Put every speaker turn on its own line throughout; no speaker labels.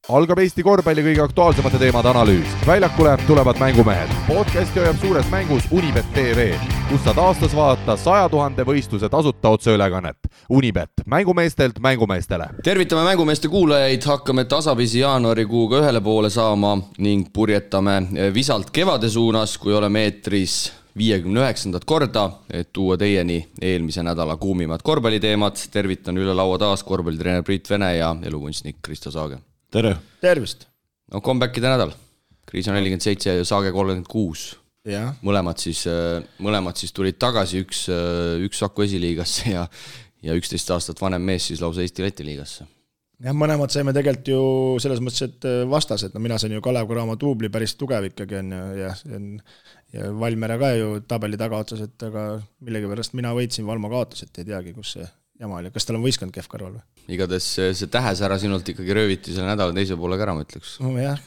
Algab Eesti korvpalli kõige aktuaalsemate teemade analüüs. Väljakule tulevad mängumehed. Podcasti hoiab suures mängus Unibet TV, kus saad aastas vaadata 100 000 võistluse tasuta otseülekannet. Unibet, mängumeestelt mängumeestele.
Tervitame mängumeeste kuulajaid, hakkame tasapisi jaanuarikuuga ühele poole saama ning purjetame visalt kevade suunas, kui oleme eetris 59. korda, et tuua teieni eelmise nädala kuumimad korvpalliteemad. Tervitan üle laua taas korvpallitreener Priit Vene ja elukunstnik Kristo Saage.
Tere!
Tervist!
No comebackide nädal. Kriis on 47 ja Saage 36.
Ja.
Mõlemad siis tulid tagasi, üks Saku esiliigasse ja 11 aastat vanem mees siis lausa Eesti-Läti liigasse.
Ja mõlemad saime tegelikult ju selles mõttes, et vastased. No mina sain ju Kalev Cramo duubli päris tugev ikkagi on ja Valmere ka ju tabeli tagaotsas, et aga millegi pärast mina võitsin, Valmo kaotas, et ei teagi, kus see jama oli. Kas tal on võistkond kehv kõrval või?
Igades see tähesära sinult ikkagi rööviti selle nädala teise poole ära, ma ütleks.
No jah.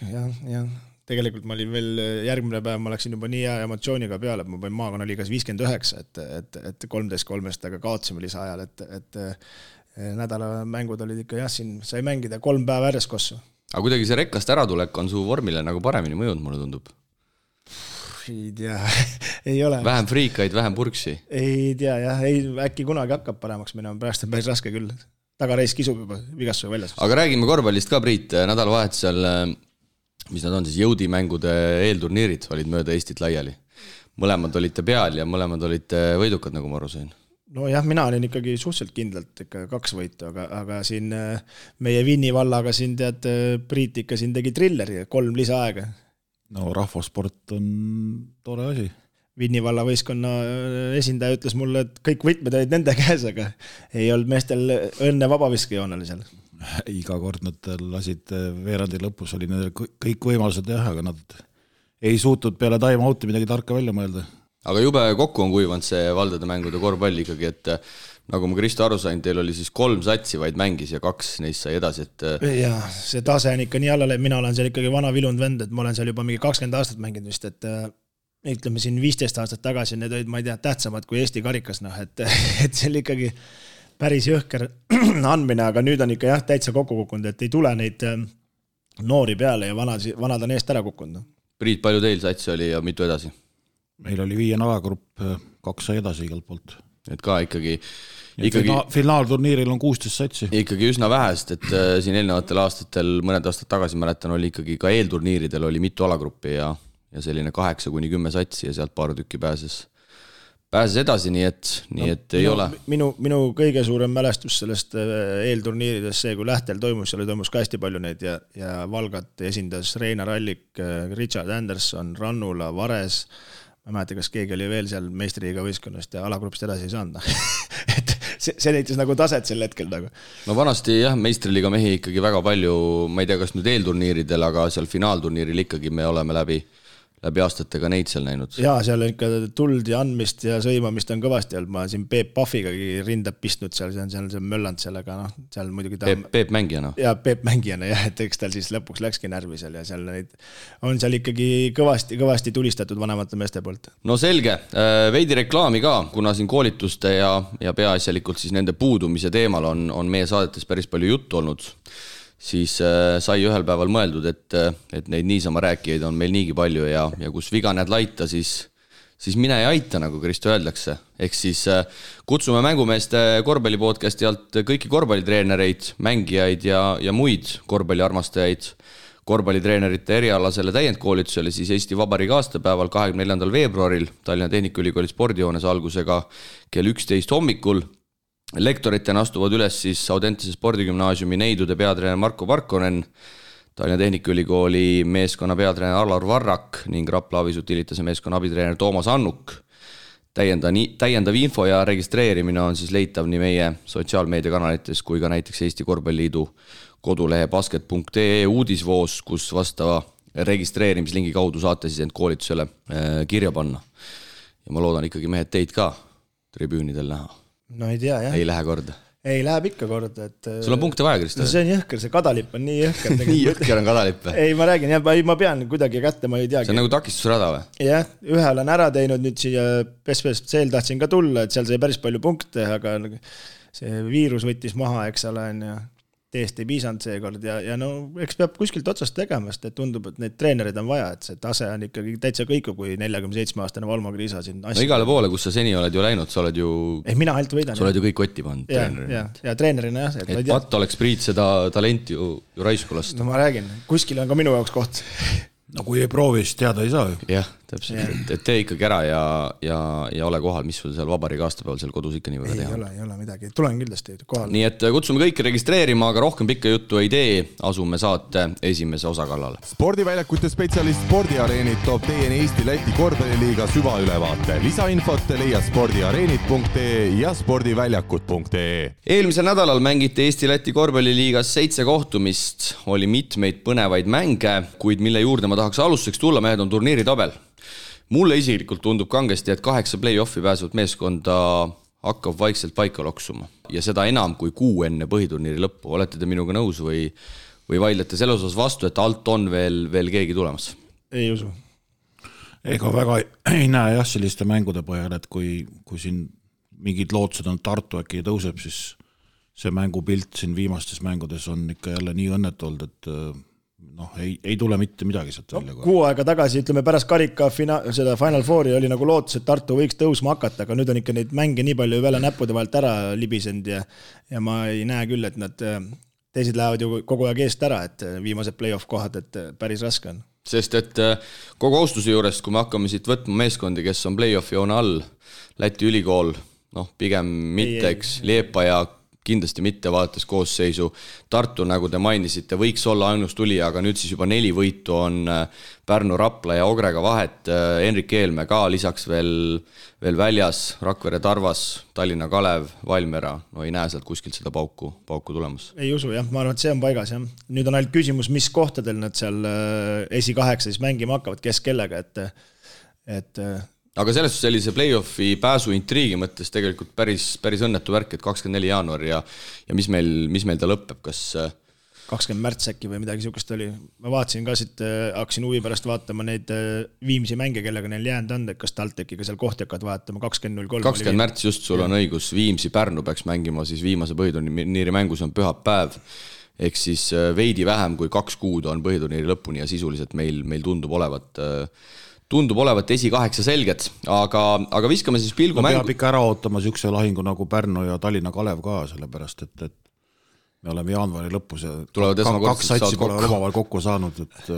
Tegelikult ma olin veel järgmine päev, ma läksin juba nii hea emotsiooniga peale, et ma panin maakonnaliigas 59, et 13-3, aga kaotsime lisaajal, et nädala mängud olid ikka siin sai mängida 3 päeva järjest kossu.
Aga kuidagi see rekkast äratulek on su vormile nagu paremini mõjunud, mulle tundub.
Ei tea, ei ole.
Vähem friikaid, vähem purksi.
Ei tea, jah, äkki kunagi hakkab paremaks minema, pärast on päris raske küll. Tagareis kisub juba vigastusega väljas.
Aga räägime korvpallist ka, Priit. Nädalavahetusel, mis nad on siis, jõudimängude eelturniirid olid mööda Eestit laiali. Mõlemad olite peal ja mõlemad olite võidukad, nagu ma aru sain.
No jah, mina olin ikkagi suhteliselt kindlalt ikka 2 võitu, aga siin meie Vinni vallaga siin tead, Priit ikka siin tegi trilleri, 3 lisaaega.
No rahvasport on tore asi.
Vinni valla võistkonna esindaja ütles mulle, et kõik võtmed olid nende käes, aga ei olnud meestel õnne vabaviskejoonel seal.
Iga kord nad lasid veerandi lõpus, oli nendel kõik võimalused jah, aga nad ei suutnud peale time-out'i midagi tarka välja mõelda.
Aga jube kokku on kuivanud see valdade mängude korvpall ikkagi, et nagu ma Kristo aru sain, teil oli siis 3 satsi vaid mängis ja 2 neist sai edasi, et...
Ja see tase on ikka nii allale, mina olen seal ikkagi vana vilund vend, et ma olen seal juba mingi 20 aastat mänginud vist, et ütleme siin 15 aastat tagasi, need olid, ma ei tea, tähtsamad kui Eesti karikas, et see oli ikkagi päris jõhker andmine, aga nüüd on ikka jah, täitsa kokku kukkunud, et ei tule neid noori peale ja vanad on eest ära kukkunud.
Priit, palju teil satsi oli ja mitu edasi?
Meil oli 5 alagrupp, 2 sai edasi igalt poolt.
Et ka ikkagi
finaalturniiril on 16 satsi.
Ikkagi üsna vähest, et siin eelnevatel aastatel, mõned aastad tagasi mäletan, oli ikkagi ka eelturniiridel oli mitu alagruppi ja selline 8-10 satsi ja sealt paar tükki pääses edasi, nii et ei ole.
Minu kõige suurem mälestus sellest eelturniiridest see, kui Lähtel toimus, seal toimus ka hästi palju neid ja Valgat esindas Reinar Allik, Richard Anderson, Rannula, Vares. Ma mäleta, kas keegi oli veel seal meistriliiga võistkonnast ja alagrupist edasi ei saanud. Et see näitas nagu taset sel hetkel. Nagu.
No vanasti jah, meistriliiga mehi ikkagi väga palju, ma ei tea, kas nüüd eelturniiridel, aga seal finaalturniiril ikkagi me oleme läbi aastatega neid seal näinud. Jaa, seal on ikka
tuld ja andmist ja sõimamist on kõvasti olnud. Ma siin Peep Pahvigagi rindab pistnud seal, see on mölland sellega, seal muidugi
Peep mängijana.
Jaa, Peep mängijana, jah, et eks tal siis lõpuks läkski närvi seal ja seal on seal ikkagi kõvasti tulistatud vanemate meeste poolt.
No selge, veidi reklaami ka, kuna siin koolituste ja peaasjalikult siis nende puudumise teemal on meie saadetes päris palju juttu olnud. Siis sai ühel päeval mõeldud, et neid niisama rääkijaid on meil niigi palju ja kus viga näed laita, siis mine ja aita, nagu Kristo öeldakse. Ehk siis kutsume mängumeeste korvpallipodcasti alt kõiki korvpallitreenereid, mängijaid ja muid korvpalliarmastajaid korvpallitreenerite erialasele täiendkoolitusele siis Eesti Vabariigi aastapäeval 24. veebruaril Tallinna Tehnikaülikooli spordihoones algusega kell 11 hommikul. Lektoritena astuvad üles siis Audentese spordigümnaasiumi neidude peatreener Marko Parkonen, Tallinna Tehnikaülikooli meeskonna peatreener Alar Varrak ning Rapla Avisutiilitase meeskonna abitreener Toomas Annuk. Täiendav info ja registreerimine on siis leitav nii meie sotsiaalmeediakanalites kui ka näiteks Eesti Korvpalliliidu kodulehe basket.ee uudisvoos, kus vastava registreerimislingi kaudu saate siis end koolitusele kirja panna. Ja ma loodan ikkagi mehed teid ka tribüünidel näha.
No ei tea, jah.
Ei lähe korda.
Ei, läheb ikka korda.
Sul on punkte vaja, Kristo?
No see on jõhker, see kadalipp on nii jõhker.
Nii jõhker on kadalipp?
Ei, ma räägin, ma pean kuidagi kätte, ma ei teagi.
See on nagu takistusrada või?
Jah, ühe olen ära teinud, nüüd siia PSV-l tahtsin ka tulla, et seal sai päris palju punkte, aga see viirus võttis maha, eks ole, teest ei piisanud seekord ja no eks peab kuskilt otsast tegema, sest et tundub, et neid treenerid on vaja, et see tase on ikkagi täitsa kõiku, kui 47-aastane Valmo Kriisa siin
no igale poole, kus sa seni oled ju läinud, sa oled ju
mina ainult võidan.
Sa oled ju kõik kotti pannud treenerina.
Ja treenerina jah.
Et Pat oleks Priit seda talenti ju raisku lasta.
No ma räägin, kuskil on ka minu jaoks koht.
No kui ei proovi, siis teada ei saa ju.
Jah, täpselt, et tee ikkagi ära ja ole kohal, mis sul seal vabariigi aastapäeval seal kodus ikka nii väga teha.
Ei ole midagi, tulen kindlasti kohal.
Nii et kutsume kõiki registreerima, aga rohkem pikka juttu ei tee, asume saate esimese osa kallale.
Spordiväljakute spetsialist Spordiareenid toob teieni Eesti-Läti korvpalliliiga süvaülevaate. Lisainfot leia spordiareenid.ee ja spordiväljakud.ee.
Eelmisel nädalal mängiti Eesti-Läti korvpalliliigas 7 kohtumist, oli mitmeid põnevaid mänge, kuid mille juurde ma tahaks alustuseks tulla, mehed on turniiri tabel. Mulle isiklikult tundub kangesti, et 8 play-offi pääsevat meeskonda hakkab vaikselt paika loksuma. Ja seda enam kui 6 enne põhiturniiri lõppu. Olete te minuga nõus või vaidlete selles osas vastu, et alt on veel keegi tulemas?
Ei usu.
Ega väga ei näe jah selliste mängude põhjal, et kui siin mingid lootused on Tartu äkki tõuseb, siis see mängupilt siin viimastes mängudes on ikka jälle nii õnnetu olnud, et ei tule mitte midagi sealt välja.
Kuu aega tagasi, ütleme pärast karika seda Final Fouri oli nagu lootus, et Tartu võiks tõusma hakata, aga nüüd on ikka neid mänge nii palju väle näppude vahelt ära libisend ja ma ei näe küll, et nad teised lähevad ju kogu aeg eest ära, et viimased play-off kohad, et päris raske on.
Sest et kogu austuse juurest, kui me hakkame siit võtma meeskondi, kes on play-offi joone all, Läti ülikool, pigem mitte, eks, Liepa ja kindlasti mitte vaadates koosseisu. Tartu, nagu te mainisite, võiks olla ainus tuli, aga nüüd siis juba 4 võitu on Pärnu, Rapla ja Ogrega vahet. Henrik Eelme ka lisaks veel väljas, Rakvere Tarvas, Tallinna Kalev, Valmiera. No ei näe sealt kuskilt seda pauku tulemas.
Ei usu, jah. Ma arvan, et see on paigas, jah. Nüüd on ainult küsimus, mis kohtadel nad seal esi-8 siis mängima hakkavad, kes kellega, et
aga sellest sellise play-offi pääsu intriigi mõttes tegelikult päris õnnetu värk, et 24 jaanuar ja mis meil ta lõpeb, kas
20 märts äkki või midagi sihukest oli. Ma vaatasin ka siit, hakkasin huvi pärast vaatama neid Viimsi mänge, kellega neil jäänud on, et kas TalTechiga seal kohti hakkavad vaatama 20.03.
20 märts just, sul on õigus, Viimsi Pärnu peaks mängima, siis viimase põhiturniiri mängus on pühapäev, ehk siis veidi vähem kui 2 kuud on põhiturniiri lõpuni ja sisuliselt meil tundub olevat esi-8 selged, aga viskame siis pilgu mängu.
Peab ikka ära ootama sihukese lahingu nagu Pärnu ja Tallinna Kalev ka, sellepärast et me oleme jaanuari lõpus ja 2 satsi pole omavahel kokku saanud, et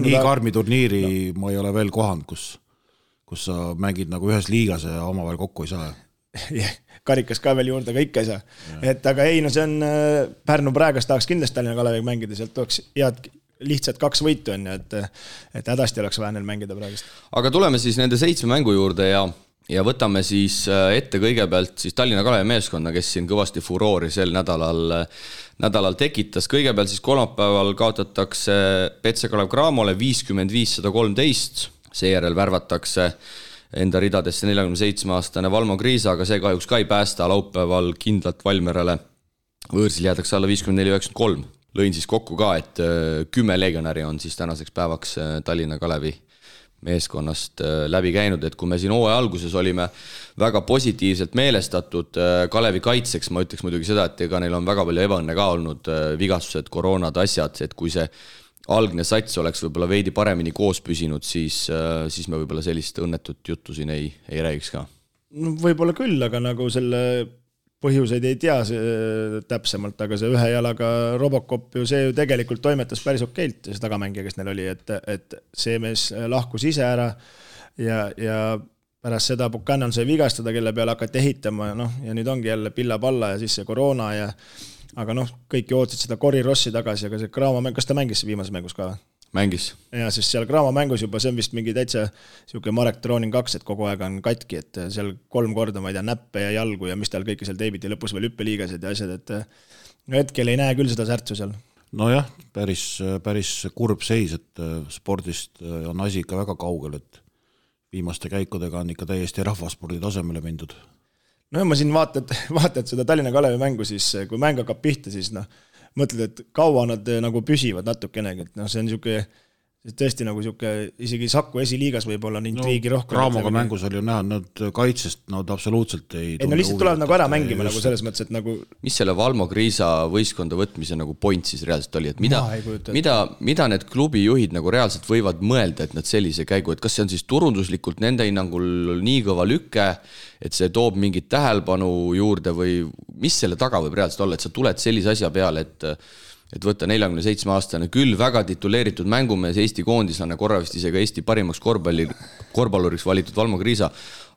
nii karmi turniiri ma ei ole veel kohanud, kus sa mängid nagu ühes liigas ja omavahel kokku ei saa.
Karikas ka veel juurde, aga ikka ei saa. Et aga ei, no see on Pärnu praegast tahaks kindlasti Tallinna Kaleviga mängida, sealt tuleks head lihtsalt 2 võitu on, et hädasti oleks vaja neil mängida praegust.
Aga tuleme siis nende 7 mängu juurde ja võtame siis ette kõigepealt siis Tallinna Kalevi meeskonna, kes siin kõvasti furoori sel nädalal tekitas. Kõigepealt siis kolmapäeval kaotatakse Petse Kalev Cramole 55-113, seejärel värvatakse enda ridadesse 47-aastane Valmo Kriisa, aga see kahjuks ka ei päästa laupäeval kindlalt Valmierale. Võõrsil jäädakse alla 54-93. Lõin siis kokku ka, et 10 legionäri on siis tänaseks päevaks Tallinna Kalevi meeskonnast läbi käinud, et kui me siin hooaja alguses olime väga positiivselt meelestatud Kalevi kaitseks, ma ütleks muidugi seda, et ega neil on väga palju ebaõnne ka olnud, vigastused, koroonad, asjad, et kui see algne sats oleks võib-olla veidi paremini koos püsinud, siis me võib-olla sellist õnnetut juttu siin ei räägiks ka.
No, võib-olla küll, aga nagu selle põhjuseid ei tea täpsemalt, aga see ühe jalaga Robocop ju see ju tegelikult toimetas päris okeilt, see tagamängija, kes neil oli, et see mees lahkus ise ära ja pärast seda Buchanan sai vigastada, kelle peale hakati ehitama ja nüüd ongi jälle pilla-palla ja siis see koroona aga kõik ju ootsid seda Cory Rossi tagasi, aga see Graamo mäng, kas ta mängis viimases mängus ka?
Mängis.
Ja siis seal Graamo mängus juba, see on vist mingi täitsa siuke Marek Trooning 2, et kogu aeg on katki, et seal 3 korda, ma ei tea, näppe ja jalgu ja mis tal kõike seal teibiti, lõpus veel hüppeliigased ja asjad, et hetkel ei näe küll seda särtsu seal.
Nojah, päris kurb seis, et spordist on asi ikka väga kaugel, et viimaste käikudega on ikka täiesti rahvaspordi tasemele mindud.
No ma siin vaatad seda Tallinna Kalevi mängu, siis kui mäng hakkab pihta, siis mõtled, et kaua nad nagu püsivad natukenegi, et see on tõesti nagu siuke, isegi Saku esiliigas võib-olla on intriigi rohkem.
Raamoga mängus oli ju näha, nad kaitsest nad absoluutselt ei
no lihtsalt tulevad nagu ära mängima nagu selles mõttes, et nagu
mis selle Valmo Kriisa võistkonda võtmise nagu point siis reaalselt oli, et mida need klubijuhid nagu reaalselt võivad mõelda, et nad sellise käigu, et kas see on siis turunduslikult nende hinnangul nii kõva lükke, et see toob mingit tähelepanu juurde või mis selle taga võib reaalselt olla, et sa tuled sellise asja peale, et võtta 47-aastane küll väga tituleeritud mängumees, Eesti koondislane, korra vist isegi Eesti parimaks korvpalluriks valitud Valmo Kriisa,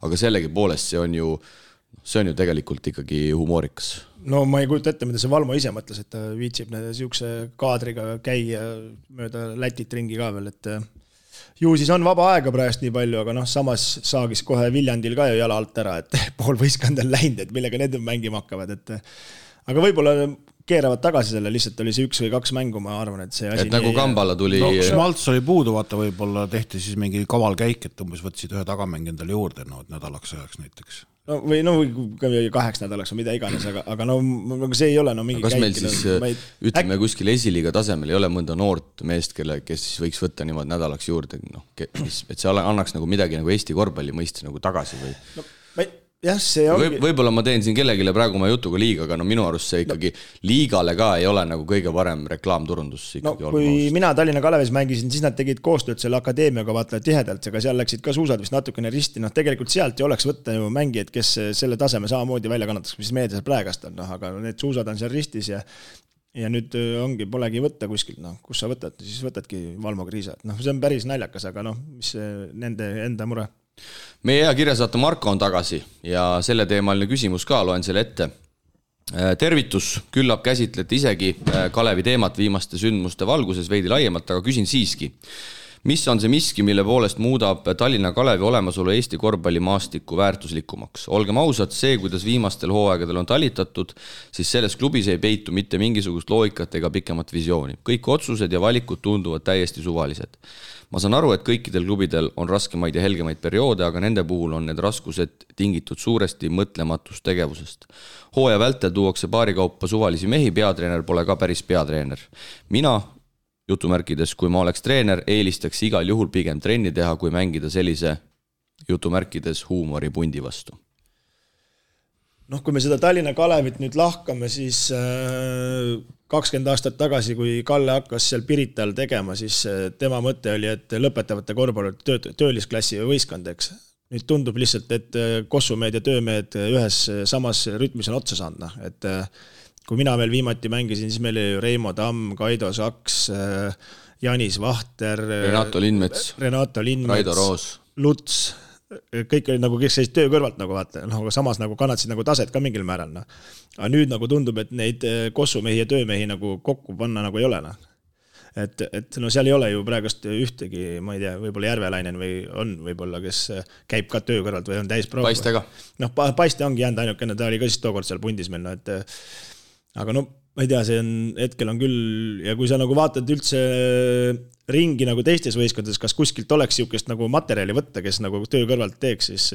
aga sellegi poolest see on ju tegelikult ikkagi humoorikas.
No ma ei kujuta ette, mida see Valmo ise mõtles, et ta viitsib siukse kaadriga käia mööda Lätit ringi ka veel, et ju siis on vaba aega praegust nii palju, aga samas saagis kohe Viljandil ka ju jala alt ära, et pool võistkond on läinud, et millega need mängima hakkavad, et aga võib-olla keeravad tagasi selle, lihtsalt oli see 1 või 2 mängu, ma arvan, et see asi
et nagu Kambala tuli
Schmaltz oli puudu, vaata võib-olla tehti siis mingi kaval käik, et umbes võtsid ühe tagamäng endale juurde, et nädalaks ajaks näiteks.
Või 2 nädalaks või mida iganes, aga see ei ole mingi
kas käik. Meil siis, ütleme kuskil esiliiga tasemel ei ole mõnda noort meest, kes siis võiks võtta niimoodi nädalaks juurde, et see annaks nagu midagi nagu Eesti korvpalli mõistes nagu tagasi või?
Jah, see ongi...
Võib-olla ma teen siin kellegile praegu oma jutuga liiga, aga minu arust see ikkagi liigale ka ei ole nagu kõige parem reklaamturundus.
Kui mina Tallinna Kalevis mängisin, siis nad tegid koostööd selle akadeemiaga vaata tihedalt, aga seal läksid ka suusad vist natukene risti, tegelikult sealt ei oleks võtta ju mängijad, kes selle taseme samamoodi välja kannataks, mis meedias praegast on, aga need suusad on seal ristis ja nüüd polegi võtta kuskil, kus sa võtad, siis võtadki Valmo Kriisa, see on päris naljakas, aga mis nende enda mure.
Meie hea kirjasaate Marko on tagasi ja selle teemaline küsimus ka, loen selle ette. Tervitus, küllap käsitlete isegi Kalevi teemat viimaste sündmuste valguses veidi laiemalt, aga küsin siiski. Mis on see miski, mille poolest muudab Tallinna Kalevi olemasolu Eesti korvpallimaastiku väärtuslikumaks? Olgem ausad, see, kuidas viimastel hooaegadel on talitatud, siis selles klubis ei peitu mitte mingisugust loogikat ega pikemat visiooni. Kõik otsused ja valikud tunduvad täiesti suvalised. Ma saan aru, et kõikidel klubidel on raskemaid ja helgemaid perioode, aga nende puhul on need raskused tingitud suuresti mõtlematust tegevusest. Hooaja vältel tuuakse paarikaupa suvalisi mehi, peatreener pole ka päris peatreener. Mina, jutumärkides, kui ma oleks treener, eelistaks igal juhul pigem trenni teha, kui mängida sellise jutumärkides huumoripundi vastu.
Kui me seda Tallinna Kalevit nüüd lahkame, siis 20 aastat tagasi, kui Kalle hakkas seal Pirital tegema, siis tema mõte oli, et lõpetavate korvpallurid töölisklassi võistkondeks. Nüüd tundub lihtsalt, et kossumehed ja töömehed ühes samas rütmis on otsa saanud. Et kui mina veel viimati mängisin, siis meil oli Reimo Tamm, Kaido Saks, Janis Vahter,
Renato Lindmets, Raido Roos,
Luts, kõik oli kes seis töö kõrvalt vaata, aga samas kannatasid taset ka mingil määral. Aga nüüd tundub, et neid kossumehi ja töömehi kokku panna ei ole. Et seal ei ole ju praegust ühtegi, ma ei tea, võib-olla Järvelainen või on võib-olla, kes käib ka töö kõrvalt või on täis proov.
Paiste ka.
Paiste ongi jäänud ainukene, ta oli ka siis tookord seal pundis meil. Aga ma ei tea, see hetkel on küll, ja kui sa vaatad üldse ringi teistes võistkondades, kas kuskilt oleks siukest materjali võtta, kes töö kõrvalt teeks, siis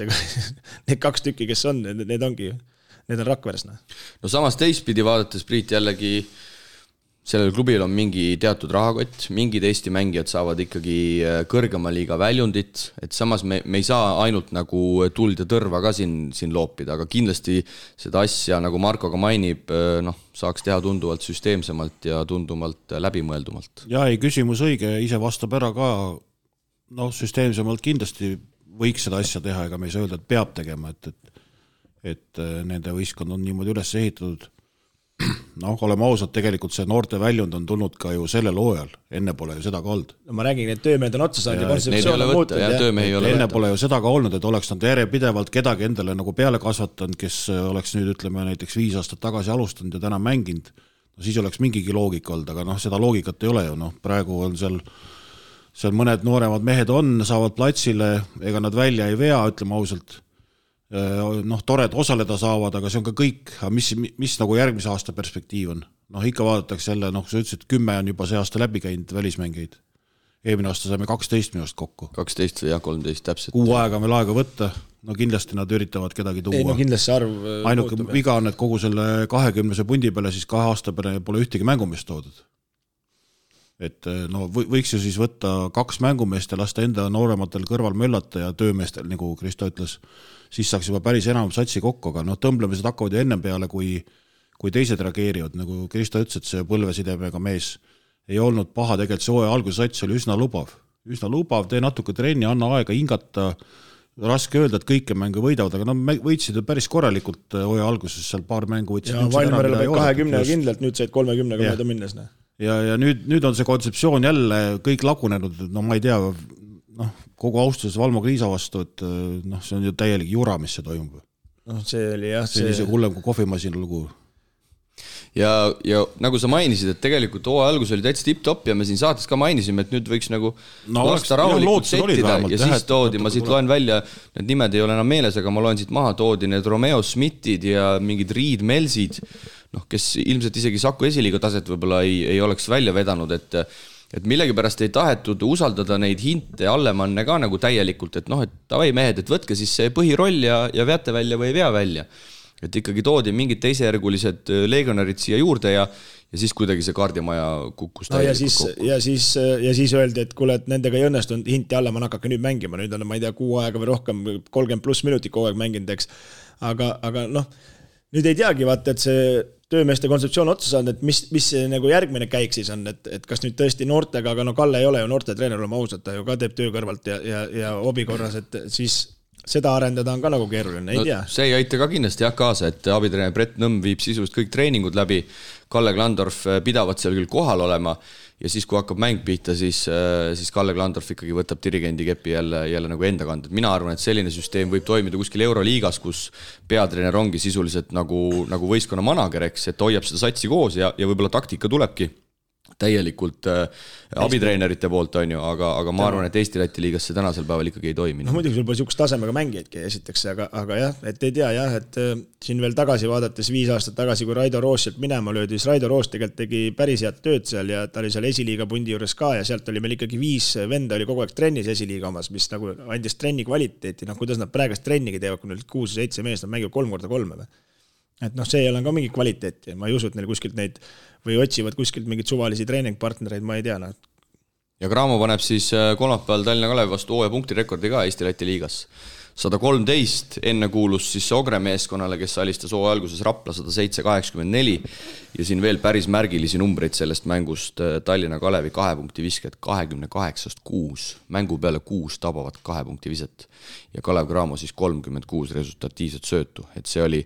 need 2 tükki, kes on, need on Rakveres.
No samas teistpidi vaadates, Priit, jällegi sellel klubil on mingi teatud rahakott, mingid Eesti mängijad saavad ikkagi kõrgema liiga väljundit, et samas me ei saa ainult tuld ja tõrva ka siin loopida, aga kindlasti seda asja, nagu Marko ka mainib, saaks teha tunduvalt süsteemsemalt ja tunduvalt läbimõeldumalt.
Ja ei, küsimus õige, ise vastab ära ka, süsteemsemalt kindlasti võiks seda asja teha, ega me ei saa öelda, et peab tegema, et nende võistkond on niimoodi üles ehitatud. Oleme ausad, tegelikult see noorte väljund on tulnud ka ju sellel hooajal, enne pole ju seda ka olnud.
Ma räägin, et töömehed on otsa saanud ja kontseptsioon on
muutunud. Enne pole ju seda ka olnud, et oleks nad järjepidevalt kedagi endale peale kasvatanud, kes oleks nüüd, ütleme, näiteks 5 aastat tagasi alustanud ja täna mänginud, siis oleks mingigi loogika olnud, aga seda loogikat ei ole ju. Praegu on seal mõned nooremad mehed saavad platsile, ega nad välja ei vea, ütleme ausalt. Tore, et osaleda saavad, aga see on ka kõik, mis järgmise aasta perspektiiv on. Ikka vaadatakse jälle, sa ütlesid, 10 on juba see aasta läbi käinud välismängeid. Eelmine aasta saime 12 minust kokku.
12 ja 13 täpselt.
6 aega meil aega võtta, kindlasti nad üritavad kedagi tuua.
Ei, kindlasti see arv
ainuke viga on, et kogu selle 20 pundi peale, siis 2 aasta peale pole ühtegi mängumist toodud. et no võiks ju siis võtta 2 mängumeest ja lasta enda noorematel kõrval möllata ja töömeestel, nagu Kristo ütles, siis saaks juba päris enam satsi kokku, aga noh, tõmblemised hakkavad ju ennem peale, kui teised reageerivad, nagu Kristo ütles, et see põlvesidemega mees ei olnud paha, tegelikult see hooaja alguse sats oli üsna lubav, tee natuke trenni, anna aega hingata, raske öelda, et kõike mängu võidavad, aga nad võitsid päris korralikult hooaja alguses, seal paar mängu võtsid.
Ja Valmerel peab 20 kindlalt, nüüd said 30 mööda minnes.
Ja nüüd on see kontseptsioon jälle kõik lagunenud, no ma ei tea, kogu austuses Valmo Kriisa vastu, et see on ju täielik jura, mis see toimub.
See oli jah.
See oli hullem kui kohvimasina lugu.
Ja nagu sa mainisid, et tegelikult hooaja algus oli täitsa tipp-top ja me siin saates ka mainisime, et nüüd võiks nagu lasta rahulikult settida ja siis toodi, ma siit loen välja, need nimed ei ole enam meeles, aga ma loen siit maha, toodi need Romeo Smithid ja mingid Reed Melsid, kes ilmselt isegi Saku esiliiga taset võib-olla ei oleks välja vedanud, et millegipärast ei tahetud usaldada neid hinte Allemanne ka nagu täielikult, et et tavai mehed, et võtke siis see põhiroll ja veate välja või ei vea välja. Et ikkagi toodi mingid teisejärgulised legionarid siia juurde ja siis kuidagi see kaardimaja kukkus täielikult kokku.
Ja siis öeldi, et kuule, et nendega ei õnnestunud, hinti Allemann hakake nüüd mängima, nüüd on, ma ei tea, 6 aega või rohkem, 30+ minutit kogu aeg mänginud, eks. Aga nüüd ei teagi, vaata, et see töömeeste kontseptsioon otsa saanud, et mis see nagu järgmine käik siis on, et kas nüüd tõesti noortega, aga Kalle ei ole ju noorte treener, olema ausalt, ta ju ka teeb töö kõrvalt ja hobi korras, et siis seda arendada on ka nagu keeruline, ei tea.
See ei aita ka kindlasti kaasa, et abitreener Brett Nõmm viib sisust kõik treeningud läbi, Kalle Klandorf pidavad seal küll kohal olema ja siis, kui hakkab mäng pihta, siis Kalle Klandorf ikkagi võtab dirigendi kepi jälle nagu enda kanda. Mina arvan, et selline süsteem võib toimida kuskil Euroliigas, kus peatreener ongi sisuliselt nagu võistkonna manager, eks, et hoiab seda satsi koos ja võib-olla taktika tulebki täielikult abitreenerite poolt, on ju, aga ma arvan, et Eesti-Läti liigas see tänasel päeval ikkagi ei toimi.
Muidugi sul pole sihukest tasemega mängijaidki esiteks, aga jah, et ei tea jah, et siin veel tagasi vaadates 5 aastat tagasi, kui Raido Roos sealt minema löödi, siis Raido Roos tegelikult tegi päris head tööd seal ja ta oli seal esiliiga pundi juures ka ja sealt oli meil ikkagi 5 venda oli kogu aeg trennis esiliiga omas, mis nagu andis trenni kvaliteeti, kuidas nad praegust trennigi teevad, kui neil 6-7 meest, nad mängivad 3x3 või. Et see ei ole ka mingi kvaliteeti, ma ei usu, et neil kuskilt neid või otsivad kuskilt mingid suvalisi treeningpartnereid, ma ei tea.
Ja Graamo paneb siis kolmapäeval Tallinna Kalevi vastu hooaja punktirekordi ka Eesti-Läti liigas. 113 enne kuulus siis Ogre meeskonnale, kes alistas hooaja alguses Rapla 107-84 ja siin veel päris märgilisi numbreid sellest mängust Tallinna Kalevi 2 punkti visked 28-6, mängu peale 6 tabavat 2 punkti viset ja Kalev Graamo siis 36 resultatiivset söötu, et see oli,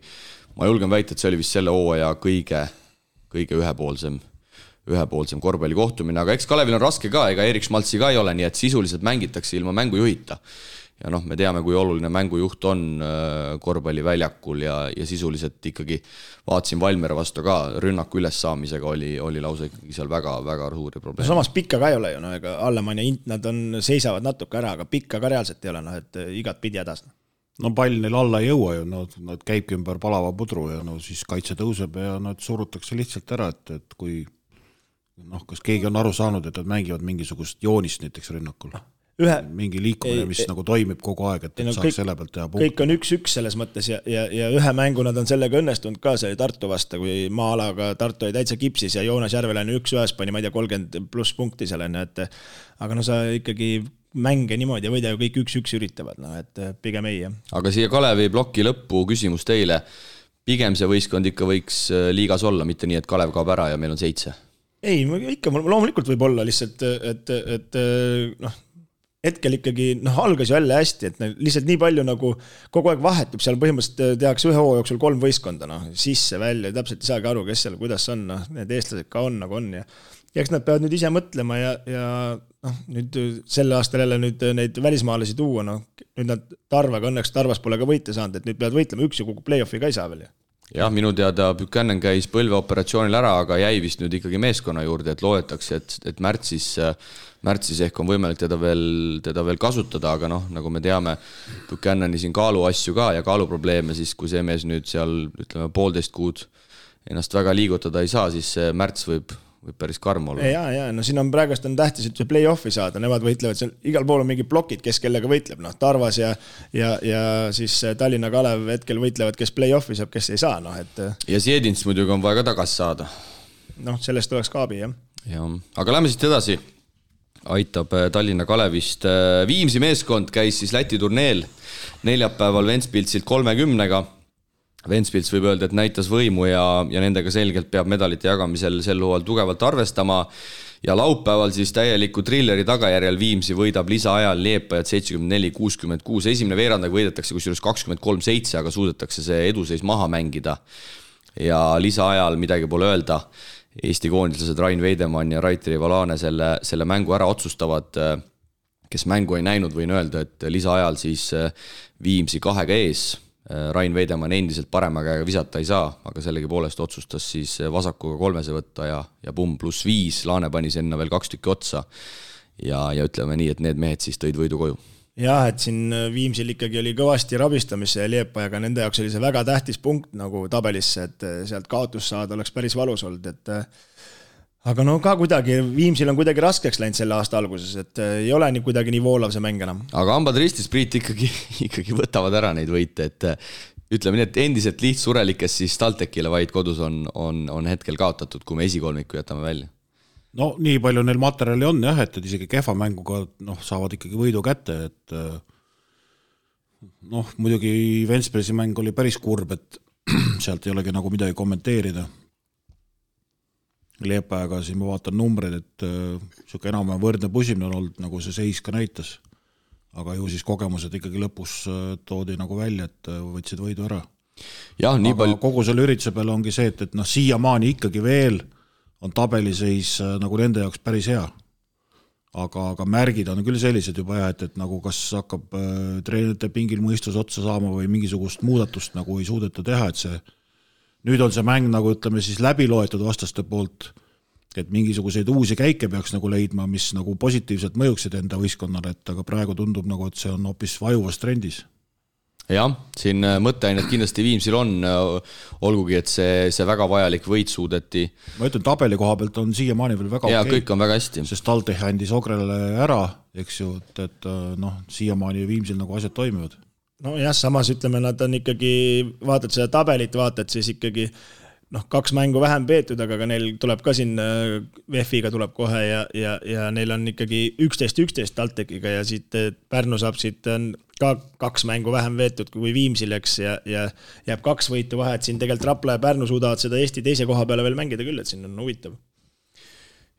ma julgen väita, et see oli vist selle hooaja kõige ühepoolsem korvpallikohtumine, aga eks Kalevil on raske ka, ega Erik Schmaltzi ka ei ole, nii et sisuliselt mängitakse ilma mängujuhita. Ja me teame, kui oluline mängujuht on korvpalliväljakul ja sisuliselt ikkagi vaatasin Valmiera vastu ka, rünnaku ülessaamisega oli lausa ikkagi seal väga suuri probleeme.
Samas pikka ka ei ole ju, ega Allemann ja Int, nad seisavad natuke ära, aga pikka ka reaalselt ei ole, et igat pidi hädas.
Pall neil alla ei jõua ju, nad käibki ümber palava pudru ja siis kaitse tõuseb ja nad surutakse lihtsalt ära, et kui kas keegi on aru saanud, et nad mängivad mingisugust joonist näiteks rünnakul. Mingi liikumine, mis nagu toimib kogu aeg, et saaks selle pealt teha punkti.
Kõik on 1-1 selles mõttes ja ühe mängu nad on sellega õnnestunud ka, see oli Tartu vasta, kui maa-alaga Tartu oli täitsa kipsis ja Joonas Järveläine 1-1 pani, ma ei tea, 30+ punkti seal, aga sa ikkagi mänge niimoodi ja võida ju kõik 1-1 üritavad, et pigem ei.
Aga siia Kalevi ploki lõppu küsimus teile, pigem see võistkond ikka võiks liigas olla, mitte nii, et Kalev kaob ära ja meil on 7?
Ei, ikka loomulikult võib olla lihtsalt, et hetkel ikkagi algas ju jälle hästi, et lihtsalt nii palju nagu kogu aeg vahetub, seal põhimõtteliselt tehakse ühe hooaja jooksul 3 võistkonda, sisse, välja, täpselt ei saagi aru, kes seal, kuidas on, need eestlased ka on, nagu on ja eks nad peavad nüüd ise mõtlema ja nüüd selle aastal jälle nüüd neid välismaalasi tuua, nüüd nad Tarvaga, õnneks Tarvas pole ka võite saanud, et nüüd peavad võitlema, üks ja kuku play-offi ka ei saa veel.
Jah, minu teada Buchanan käis põlveoperatsioonil ära, aga jäi vist nüüd ikkagi meeskonna juurde, et loetakse, et märtsis ehk on võimalik teda veel kasutada, aga nagu me teame, Buchanani siin kaalu asju ka ja kaaluprobleeme, siis kui see mees nüüd seal, ütleme, 1,5 kuud ennast väga liigutada ei saa, siis see märts võib päris karm olla.
Ja, siin on praegust on tähtis, et see play-offi saada, nemad võitlevad seal, igal pool on mingi plokid, kes kellega võitleb, Tarvas ja siis Tallinna Kalev hetkel võitlevad, kes play-offi saab, kes ei saa, et...
Ja Siedins muidugi on vaja ka tagasi saada.
Sellest oleks kaabi, jah.
Ja, aga lähme siit edasi. Aitab Tallinna Kalevist. Viimsi meeskond käis siis Läti turneel neljapäeval Ventspilsilt 30-ga. Ventspils võib öelda, et näitas võimu ja nendega selgelt peab medalite jagamisel sel hooajal tugevalt arvestama. Ja laupäeval siis täieliku trilleri tagajärjel Viimsi võidab lisaajal Liepajat 74-66. Esimene veerandaga võidetakse kusjuures 23-7, aga suudetakse see eduseis maha mängida. Ja lisaajal midagi pole öelda. Eesti koondislased Rain Veidemann ja Raiteri Valane selle mängu ära otsustavad. Kes mängu ei näinud, võin öelda, et lisaajal siis Viimsi 2 ees. Rain Veidemann endiselt parema käega visata ei saa, aga sellegi poolest otsustas siis vasakuga 3 võtta ja pumm +5. Laane pani sinna veel 2 tükki otsa. Ja ütleme nii, et need mehed siis tõid võidu koju.
Jah, et siin Viimsil ikkagi oli kõvasti rabistamisse ja Liepajaga nende jaoks oli see väga tähtis punkt nagu tabelisse, et sealt kaotus saada oleks päris valus olnud, et aga no ka kuidagi, Viimsil on kuidagi raskeks läinud selle aasta alguses, et ei ole nii kuidagi nii voolav see mäng enam.
Aga hambad ristis, Priit, ikkagi võtavad ära neid võite, et ütleme nii, et endiselt lihtsurelikes siis TalTechile vaid kodus on hetkel kaotatud, kui me esikolmiku jätame välja.
No nii palju neil materjali on jah, et isegi kehva mänguga saavad ikkagi võidu kätte, et muidugi Ventspilsi mäng oli päris kurb, et sealt ei olegi nagu midagi kommenteerida. Liepajaga siin ma vaatan numbreid, et siuke enam võrdne pusimine on olnud, nagu see seis ka näitas. Aga ju siis kogemused ikkagi lõpus toodi nagu välja, et võtsid võidu ära.
Ja,
aga kogu selle ürituse peale ongi see, et siiamaani ikkagi veel on tabeliseis nagu nende jaoks päris hea. Aga märgid on küll sellised juba jah, et nagu kas hakkab treenerite pingil mõistus otsa saama või mingisugust muudatust nagu ei suudeta teha, et see nüüd on see mäng nagu ütleme siis läbi loetud vastaste poolt, et mingisuguseid uusi käike peaks nagu leidma, mis nagu positiivselt mõjuksid enda võistkonnale, et aga praegu tundub nagu, et see on hoopis vajuvas trendis.
Jah, siin mõtteainet kindlasti Viimsil on, olgugi, et see väga vajalik võit suudeti.
Ma ütlen, tabeli koha pealt on siiamaani veel väga
ja, okei. Kõik on väga hästi.
Sest TalTech andis Ogrele ära, eks ju, et siiamaani Viimsil nagu asjad toimivad.
No jah, samas ütleme, nad on ikkagi, vaatad seda tabelit, vaatad siis ikkagi 2 mängu vähem peetud, aga neil tuleb ka siin VF-iga tuleb kohe ja neil on ikkagi 11-11 TalTechiga ja siit Pärnu saab siit ka 2 mängu vähem veetud kui Viimsil, eks, ja jääb 2 võitu vahe, et siin tegelikult Rapla ja Pärnu suudavad seda Eesti teise koha peale veel mängida küll, et siin on huvitav.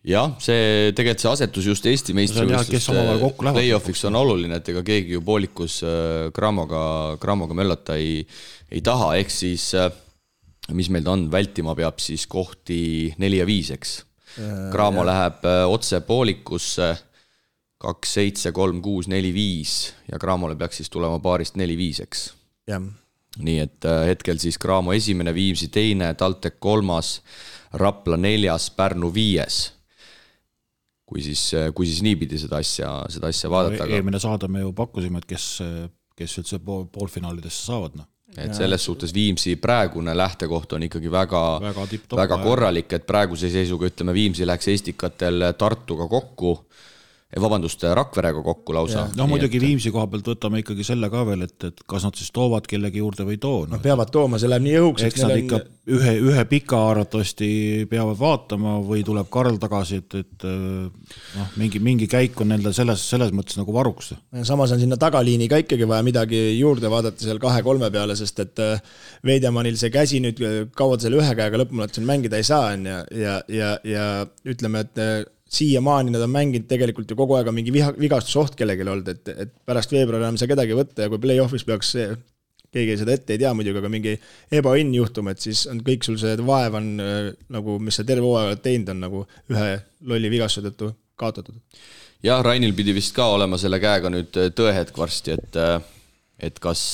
Jah, see tegelikult see asetus just Eesti meistrivõistluste play-offiks on oluline, et ega keegi ju poolikus Gramoga möllata ei taha, ehk siis mis meil on, vältima peab siis kohti 4 ja 5, eks. Gramo läheb otse poolikusse 2-7, 3-6, 4-5 ja Gramole peaks siis tulema paarist 4-5, eks.
Jah.
Nii et hetkel siis Gramo esimene, Viimsi teine, TalTech 3, Rapla 4, Pärnu 5. Kui siis niipidi seda asja vaadata.
Eelmine saade me ju pakkusime, et kes üldse poolfinaalidesse saavad.
Et selles suhtes Viimsi praegune lähtekoht on ikkagi väga korralik, et praeguse seisuga ütleme Viimsi läks Eestikatel Tartuga kokku, Rakverega kokku lausa.
Muidugi Viimsi koha pealt võtame ikkagi selle ka veel, et kas nad siis toovad kellegi juurde või too.
Nad peavad tooma, see läheb nii õhuks.
Eks nad ikka ühe pika arvatavasti peavad vaatama või tuleb Karl tagasi, et mingi käik on nendel selles mõttes nagu varuks.
Samas on sinna tagaliini ka ikkagi vaja midagi juurde vaadata seal 2-3 peale, sest et Veidemannil see käsi nüüd kauad selle ühe käega lõpumalt mängida ei saa ja ütleme, et siiamaani nad on mänginud tegelikult ju kogu aega mingi vigastusoht kellegil olnud, et pärast veebruari enam saa kedagi võtta ja kui play-offis peaks keegi seda ette ei tea muidugi, aga mingi ebaõnn juhtum, et siis on kõik sul see vaev on nagu, mis sa terve hooaega teinud on nagu ühe lolli vigastuse tõttu kaotatud.
Jah, Rainil pidi vist ka olema selle käega nüüd tõehetk varsti, et kas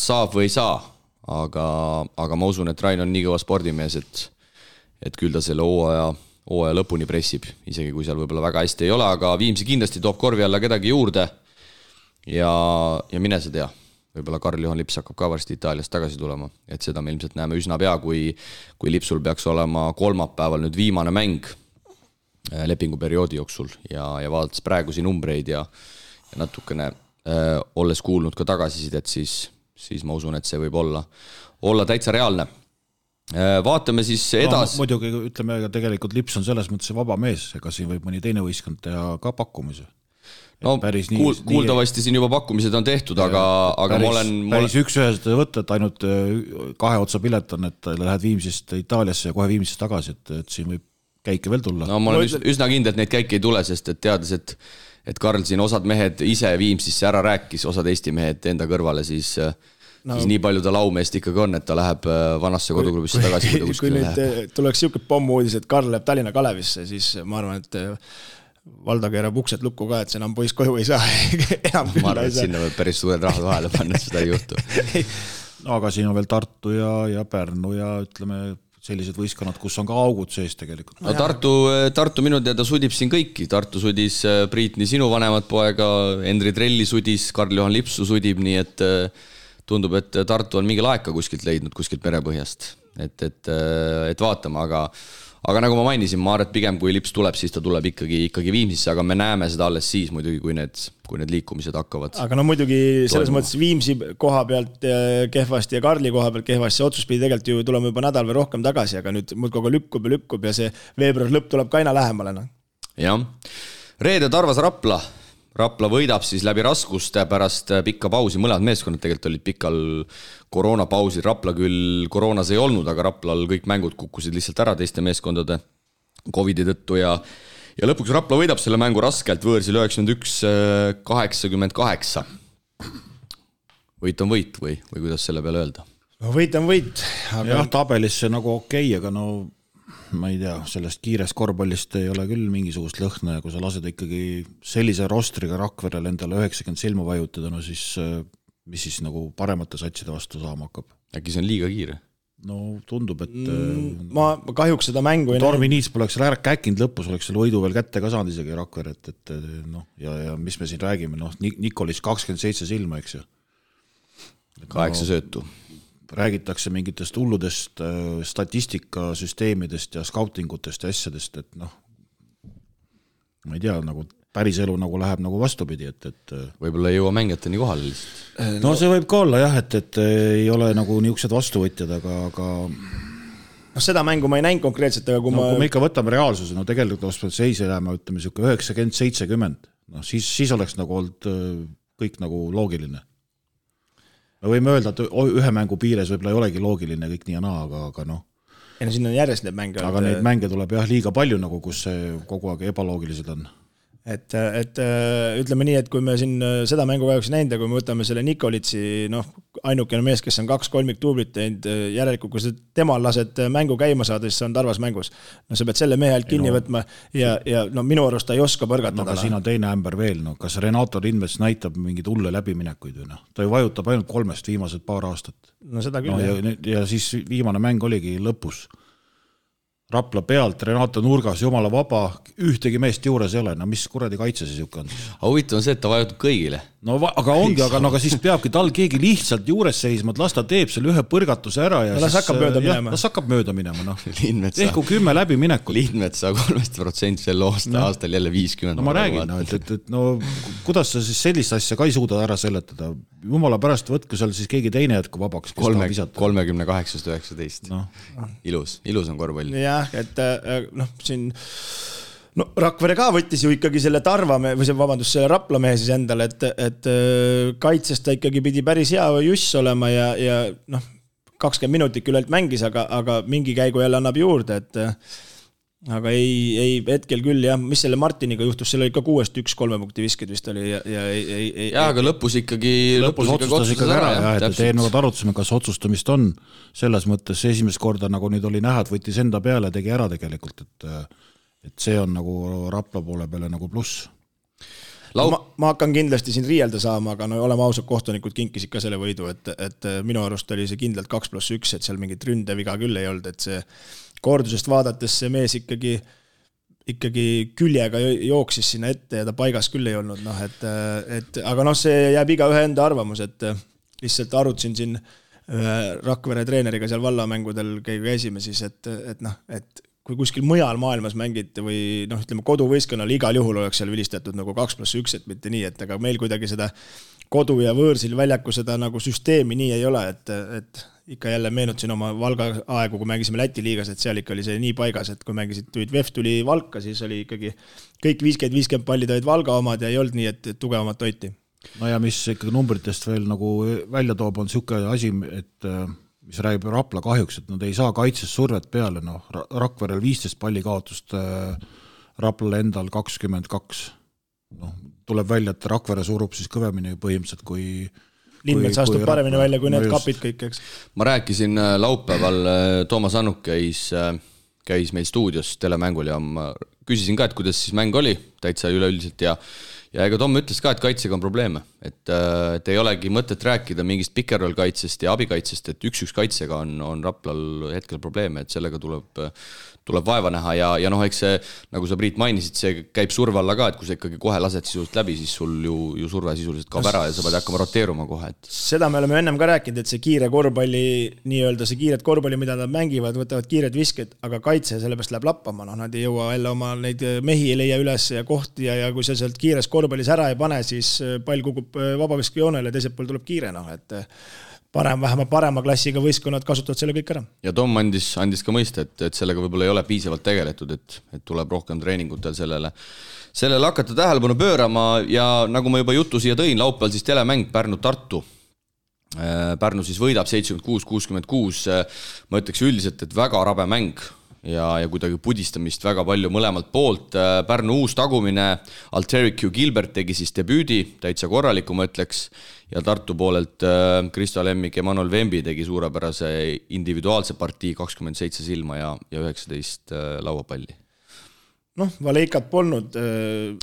saab või ei saa, aga ma usun, et Rain on nii kõva spordimees, et küll ta selle hooaja lõpuni pressib, isegi kui seal võib-olla väga hästi ei ole, aga Viimsi kindlasti toob korvi alla kedagi juurde ja mine sa tea, võib-olla Karl-Juhan Lips hakkab ka varsti Itaaliast tagasi tulema, et seda me ilmselt näeme üsna pea, kui Lipsul peaks olema kolmapäeval nüüd viimane mäng lepinguperioodi jooksul ja vaadates praegusi numbreid ja natukene olles kuulnud ka tagasisidet, siis ma usun, et see võib olla täitsa reaalne. Vaatame siis edasi.
Muidugi ütleme, tegelikult Lips on selles mõttes vaba mees, ega siin võib mõni teine võistkond teha ka pakkumise.
No kuuldavasti siin juba pakkumised on tehtud, aga ma olen...
Päris üks-ühest võtta, et ainult 2 otsa pilet on, et lähed Viimsist Itaaliasse ja kohe Viimsist tagasi, et siin võib käike veel tulla.
No ma olen üsna kindel, et neid käike ei tule, sest et teades, et Karl siin osad mehed ise Viimsisse ära rääkis, osad Eesti mehed enda kõrvale, siis nii palju ta laumeest ikkagi on, et ta läheb vanasse koduklubisse tagasi.
Kui nüüd tuleks siuke pommuudis, et Karl läheb Tallinna Kalevisse, siis ma arvan, et Valdo keerab uksed lukku ka, et see enam poiss koju ei saa.
Ma arvan, et sinna võib päris suured rahad vahele panna, et seda ei juhtu.
Aga siin on veel Tartu ja Pärnu ja ütleme sellised võistkonnad, kus on ka augud sees tegelikult.
No Tartu minu teada sudib siin kõiki. Tartu sudis Priitni sinu vanemat poega, Endri Trelli sudis, Karl-Johan Lipsu sudib, nii et tundub, et Tartu on mingi laeka kuskilt leidnud, kuskilt merepõhjast. Et vaatame, aga nagu ma mainisin, ma arvan, et pigem kui Lips tuleb, siis ta tuleb ikkagi Viimsisse, aga me näeme seda alles siis muidugi, kui need liikumised hakkavad.
Aga no muidugi selles mõttes Viimsi koha pealt kehvasti ja Karli koha pealt kehvasti, see otsus pidi tegelikult ju tulema juba nädal või rohkem tagasi, aga nüüd muudkogu lükkub ja see veebruar lõpp tuleb ka aina lähemale.
Jah. Reede Tarvas Rapla võidab siis läbi raskuste pärast pikka pausi, mõlemad meeskonnad tegelikult olid pikal koroonapausil, Rapla küll koroonas ei olnud, aga Raplal kõik mängud kukkusid lihtsalt ära teiste meeskondade Covidi tõttu ja lõpuks Rapla võidab selle mängu raskelt võõrsil 91-88. Võit on võit või kuidas selle peale öelda?
No võit on võit.
Aga... Jah, tabelis see nagu okei, aga no ma ei tea, sellest kiirest korvpallist ei ole küll mingisugust lõhna ja kui sa lased ikkagi sellise rostriga Rakverel endale 90 silma vajutada, no siis mis siis nagu paremate satside vastu saama hakkab?
Äkki see on liiga kiire?
No tundub, et
ma kahjuks seda mängu ei
Tormi Niits poleks käkinud lõpus, oleks selle võidu veel kätte ka saanud isegi Rakver, et noh, ja mis me siin räägime, noh, Nikolis 27 silma, eks ju.
8 söötu.
Räägitakse mingitest hulludest statistikasüsteemidest ja skautingutest ja asjadest, et noh, ma ei tea, nagu päris elu nagu läheb nagu vastupidi, et
võib-olla ei jõua mängijateni kohale lihtsalt.
No see võib ka olla jah, et ei ole nagu niisugused vastuvõtjad, aga
no seda mängu ma ei näinud konkreetselt, aga kui
me ikka võtame reaalsuse, no tegelikult seise jääma, ütleme, 90-70, no siis oleks nagu olnud kõik nagu loogiline. Me võime öelda, et ühe mängu piires võib-olla ei olegi loogiline kõik nii ja naa, aga noh.
Ja no siin on järjest neid mänge.
Aga neid mänge tuleb jah liiga palju, nagu kus see kogu aeg ebaloogilised on.
Et ütleme nii, et kui me siin seda mängu kahjuks näinud ja kui me võtame selle Nikolitsi, noh, ainukene mees, kes on 2-3 tuublit teinud, järelikult kui temal lased mängu käima saada, siis see on Tarvas mängus. No sa pead selle mehe alt kinni võtma ja no minu arust ta ei oska põrgatada.
No aga siin on teine ämber veel, no kas Renato Lindmets näitab mingid hulle läbiminekuid või noh? Ta ju vajutab ainult 3 viimased paar aastat.
No seda küll.
Ja siis viimane mäng oligi lõpus. Rapla pealt, Renato nurgas, jumala vaba, ühtegi meest juures ei ole, no mis kuradi kaitse siis juhka on?
Huvitav on see, et ta vajutab kõigile.
No aga ongi, aga siis peabki tal keegi lihtsalt juures seisma, et las ta teeb selle ühe põrgatuse ära ja
las hakkab mööda minema.
Las hakkab mööda minema, noh.
Ehku
10 läbi minekut.
Lindmets saab 3% sel aastal jälle 50.
No ma räägin, no, et no kuidas sa siis sellist asja ka ei suuda ära seletada? Jumala pärast võtku seal siis keegi teine jätku vabaks, kes tahab visata.
38-19. No. Ilus on korvpall.
Jah, et noh, siin no Rakvere ka võttis ju ikkagi selle Tarvamehe, või selle Raplamehe siis endale, et kaitsest ta ikkagi pidi päris hea juss olema ja noh, 20 minutit küllalt mängis, aga mingi käigu jälle annab juurde, et aga ei hetkel küll jah, mis selle Martiniga juhtus, seal oli ka 6-1 3 punkti visked vist oli
ja aga lõpus
otsustas ikkagi ära ja et eelnevad arutasime, kas otsustamist on selles mõttes esimest korda nagu nüüd oli näha, et võttis enda peale, tegi ära tegelikult, et see on nagu Rapla poole peale nagu pluss.
Ma hakkan kindlasti siin riielda saama, aga no oleme ausad, kohtunikud kinkisid ka selle võidu, et minu arust oli see kindlalt 2+1, et seal mingit ründeviga küll ei olnud, et see kordusest vaadates see mees ikkagi küljega jooksis sinna ette ja ta paigas küll ei olnud, noh, et aga noh, see jääb iga ühe enda arvamus, et lihtsalt arutasin siin Rakvere treeneriga seal vallamängudel käisime siis, et noh, et kui kuskil mujal maailmas mängiti või noh, ütleme koduvõistkonnal igal juhul oleks seal vilistatud nagu 2+1, et mitte nii, et aga meil kuidagi seda kodu ja võõrsil väljaku seda nagu süsteemi nii ei ole, et ikka jälle meenutasin oma Valga aegu, kui mängisime Läti liigas, et seal ikka oli see nii paigas, et kui mängisid VEF tuli Valka, siis oli ikkagi kõik 50-50 pallid olid Valga omad ja ei olnud nii, et tugevamat hoiti.
No ja mis ikkagi numbritest veel nagu välja toob, on siuke asi, et mis räägib Rapla kahjuks, et nad ei saa kaitses survet peale, noh, Rakverel 15 palli kaotust, Raplale endal 22. Noh, tuleb välja, et Rakvere surub siis kõvemini põhimõtteliselt kui
Lindmets astub paremini välja kui need kapid kõik, eks.
Ma rääkisin laupäeval, Toomas Annuk käis meil stuudios telemängul ja ma küsisin ka, et kuidas siis mäng oli, täitsa üleüldiselt ja ega Tom ütles ka, et kaitsega on probleeme, et ei olegi mõtet rääkida mingist pikerroll kaitsest ja abikaitsest, et üks kaitsega on Raplal hetkel probleeme, et sellega tuleb vaeva näha ja noh, eks see, nagu sa Priit mainisid, see käib surve alla ka, et kui sa ikkagi kohe lased sisuliselt läbi, siis sul ju surve sisuliselt kaob ära ja sa pead hakkama roteeruma kohe. Et...
Seda me oleme ennem ka rääkinud, et see kiire korvpalli, nii-öelda see kiired korvpalli, mida nad mängivad, võtavad kiired visked, aga kaitse sellepärast läheb lappama, noh, nad ei jõua jälle oma neid mehi ei leia üles ja kohti ja kui sa sealt kiires korvpallis ära ei pane, siis pall kukub vabaviskejoonele ja teiselt pool tuleb kiire, noh, et vähemalt parema klassiga võistkonnad kasutavad selle kõik ära.
Ja Tom andis ka mõista, et sellega võib-olla ei ole piisavalt tegeletud, et tuleb rohkem treeningutel sellele hakata tähelepanu pöörama ja nagu ma juba jutu siia tõin, laupäeval siis telemäng Pärnu-Tartu. Pärnu siis võidab 76-66, ma ütleks üldiselt, et väga rabe mäng ja kuidagi pudistamist väga palju mõlemalt poolt. Pärnu uus tagumine, Alterik Q. Gilbert tegi siis debüüdi, täitsa korraliku ma ütleks, ja Tartu poolelt Kristo Lemmik ja Manuel Vembi tegi suurepärase individuaalse partii 27 silma ja 19 lauapalli.
Noh, Valeikat polnud.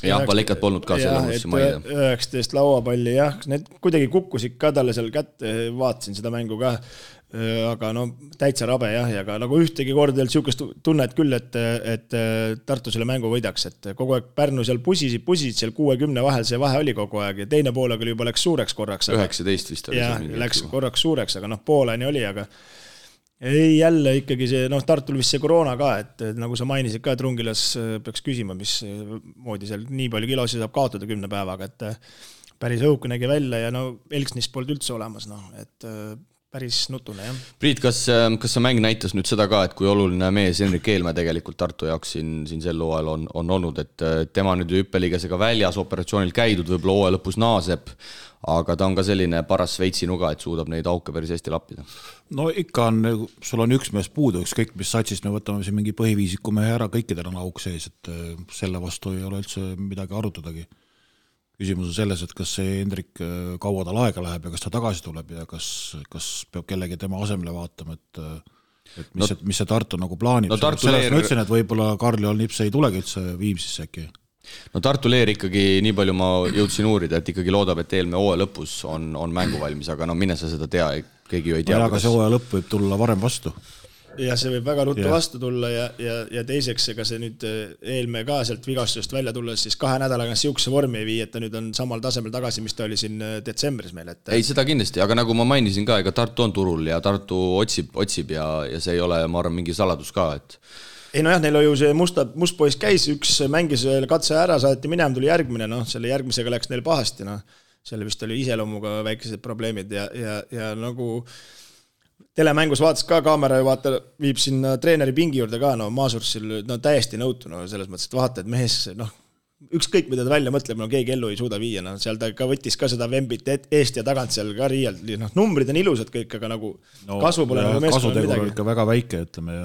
Valeikat polnud ka selle mõnusse maida.
19 lauapalli, jah, need kuidagi kukkusid ka talle seal kätte, vaatasin seda mängu ka. Aga no täitsa rabe jah, ja ka nagu ühtegi korda siukest tunnet küll, et Tartu selle mängu võidaks, et kogu aeg Pärnu seal pusisid seal 60 vahel, see vahe oli kogu aeg ja teine poolega juba läks suureks korraks.
19 vist oli.
Jah, läks korraks suureks, aga noh, pooleni oli, aga ei jälle ikkagi see, noh, Tartul vist see koroona ka, et nagu sa mainisid ka, et Rungilas peaks küsima, mis moodi seal nii palju kilosi saab kaotada 10 päevaga, et päris õuke nägi välja ja no Elksnis polnud üldse olemas, noh, et päris nutune, jah.
Priit, kas see mäng näitas nüüd seda ka, et kui oluline mees Henrik Eelmäe tegelikult Tartu jaoks siin sel hooajal on olnud, et tema nüüd hüppeliigasega väljas operatsioonil käidud, võib-olla hooaja lõpus naaseb, aga ta on ka selline paras Šveitsi-nuga, et suudab neid auke päris hästi lappida.
No ikka on, sul on üks mees puudu, ükskõik mis satsist me võtame siin mingi põhiviisiku mehe ära, kõikidel on auk sees, et selle vastu ei ole üldse midagi arutadagi. Küsimus on selles, et kas see Hendrik kaua tal aega läheb ja kas ta tagasi tuleb ja kas peab kellegi tema asemele vaatama, et mis see Tartu nagu plaanib.
No
selles ma ütlesin, et võib-olla Karl-Joel Nips ei tulegi üldse Viimsisse äkki.
No Tartu Leer ikkagi, nii palju ma jõudsin uurida, et ikkagi loodab, et eelmine hooaja lõpus on mängu valmis, aga no mine sa seda tea, keegi ju ei tea.
Aga see hooaja lõpp võib tulla varem vastu.
Ja see võib väga ruttu vastu tulla ja teiseks, ega see nüüd Eelmäe ka sealt vigastusest välja tulla, siis 2 nädalaga siukse vormi ei vii, et ta nüüd on samal tasemel tagasi, mis ta oli siin detsembris meil. Et...
Ei, seda kindlasti, aga nagu ma mainisin ka, ega Tartu on turul ja Tartu otsib ja see ei ole, ma arvan, mingi saladus ka, et...
Ei no jah, neil ju see must poiss käis, üks mängis katse ära, saati minema, tuli järgmine, noh, selle järgmisega läks neil pahasti, noh, selle vist oli iseloomuga väikesed probleemid ja nagu... Telemängus vaatas ka kaamera ja viib sinna treeneri pingi juurde ka, no Maasursil no, täiesti nõutu, no, selles mõttes, et vaata, et mehes, noh, ükskõik mida ta välja mõtleb, no keegi ellu ei suuda viia, no, seal ta ka võttis ka seda Vembit eest ja tagant seal ka riialt, noh, numbrid on ilusad kõik, aga nagu no, kasvu pole nagu meeskonnal midagi.
Kasutegur on ikka väga väike, ütleme,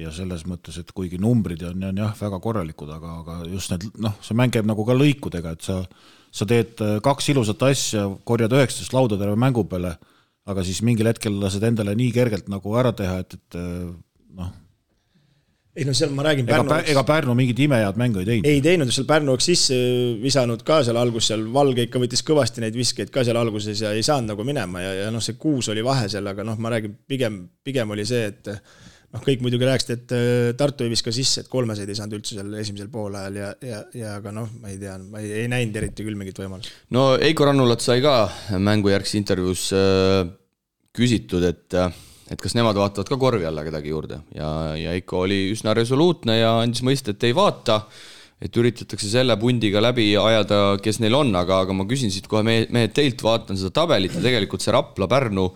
ja selles mõttes, et kuigi numbrid on jah, väga korralikud, aga just need, noh, see mäng käib nagu ka lõikudega, et sa teed 2 ilusat asja, korjad 19 lauda terve mängu peale, aga siis mingil hetkel lased endale nii kergelt nagu ära teha, et noh.
Ei no seal ma räägin
ega Pärnu mingit imehead mängu ei teinud.
Ei teinud, seal Pärnu oleks sisse visanud ka seal algus, seal Valge ikka võttis kõvasti neid viskeid ka seal alguses ja ei saanud nagu minema ja noh, see 6 oli vahe seal, aga noh, ma räägin, pigem oli see, et noh, kõik muidugi rääksid, et Tartu ei viska sisse, et 3 ei saanud üldse seal esimesel poolajal ja aga noh, ma ei tea, ma ei näinud eriti küll mingit võimalust.
No Eiko Rannulat sai ka mängujärgsi intervjuus küsitud, et et kas nemad vaatavad ka korvi alla kedagi juurde ja ikka oli üsna resoluutne ja andis mõista, et ei vaata, et üritatakse selle pundiga läbi ajada, kes neil on, aga ma küsin siit kohe mehed teilt, vaatan seda tabelit ja tegelikult see Rapla-Pärnu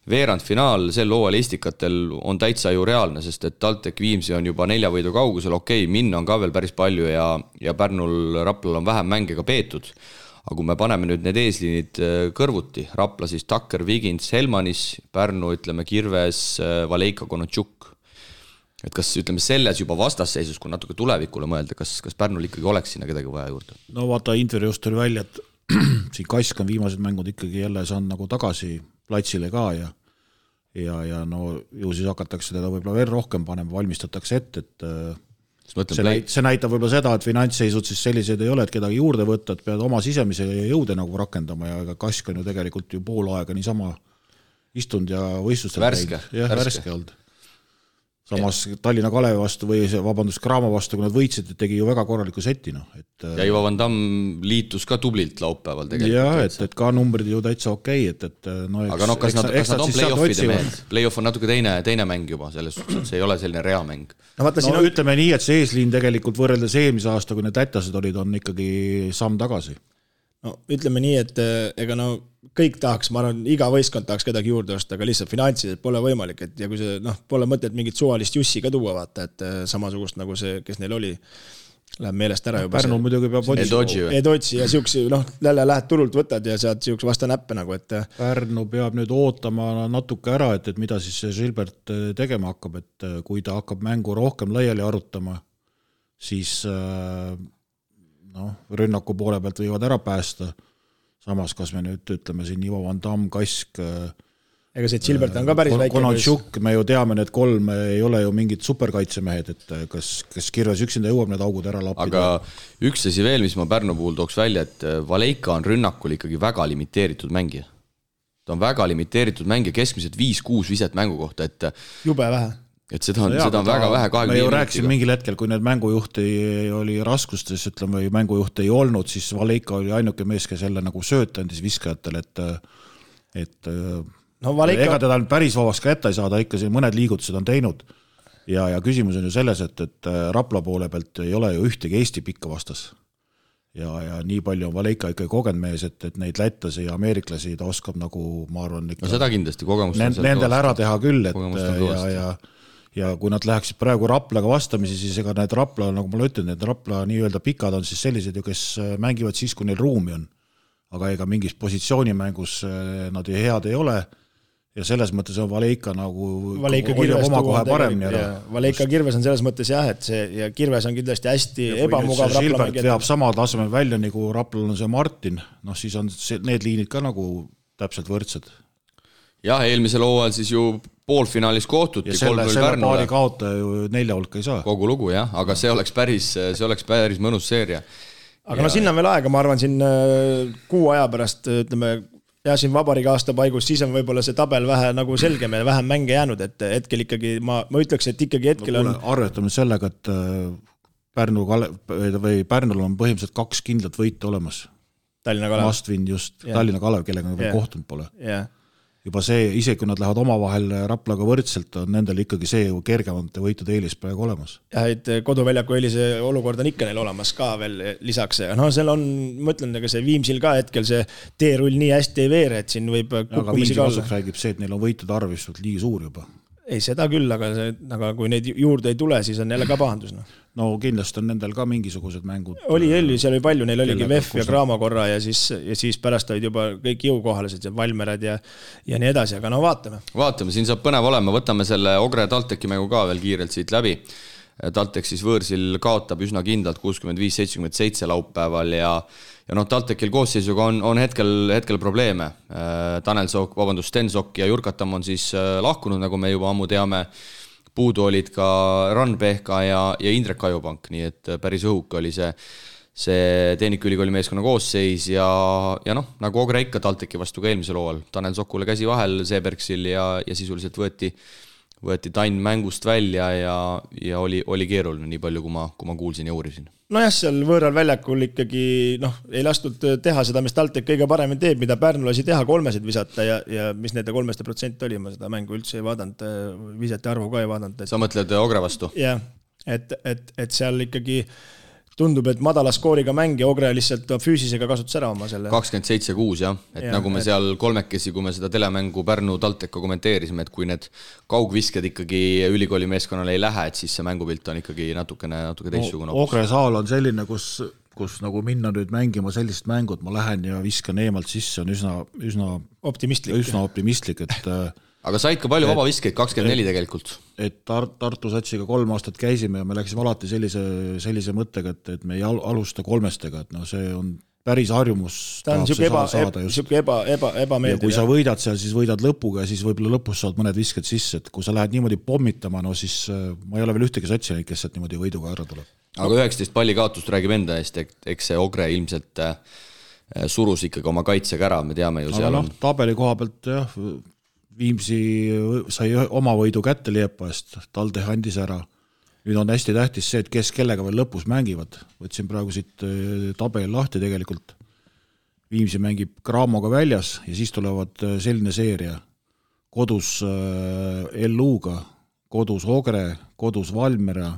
veerandfinaal sel hooajal Estikatel on täitsa ju reaalne, sest et TalTech Viimsi on juba 4 võidu kaugusel, minna on ka veel päris palju ja Pärnul Raplal on vähem mänge ka peetud. Aga kui me paneme nüüd need eesliinid kõrvuti, Rapla siis Takker, Vigins, Helmanis, Pärnu, ütleme Kirves, Valeika, Konotšuk. Et kas ütleme selles juba vastasseisus, kui natuke tulevikule mõelda, kas Pärnul ikkagi oleks sinna kedagi vaja juurde?
No vaata, intervjuust oli välja, et siin Kask on viimased mängud ikkagi jälle saanud nagu tagasi platsile ka ja no ju siis hakatakse teda võib-olla veel rohkem panema, valmistatakse ette, et see näitab võib-olla seda, et finantsseisud siis sellised ei ole, et kedagi juurde võtta, et pead oma sisemise jõude nagu rakendama ja Kask on ju tegelikult ju pool aega niisama istunud ja võistlustel värske olnud. Samas Tallinna Kalevi vastu või Graamo vastu, kui nad võitsid, tegi ju väga korraliku seti. No.
Ja Ivo Van Damm liitus ka tublilt laupäeval tegelikult.
Ja, et ka numbrid ju täitsa okei. No,
aga kas nad on play-offide mehed? Play-off on natuke teine mäng juba, selles suhtes, et see ei ole selline reamäng.
Ütleme nii, et see eesliin tegelikult võrreldes eelmise aasta, kui need tätased olid, on ikkagi samm tagasi.
No, ütleme nii, et ega kõik tahaks, ma arvan, iga võistkond tahaks kedagi juurde osta, aga lihtsalt finantsiliselt pole võimalik, et ja kui see, pole mõtet mingit suvalist jussi ka tuua, vaata, et samasugust nagu see, kes neil oli, läheb meelest ära juba.
Pärnu muidugi peab
Edotsi ja siukse, jälle lähed turult võtad ja saad siukse vasta näppe nagu, et
Pärnu peab nüüd ootama natuke ära, et mida siis see Silbert tegema hakkab, et kui ta hakkab mängu rohkem laiali arutama, siis rünnaku poole pealt võivad ära päästa. Samas, kas me nüüd ütleme siin Ivo Van Damm, Kask,
ega see Silbert on ka päris väike.
Konotšuk, me ju teame, need 3 ei ole ju mingid superkaitsemehed, et kas Kirves üksinda jõuab need augud ära lappida.
Aga üks asi veel, mis ma Pärnu puhul tooks välja, et Valeika on rünnakul ikkagi väga limiteeritud mängija. Ta on väga limiteeritud mängija, keskmiselt 5-6 viset mängu kohta, et
jube vähe.
Et seda on väga vähe 25
me ju rääkisime mingil hetkel, kui need mängujuht oli raskustes, ütleme, või mängujuht ei olnud, siis Valeika oli ainuke mees, kes jälle nagu söötandis viskajatele, et ega teda päris vabaks ka ette ei saada, ikka siin mõned liigutused on teinud ja küsimus on ju selles, et Rapla poole pealt ei ole ju ühtegi Eesti pikka vastas ja nii palju on Valeika ikkagi kogenud mees, et neid lätlasi ja ameeriklasi ta oskab nagu, ma arvan, ikka
seda kindlasti
nendel ära teha küll, ja kui nad läheksid praegu Raplaga vastamisi, siis ega need Rapla, nagu ma ütlen, need Rapla nii-öelda pikad on siis sellised ju, kes mängivad siis, kui neil ruumi on. Aga ega mingis positsioonimängus nad head ei ole ja selles mõttes on Valeika nagu oma kohe paremini ära.
Valeika Kirves on selles mõttes jah, et see ja Kirves on kindlasti hästi ebamugav Rapla.
Silbert veab sama tasemel välja, nagu Raplal on see Martin, siis on need liinid ka nagu täpselt võrdsed.
Jah, eelmisel hooajal siis ju poolfinaalis kohtuti.
Ja selle paari kaota ju 4 hulka ei saa.
Kogu lugu, jah, aga see oleks päris mõnus seeria.
Aga sinna on veel aega, ma arvan, siin kuu aja pärast, ütleme, ja siin vabariigi aasta paigus, siis on võib-olla see tabel vähe nagu selgem ja vähem mänge jäänud, et hetkel ikkagi, ma ütleks, et ikkagi hetkel on...
Arvetame sellega, et Pärnul on põhimõtteliselt 2 kindlat võita olemas.
Tallinna Kalev.
Must-win just, Tallinna Kalev, kellega veel kohtunud pole.
Jah.
Juba see, isegi kui nad lähevad omavahel Raplaga võrdselt, on nendel ikkagi see kergemate võitude eelis praegu olemas.
Jah, et koduväljaku eelise olukord on ikka neil olemas ka veel lisaks. Seal on, ma ütlen, see Viimsil ka hetkel see teerull nii hästi ei veere, et siin võib
aga Viimsi kasuks räägib see, et neil on võitude arv liigi suur juba.
Ei, seda küll, aga kui neid juurde ei tule, siis on jälle ka pahandus.
No kindlasti on nendel ka mingisugused mängud.
Seal oli palju, neil oligi VEF ja Graamo korra ja siis pärast olid juba kõik jõukohalised ja Valmerad ja nii edasi, aga vaatame.
Vaatame, siin saab põnev olema, võtame selle Ogre Talteki mängu ka veel kiirelt siit läbi. Taltek siis võõrsil kaotab üsna kindlalt 65-77 laupäeval ja Taltekil koosseisuga on hetkel probleeme. Sten Sokk ja Jurkatam on siis lahkunud, nagu me juba ammu teame. Puudu olid ka Rann-Pehka ja Indrek Kajupank, nii et päris õhuk oli see Tehnikaülikooli meeskonna koosseis ja nagu Ogre ikka Talteki vastu ka eelmisel hooajal. Tanel Sokule käsi vahel Seebergsil ja sisuliselt võeti Tann mängust välja ja oli keeruline nii palju, kui ma kuulsin ja uurisin.
Nojah, seal võõral väljakul ikkagi ei lastud teha seda, mis TalTech kõige paremini teeb, mida Pärnu lasi teha 3 visata ja mis nende 3% oli, ma seda mängu üldse ei vaadanud, visete arvu ka ei vaadanud.
Sa mõtled Ogre vastu?
Jah, et seal ikkagi tundub, et madala skooriga mäng ja Ogre lihtsalt füüsisega kasutas ära oma selle.
27-6 jah, et nagu me seal kolmekesi, kui me seda telemängu Pärnu TalTechiga kommenteerisime, et kui need kaugvisked ikkagi ülikooli meeskonnale ei lähe, et siis see mängupilt on ikkagi natuke teistsugune.
Ogre saal on selline, kus nagu minna nüüd mängima sellist mängut, ma lähen ja viskan eemalt sisse, on üsna optimistlik, et
aga said ka palju vabaviskeid, 24 tegelikult.
Et Tartu satsiga 3 aastat käisime ja me läksime alati sellise mõttega, et me ei alusta 3-stega, et see on päris harjumus.
Ta on siuke ebameeldiv.
Ja kui sa võidad seal, siis võidad lõpuga ja siis võib-olla lõpus saad mõned visked sisse, et kui sa lähed niimoodi pommitama, siis ma ei ole veel ühtegi satsi, kes sealt niimoodi võiduga ära tuleb.
Aga 19 palli kaotust räägib enda eest, eks see Ogre ilmselt surus ikkagi oma kaitsega ära, me teame ju seal on.
Tabeli koha pealt jah, Viimsi sai oma võidu kätte Liepa eest, TalTech andis ära. Nüüd on hästi tähtis see, et kes kellega veel lõpus mängivad. Võtsin praegu siit tabeli lahti tegelikult. Viimsi mängib Graamoga väljas ja siis tulevad selline seeria. Kodus LU-ga, kodus Ogre, kodus Valmiera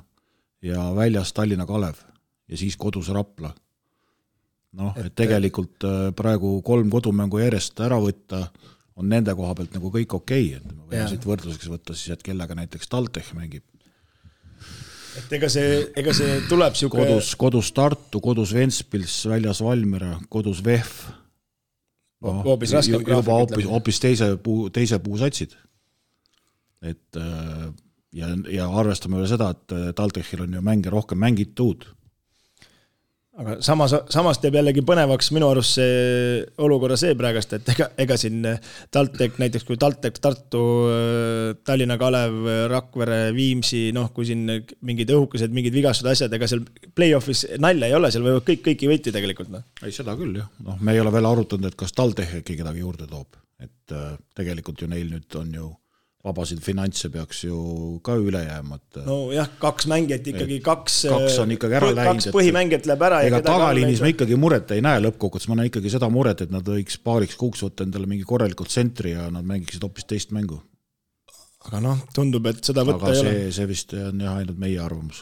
ja väljas Tallinna Kalev ja siis kodus Rapla. Et tegelikult praegu 3 kodumängu järjest ära võtta on nende koha pealt nagu kõik okei, et me võime siit võrdluseks võtta siis, et kellega näiteks TalTech mängib.
Et ega see tuleb siuke...
Kodus Tartu, kodus Ventspils, väljas Valmiera, kodus VEF.
Hoopis raskem graafik.
Hoopis teise puusatsid. Et, ja arvestame veel seda, et TalTechil on ju mänge rohkem mängitud.
Aga samas teeb jällegi põnevaks minu arust see olukorra see praegast, et ega siin TalTech, näiteks kui TalTech, Tartu, Tallinna Kalev, Rakvere, Viimsi, kui siin mingid õhukesed, mingid vigastud asjad, ega seal play-offis nalja ei ole, seal võivad kõiki võiti tegelikult.
Ei, seda küll jah. Me ei ole veel arutanud, et kas TalTech äkki kedagi juurde toob. Et tegelikult ju neil nüüd on ju vabasid finantse peaks ju ka üle jääma.
No jah, 2 mängijat ikkagi, 2
on ikkagi ära läinud.
2 põhimängijat läheb ära.
Ega tagaliinis me ikkagi muret ei näe lõppkokkutes, ma näen ikkagi seda muret, et nad võiks paariks kuuks võtta endale mingi korralikult tsentri ja nad mängiksid hoopis teist mängu.
Aga tundub, et seda võtta ei ole.
Aga see vist on jah ainult meie arvamus.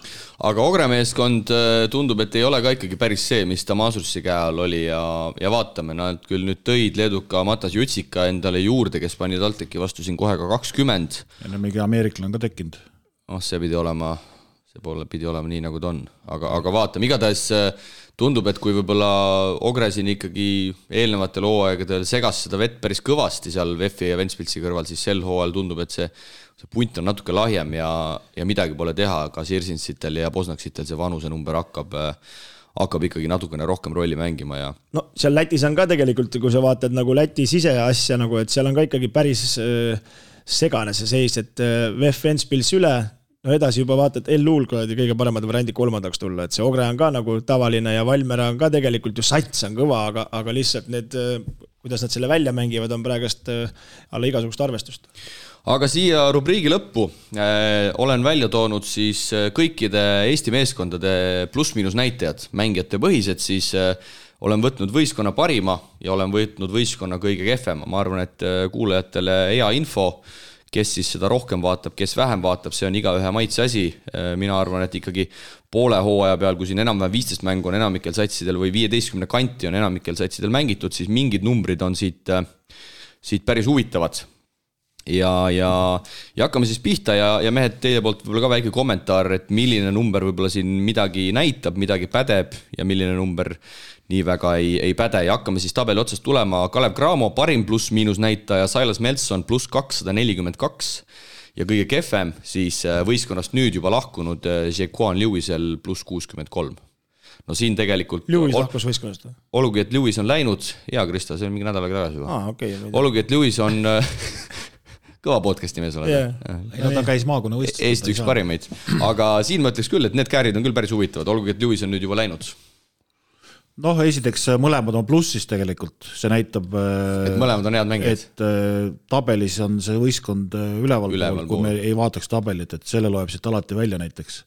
Aga Ogre meeskond tundub, et ei ole ka ikkagi päris see, mis ta Maasursi käe all oli ja vaatame, nad küll nüüd tõid leeduka Matas Jutsika endale juurde, kes pani TalTechi vastu siin kohe ka 20.
Ja mingi Ameerikla on ka tekkinud.
See pidi olema nii, nagu ta on. Aga vaatame, igatahes tundub, et kui võib-olla Ogre siin ikkagi eelnevatel hooaegadel segas seda vett päris kõvasti seal VEF-i ja Ventspilsi kõrval, siis sel hooajal tundub, et see punt on natuke lahjem ja midagi pole teha, ka Sirsinsitel ja Posnaksitel see vanuse number hakkab ikkagi natukene rohkem rolli mängima. Ja...
seal Lätis on ka tegelikult, kui sa vaatad nagu Läti siseasja, et seal on ka ikkagi päris segane see seis, et VEF Ventspils üle, edasi juba vaatad, LU-l kõige paremad variandid 3. tulla, et see Ogre on ka nagu tavaline ja Valmiera on ka tegelikult ju sats on kõva, aga lihtsalt need, kuidas nad selle välja mängivad, on praegast alla igasugust arvestust.
Aga siia rubriigi lõppu olen välja toonud siis kõikide Eesti meeskondade pluss-miinus näitajad, mängijate põhised, siis olen võtnud võistkonna parima ja olen võtnud võistkonna kõige kehvema. Ma arvan, et kuulajatele hea info, kes siis seda rohkem vaatab, kes vähem vaatab, see on igaühe maitse asi. Mina arvan, et ikkagi poole hooaja peal, kui siin enam-vähem 15 mängu on enamikel satsidel või 15 kanti on enamikel satsidel mängitud, siis mingid numbrid on siit päris huvitavad. Ja hakkame siis pihta ja mehed, teie poolt võib-olla ka väike kommentaar, et milline number võib-olla siin midagi näitab, midagi pädeb ja milline number nii väga ei päde. Ja hakkame siis tabeli otsast tulema. Kalev Cramo parim pluss-miinus näitaja, Silas Melson pluss 242 ja kõige kefem siis võistkonnast nüüd juba lahkunud Jaquan Lewisel pluss 63. No siin tegelikult...
Lewis lahkus võistkonnast?
Olugi, et Lewis on läinud, hea Krista, see on mingi nädalaga tagasi juba.
Okay,
olugi, et Lewis on... kõva podcasti mees oled.
Ja ta käis maakonna võistlust.
Eesti üks parimaid. Aga siin ma ütleks küll, et need käärid on küll päris huvitavad. Olgugi, et Lewis on nüüd juba läinud.
Noh, esiteks mõlemad on plussis tegelikult, see näitab,
et mõlemad on head mängijad.
Et tabelis on see võistkond üleval pool, kui me ei vaataks tabelit, et selle loeb siit alati välja näiteks.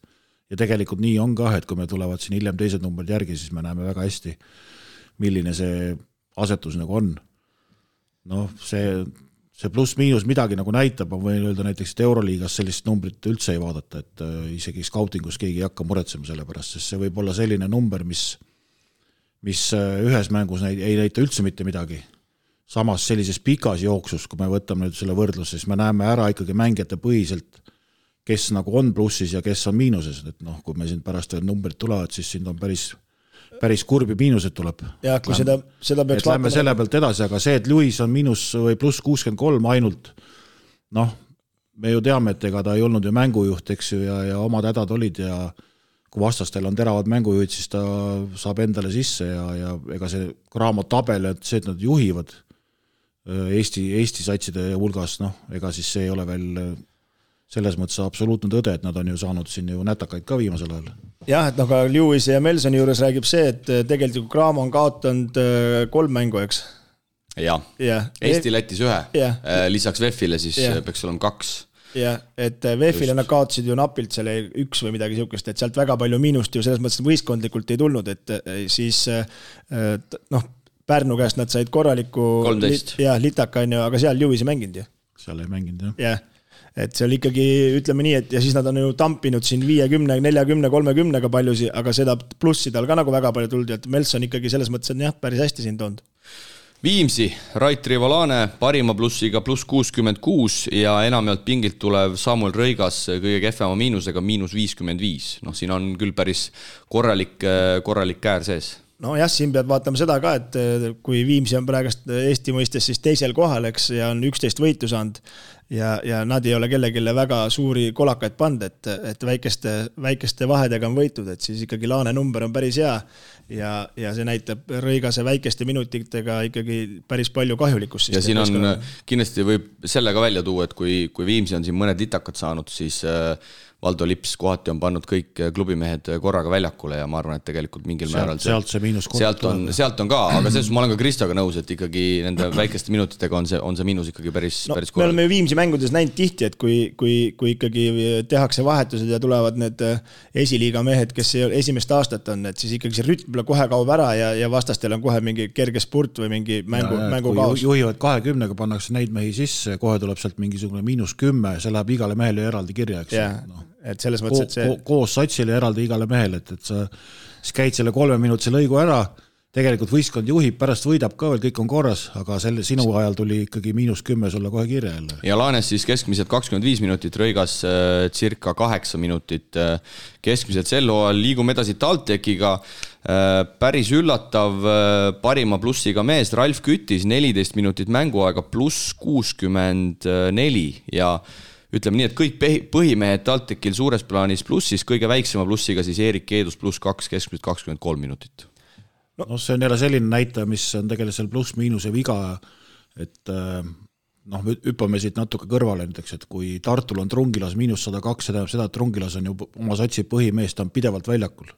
Ja tegelikult nii on ka, et kui me tulevad siin hiljem teised numbrid järgi, siis me näeme väga hästi, milline see asetus nagu on. Noh, see pluss-miinus midagi nagu näitab, ma võin öelda näiteks, et Euroliigas sellist numbrit üldse ei vaadata, et isegi scoutingus keegi ei hakka muretsema selle pärast, sest see võib olla selline number, mis ühes mängus ei näita üldse mitte midagi. Samas sellises pikas jooksus, kui me võtame nüüd selle võrdluse, siis me näeme ära ikkagi mängijate põhiselt, kes nagu on plussis ja kes on miinuses. Et noh, kui me siin pärast veel numbrid tulevad, siis siin on päris kurbi miinused tuleb.
Ja, kui seda peaks
lähme selle pealt edasi, aga see, et Lewis on miinus või pluss 63 ainult, noh, me ju teame, et ega ta ei olnud ju mängujuht, eks ju, ja omad hädad olid ja kui vastastel on teravad mängujuhid, siis ta saab endale sisse ja ega see Graamo tabel, et see, et nad juhivad Eesti satside hulgas, noh, ega siis see ei ole veel selles mõttes absoluutne tõde, et nad on ju saanud siin ju nätakaid ka viimasel ajal.
Jah, et aga Lewis ja Melsoni juures räägib see, et tegelikult Graamo on kaotanud 3 mängu, eks?
Jah, Eesti Lätis 1, lisaks VEF-ile siis peaks olema 2.
Ja, et VEF-ile nad kaotasid ju napilt selle 1 või midagi sihukest, et sealt väga palju miinust ju selles mõttes võistkondlikult ei tulnud, et siis noh, Pärnu käest nad said korraliku
13.
Litaka, aga seal Lewis ei mänginud ju.
Seal ei mänginud,
jah. Et seal ikkagi, ütleme nii, et ja siis nad on ju tampinud siin 50, 40, 30 paljusi, aga seda plussi tal ka nagu väga palju tuldi, et Melson ikkagi selles mõttes on jah, päris hästi siin toonud.
Viimsi, Rait Rivalane parima plussiga pluss 66 ja enamjalt pingilt tulev Samuel Rõigas kõige kehvema miinusega miinus 55. Noh, siin on küll päris korralik käär sees.
No jah, siin pead vaatama seda ka, et kui Viimsi on praegust Eesti mõistes siis teisel kohal, eks, ja on 11 võitu saanud ja nad ei ole kellegile väga suuri kolakaid pand, et väikeste vahedega on võitud, et siis ikkagi Laane number on päris hea ja see näitab Rõigase väikeste minutitega ikkagi päris palju kahjulikkust.
Ja siin on kindlasti võib selle ka välja tuua, et kui Viimsi on siin mõned litakad saanud, siis Valdo Lips kohati on pannud kõik klubimehed korraga väljakule ja ma arvan, et tegelikult mingil määral
sealt see miinus
sealt on ka, aga selles ma olen ka Kristoga nõus, et ikkagi nende väikeste minutitega on see miinus ikkagi päris korral.
Me oleme Viimsi mängudes näinud tihti, et kui ikkagi tehakse vahetused ja tulevad need esiliiga mehed, kes esimest aastat on, et siis ikkagi see rütm kohe kaob ära ja vastastel on kohe mingi kerge spurt või mingi mängu kaos.
Juhivad 20-ga, pannakse neid mehi sisse, kohe tuleb sealt mingisugune miinus 10, see läheb igale mehele eraldi kirja, eks.
Et selles mõttes, et see
koos satsile eraldi igale mehele, et sa käid selle 3 minutise lõigu ära, tegelikult võistkond juhib, pärast võidab ka veel, kõik on korras, aga sinu ajal tuli ikkagi miinus 10 sulle kohe kirja jälle.
Ja Laanes siis keskmiselt 25 minutit, Rõigas circa 8 minutit keskmiselt sel hooajal. Liigume edasi TalTechiga, päris üllatav parima plussiga mees Ralf Kütis, 14 minutit mänguaega pluss 64 ja ütleme nii, et kõik põhimehed TalTechil suures plaanis plussis, kõige väiksema plussiga siis Erik Keedus pluss 2, keskmiselt 23 minutit.
No see on jälle selline näitaja, mis on tegelikult seal pluss-miinuse viga, et noh, hüppame siit natuke kõrvale näiteks, et kui Tartul on Trungilas miinus 102, see tähendab seda, et Trungilas on ju oma satsi põhimees, ta on pidevalt väljakul.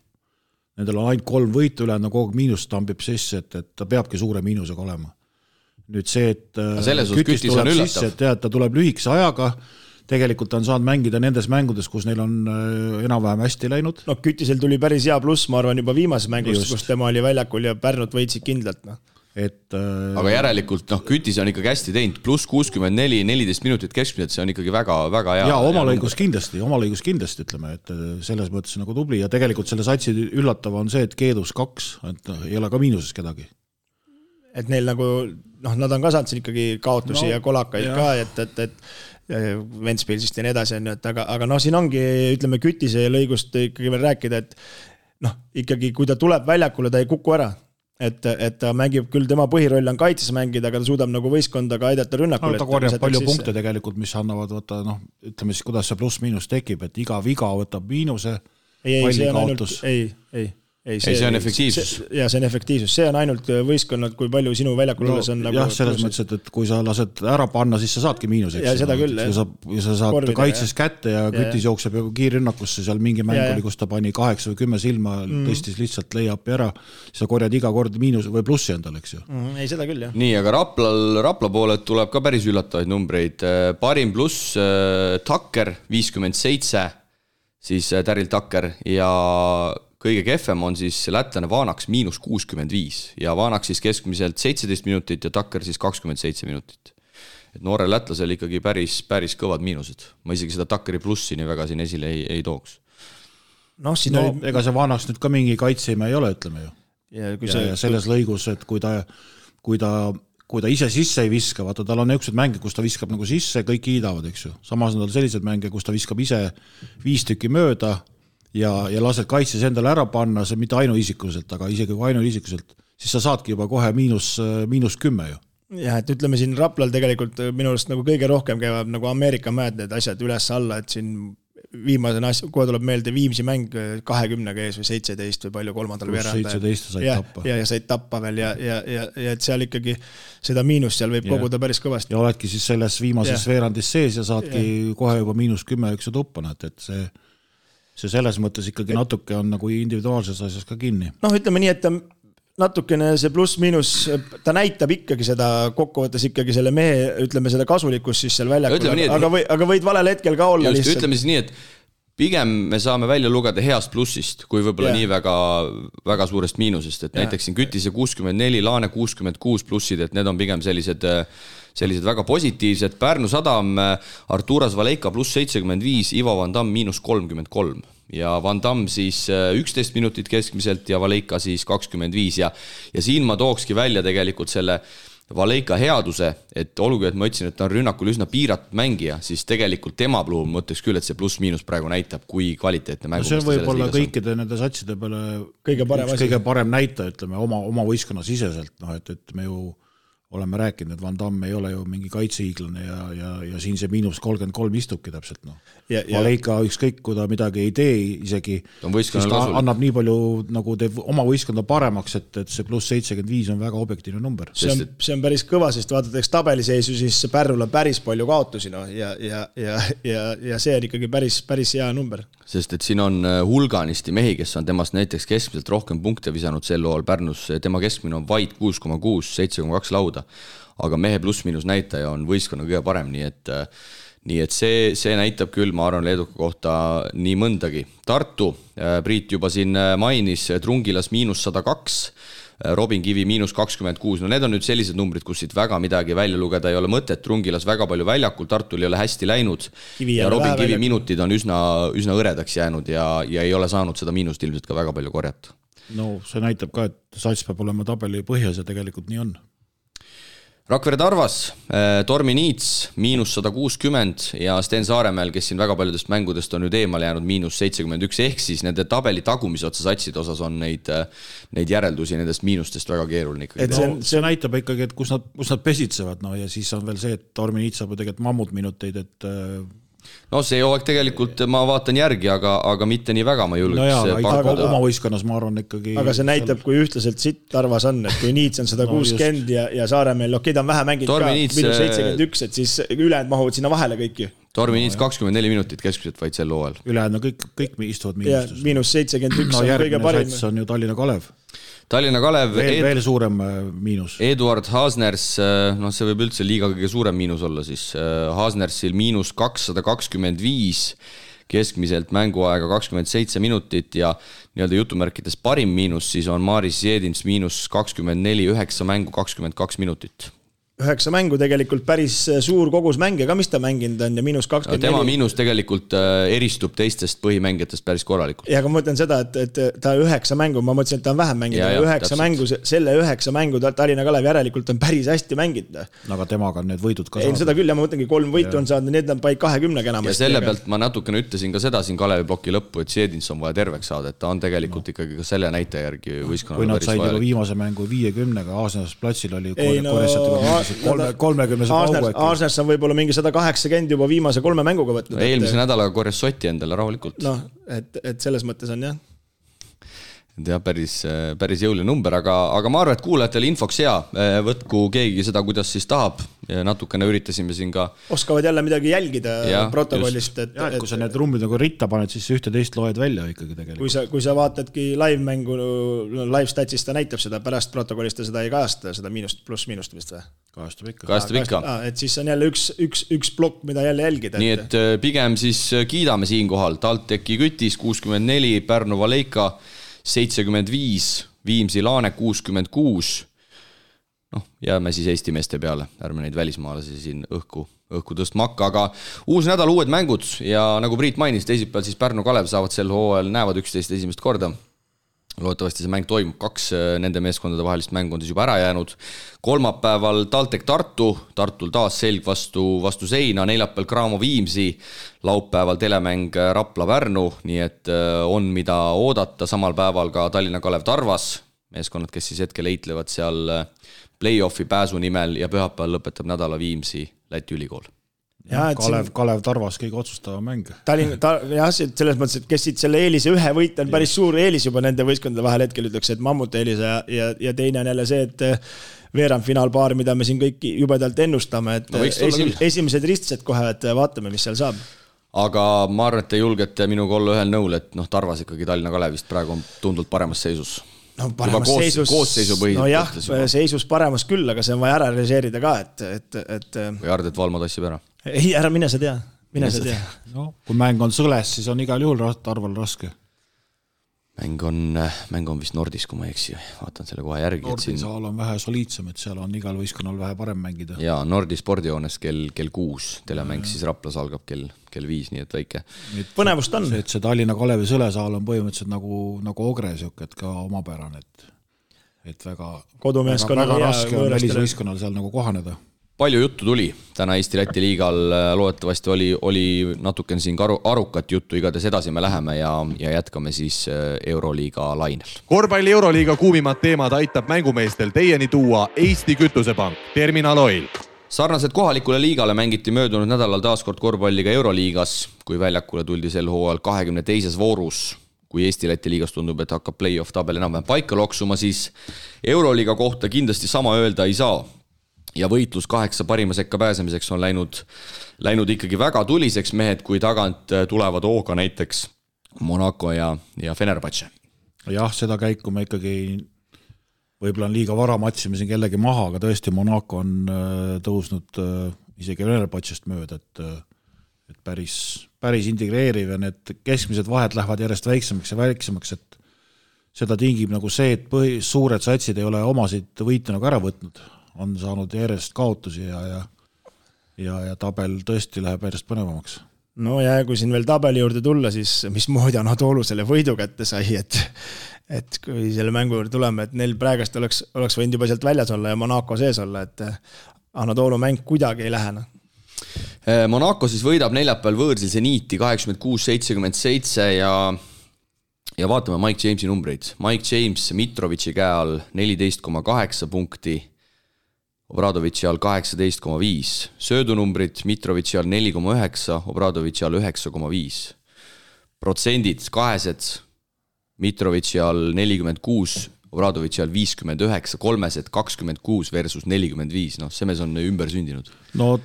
Nendel on ainult 3 võitu üle, kogu aeg miinus tambib sisse, et ta peabki suure miinusega olema. Nüüd see, et Kütis tuleb sisse, et ta tuleb lühikese ajaga, tegelikult on saanud mängida nendes mängudes, kus neil on enam-vähem hästi läinud.
No Kütisel tuli päris hea pluss, ma arvan, juba viimases mängust, kus tema oli väljakul ja Pärnut võitsid kindlalt. No.
Aga järelikult Kütis on ikkagi hästi teinud, pluss 64, 14 minutit keskmiselt, see on ikkagi väga hea.
Ja oma lõigus kindlasti ütleme, et selles mõttes nagu tubli ja tegelikult selle satsi üllatav on see, et Keedus 2, et ei ole ka miinuses kedagi.
Et neil nagu, nad on ka saanud siin ikkagi kaotusi ja kolakaid ka, et Ventspilsist ja nii edasi on, aga siin ongi, ütleme, Kütise lõigust ikkagi veel rääkida, et ikkagi kui ta tuleb väljakule, ta ei kuku ära, et ta mängib küll, tema põhiroll on kaitses mängida, aga ta suudab nagu võistkonda ka aidata rünnakule.
Ta korjab palju punkte tegelikult, mis annavad ütleme siis, kuidas see pluss-miinus tekib, et iga viga võtab miinuse, pallikaotus.
see on efektiivsus.
Ja see on efektiivsus, see on ainult võistkonnad, kui palju sinu väljakul olles on nagu...
Jah, selles mõttes, et kui sa lased ära panna, siis sa saadki miinus.
Ja seda küll,
kui sa saad kaitses kätte ja kütis jookseb kiirrünnakusse, seal mingi mäng oli, kus ta pani 8 või 10 silma, tõstis lihtsalt lay-up'i ära, siis sa korjad iga kord miinus või plussi endale, eks ju.
Ei, seda küll, jah.
Nii, aga Rapla pooled tuleb ka päris üllatavaid numbreid. Parim pluss Tucker 57, siis Daryl Tucker ja kõige kehvem on siis lätlane Vanaks -65 ja Vanaks siis keskmiselt 17 minutit ja Tucker siis 27 minutit. Et noorel lätlasel ikkagi päris kõvad miinused. Ma isegi seda Tuckeri plussi nii väga siin esile ei tooks.
Ega see Vanaks nüüd ka mingi kaitsime ei ole, ütleme ju. Ja selles lõigus, et kui ta ise sisse ei viska, vaata tal on niisugused mänge, kus ta viskab nagu sisse, kõik kiidavad, eks ju. Samas on tal sellised mänge, kus ta viskab ise 5 tükki mööda ja lased kaitses endale ära panna, see mitte ainuisikuliselt, aga isegi kui ainuisikuliselt, siis sa saadki juba kohe miinus 10 ju.
Jah, et ütleme siin Raplal tegelikult minu arust nagu kõige rohkem käivad nagu Ameerika mäed need asjad üles alla, et siin viimasena asja, kohe tuleb meelde Viimsi mäng 20 ees või 17 või palju kolmandal veeranda.
17 said tappa.
Ja said tappa veel ja et seal ikkagi seda miinust seal võib koguda päris kõvasti.
Ja oledki siis selles viimases veerandis sees ja saadki kohe juba -10 üks tuppana, et see selles mõttes ikkagi natuke on nagu individuaalses asjas ka kinni.
Ütleme nii, et natukene see pluss-miinus, ta näitab ikkagi seda kokkuvõttes ikkagi selle mehe, ütleme seda kasulikkust siis seal väljakul, aga võid valel hetkel ka olla
lihtsalt. Ütleme siis nii, et pigem me saame välja lugeda heast plussist, kui võib-olla nii väga suurest miinusest, et näiteks siin Kütise 64, Laane 66 plussid, et need on pigem sellised väga positiivsed. Pärnu Sadam, Arturas Valeika pluss 75, Ivo Van Damm -33 ja Van Damm siis 11 minutit keskmiselt ja Valeika siis 25 ja siin ma tookski välja tegelikult selle Valeika headuse, et olgugi, et ma ütlesin, et ta on rünnakul üsna piiratud mängija, siis tegelikult tema puhul mõtleks küll, et see pluss-miinus praegu näitab, kui kvaliteetne mängu.
See võib olla kõikide nende satside peale kõige parem näita, ütleme, oma võistkonna siseselt, et me ju oleme rääkinud, et Van Damme ei ole ju mingi kaitsehiiglane ja siin see -33 istubki täpselt. Valeika ükskõik, kui ta midagi ei tee isegi, siis ta annab nii palju, nagu teeb oma võistkonda paremaks, et see pluss 75 on väga objektiivne number.
See on päris kõva, sest vaadatakse tabeliseisu, siis Pärnul on päris palju kaotusi ja see on ikkagi päris hea number.
Sest et siin on hulganisti mehi, kes on temast näiteks keskmiselt rohkem punkte visanud sel loal Pärnus, tema keskmine on vaid 6,6, 7,2 lauda, aga mehe pluss-miinus näitaja on võistkonna kõige parem, nii et see näitab küll, ma arvan, Leeduka kohta nii mõndagi. Tartu, Priit juba siin mainis, Trungilas -102, Robin Kivi -26, need on nüüd sellised numbrid, kus siit väga midagi välja lugeda ei ole mõtet, Trungilas väga palju väljakul, Tartul ei ole hästi läinud ja Robin Kivi minutid on üsna õredaks jäänud ja ei ole saanud seda miinust ilmselt ka väga palju korjata.
See näitab ka, et sats peab olema tabeli põhjas ja tegelikult nii on.
Rakvere Tarvas, Tormi Niits -160 ja Sten Saaremäel, kes siin väga paljudest mängudest on nüüd eemale jäänud -71, ehk siis nende tabeli tagumise otsa satside osas on neid järeldusi nendest miinustest väga keeruline.
See näitab ikkagi, et kus nad pesitsevad ja siis on veel see, et Tormi Niits saab tegelikult mammutminuteid, et
see hooaeg tegelikult ma vaatan järgi, aga mitte nii väga ma julgeks
pakkuda. Oma võistkonnas ma arvan ikkagi.
Aga see näitab, kui ühtlaselt sitt Tarvas on, et kui Niits on 160 ja Saaremeel, ta on vähe mänginud ka, -71, et siis ülejäänud mahuvad sinna vahele kõiki.
Tormi Niits 24 minutit keskmiselt vaid sel hooajal.
Ülejäänud kõik istuvad miinustus.
-71 on kõige parim.
Sats on ju Tallinna Kalev.
Tallinna Kalev
veel suurem miinus.
Eduard Haasners, see võib üldse liiga kõige suurem miinus olla siis. Haasnersil -225, keskmiselt mänguaega 27 minutit ja nii-öelda jutumärkides parim miinus siis on Maris Jedins -24, 9 mängu 22 minutit.
9 mängu tegelikult päris suur kogus mänge ka, mis ta mänginud on ja -24.
Tema miinus tegelikult eristub teistest põhimängijatest päris korralikult.
Ja aga ma mõtlen seda, et ta 9 mängu, ma mõtlesin, et ta on vähem mänginud, 9 mängu, selle 9 mängu Tallinna Kalev järelikult on päris hästi mänginud.
Aga temaga on need võidud ka
saanud. Seda küll, ja ma mõtlengi 3 võitu on saanud, need on paik 20 enam.
Ja selle pealt ma natukene ütlesin ka seda siin Kalevi ploki lõppu, et Jedins on vaja terveks saada, et ta on tegelikult ikkagi ka selle näitaja järgi võistkonnale
kui nad said juba viimase mängu 50-ga, Aasnas platsil oli 30
Aasnas on võib-olla mingi 180 juba viimase 3 mänguga võtnud.
Eelmise nädalaga korjas Soti endale rahulikult.
Et selles mõttes on jah.
jah, päris jõuline number, aga ma arvan, et kuulajatele infoks hea, võtku keegi seda, kuidas siis tahab, natukene üritasime siin ka.
Oskavad jälle midagi jälgida protokollist.
Et kui sa need rumbid nagu ritta paned, siis ühte teist loed välja ikkagi tegelikult.
Kui sa vaatadki live-mängu, live-statsist ta näitab seda, pärast protokollist ta seda ei kajasta, seda miinust pluss miinust vist või?
Kajastab ikka.
Et siis on jälle üks plokk, mida jälle jälgida.
Nii et pigem siis kiidame siinkohal. TalTechi Kütis 64, Pärnu Valeika 75, Viimsi Laane 66. Jääme siis Eesti meeste peale, ärme neid välismaalasi siin õhku tõstma hakka, aga uus nädal, uued mängud ja nagu Priit mainis, teisipäeval siis Pärnu Kalev saavad sel hooajal, näevad 11 esimest korda. Loodetavasti see mäng toimub, 2 nende meeskondade vahelist mängu on siis juba ära jäänud. Kolmapäeval TalTech Tartul taas selg vastu seina, neljapäeval Graamo Viimsi, laupäeval telemäng Rapla Pärnu, nii et on mida oodata, samal päeval ka Tallinna Kalev Tarvas, meeskonnad, kes siis hetkel eitlevad seal play-offi pääsu nimel ja pühapäeval lõpetab nädala Viimsi Läti ülikool.
Kalev Tarvas kõige otsustava mäng.
Jah, selles mõttes, et kes siit selle eelise ühe võit on päris suur eelis juba nende võistkondade vahel hetkel ütleks, et mammut eelise ja teine on jälle see, et veerandfinaalpaar, mida me siin kõik jubedalt ennustame, et esimesed ristsed kohe, et vaatame, mis seal saab.
Aga ma arvan, et te julgete minuga olla ühel nõul, et Tarvas ikkagi Tallinna Kalevist praegu on tundult paremas seisus.
Seisus paremas küll, aga see on vaja ära realiseerida ka, et
või Ardet Valmo tassib ära?
Ei, ära mine sa tea.
Kui mäng on sõles, siis on igal juhul Tarval raske.
Mäng on vist Nordis, kui ma eksi, vaatan selle kohe järgi.
Nordisaal on vähe soliidsem, et seal on igal võistkonnal vähe parem mängida.
Jaa, Nordi spordijoones kell 6, telemäng siis Raplas algab kell 5, nii et väike.
Põnevust on.
See Tallinna Kalevi sõlesaal on põhimõtteliselt nagu Ogre, et ka omapärane, et väga raske on välisvõistkonnal seal nagu kohaneda.
Palju juttu tuli täna Eesti-Läti liigal, loodetavasti oli natuken siin arukat juttu, igatahes edasi me läheme ja jätkame siis Euroliiga lainel.
Korvpalli Euroliiga kuumimad teemad aitab mängumeestel teieni tuua Eesti Kütusepank, Terminal Oil.
Sarnaselt kohalikule liigale mängiti möödunud nädalal taaskord korvpalliga Euroliigas, kui väljakule tuldi sel hooajal 22. voorus. Kui Eesti-Läti liigas tundub, et hakkab play-off tabel enam paika loksuma, siis Euroliiga kohta kindlasti sama öelda ei saa. Ja võitlus 8 parima sekka pääsemiseks on läinud ikkagi väga tuliseks, mehed, kui tagant tulevad hooga näiteks Monaco ja Fenerbahce.
Jah, seda käiku me ikkagi võib-olla on liiga vara matsime siin kellegi maha, aga tõesti Monaco on tõusnud isegi Fenerbahcest mööda, et päris integreeriv ja need keskmised vahed lähevad järjest väiksemaks ja väiksemaks, et seda tingib nagu see, et suured satsid ei ole omasid võite nagu ära võtnud. On saanud järjest kaotusi ja tabel tõesti läheb järjest põnevamaks.
No ja kui siin veel tabeli juurde tulla, siis mismoodi Anatoolu selle võidu kätte sai, et kui selle mängu juurde tuleme, et neil praegast oleks võinud juba sealt väljas olla ja Monaco sees olla, et Anatoolu mäng kuidagi ei lähena.
Monaco siis võidab neljapäeval võõrsil Zeniiti 86-77 ja vaatame Mike Jamesi numbreid. Mike James Mitrovici käe all 14,8 punkti, Obradovitši all 18,5. Söödunumbrid Mitrovici all 4,9, Obradovitši all 9,5. Protsendid kahesed Mitrovici all 46, Obradovitši all 59, kolmesed 26 versus 45. See mees on ümber sündinud.
No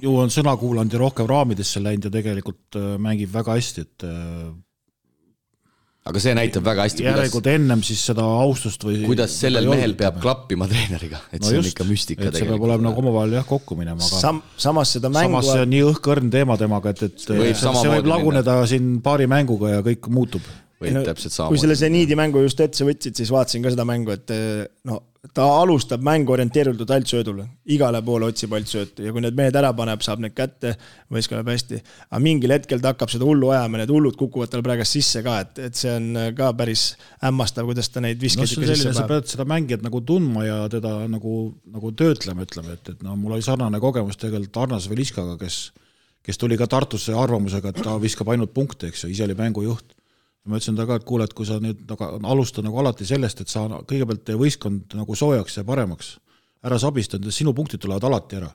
ju on sõna kuulanud ja rohkem raamidesse läinud ja tegelikult mängib väga hästi, et
aga see näitab väga hästi,
järelikult ennem siis seda austust või
kuidas sellel mehel peab klappima treeneriga, et see on ikka müstika
tegelikult. See peab olema nagu omavahel kokku minema, aga
samas seda mängu
samas see on nii õhkõrn teema temaga, et see võib laguneda siin paari mänguga ja kõik muutub.
Kui selle Zeniidi mängu just etse võtsid, siis vaatasin ka seda mängu, et ta alustab mängu orienteeritud alt söödule. Igale poole otsib alt söötu ja kui need mehed ära paneb, saab need kätte, võistkonnab hästi. Aga mingil hetkel ta hakkab seda hullu ajama, need hullud kukuvad tal praegast sisse ka, et see on ka päris hämmastav, kuidas ta neid viskeid
ikka sisse paneb. Sa pead seda mängijat nagu tundma ja teda nagu töötlema, ütleme, et mul oli sarnane kogemus tegelikult Arnas Veliskaga, kes tuli ka Tartusse arvamusega, et ta viskab ainult punkte, eks ju, ise oli mängujuht. Ma ütlesin ta ka, et kuule, et kui sa nüüd alusta nagu alati sellest, et sa kõigepealt teie võistkond nagu soojaks ja paremaks, ära sabistanud, sinu punktid tulevad alati ära.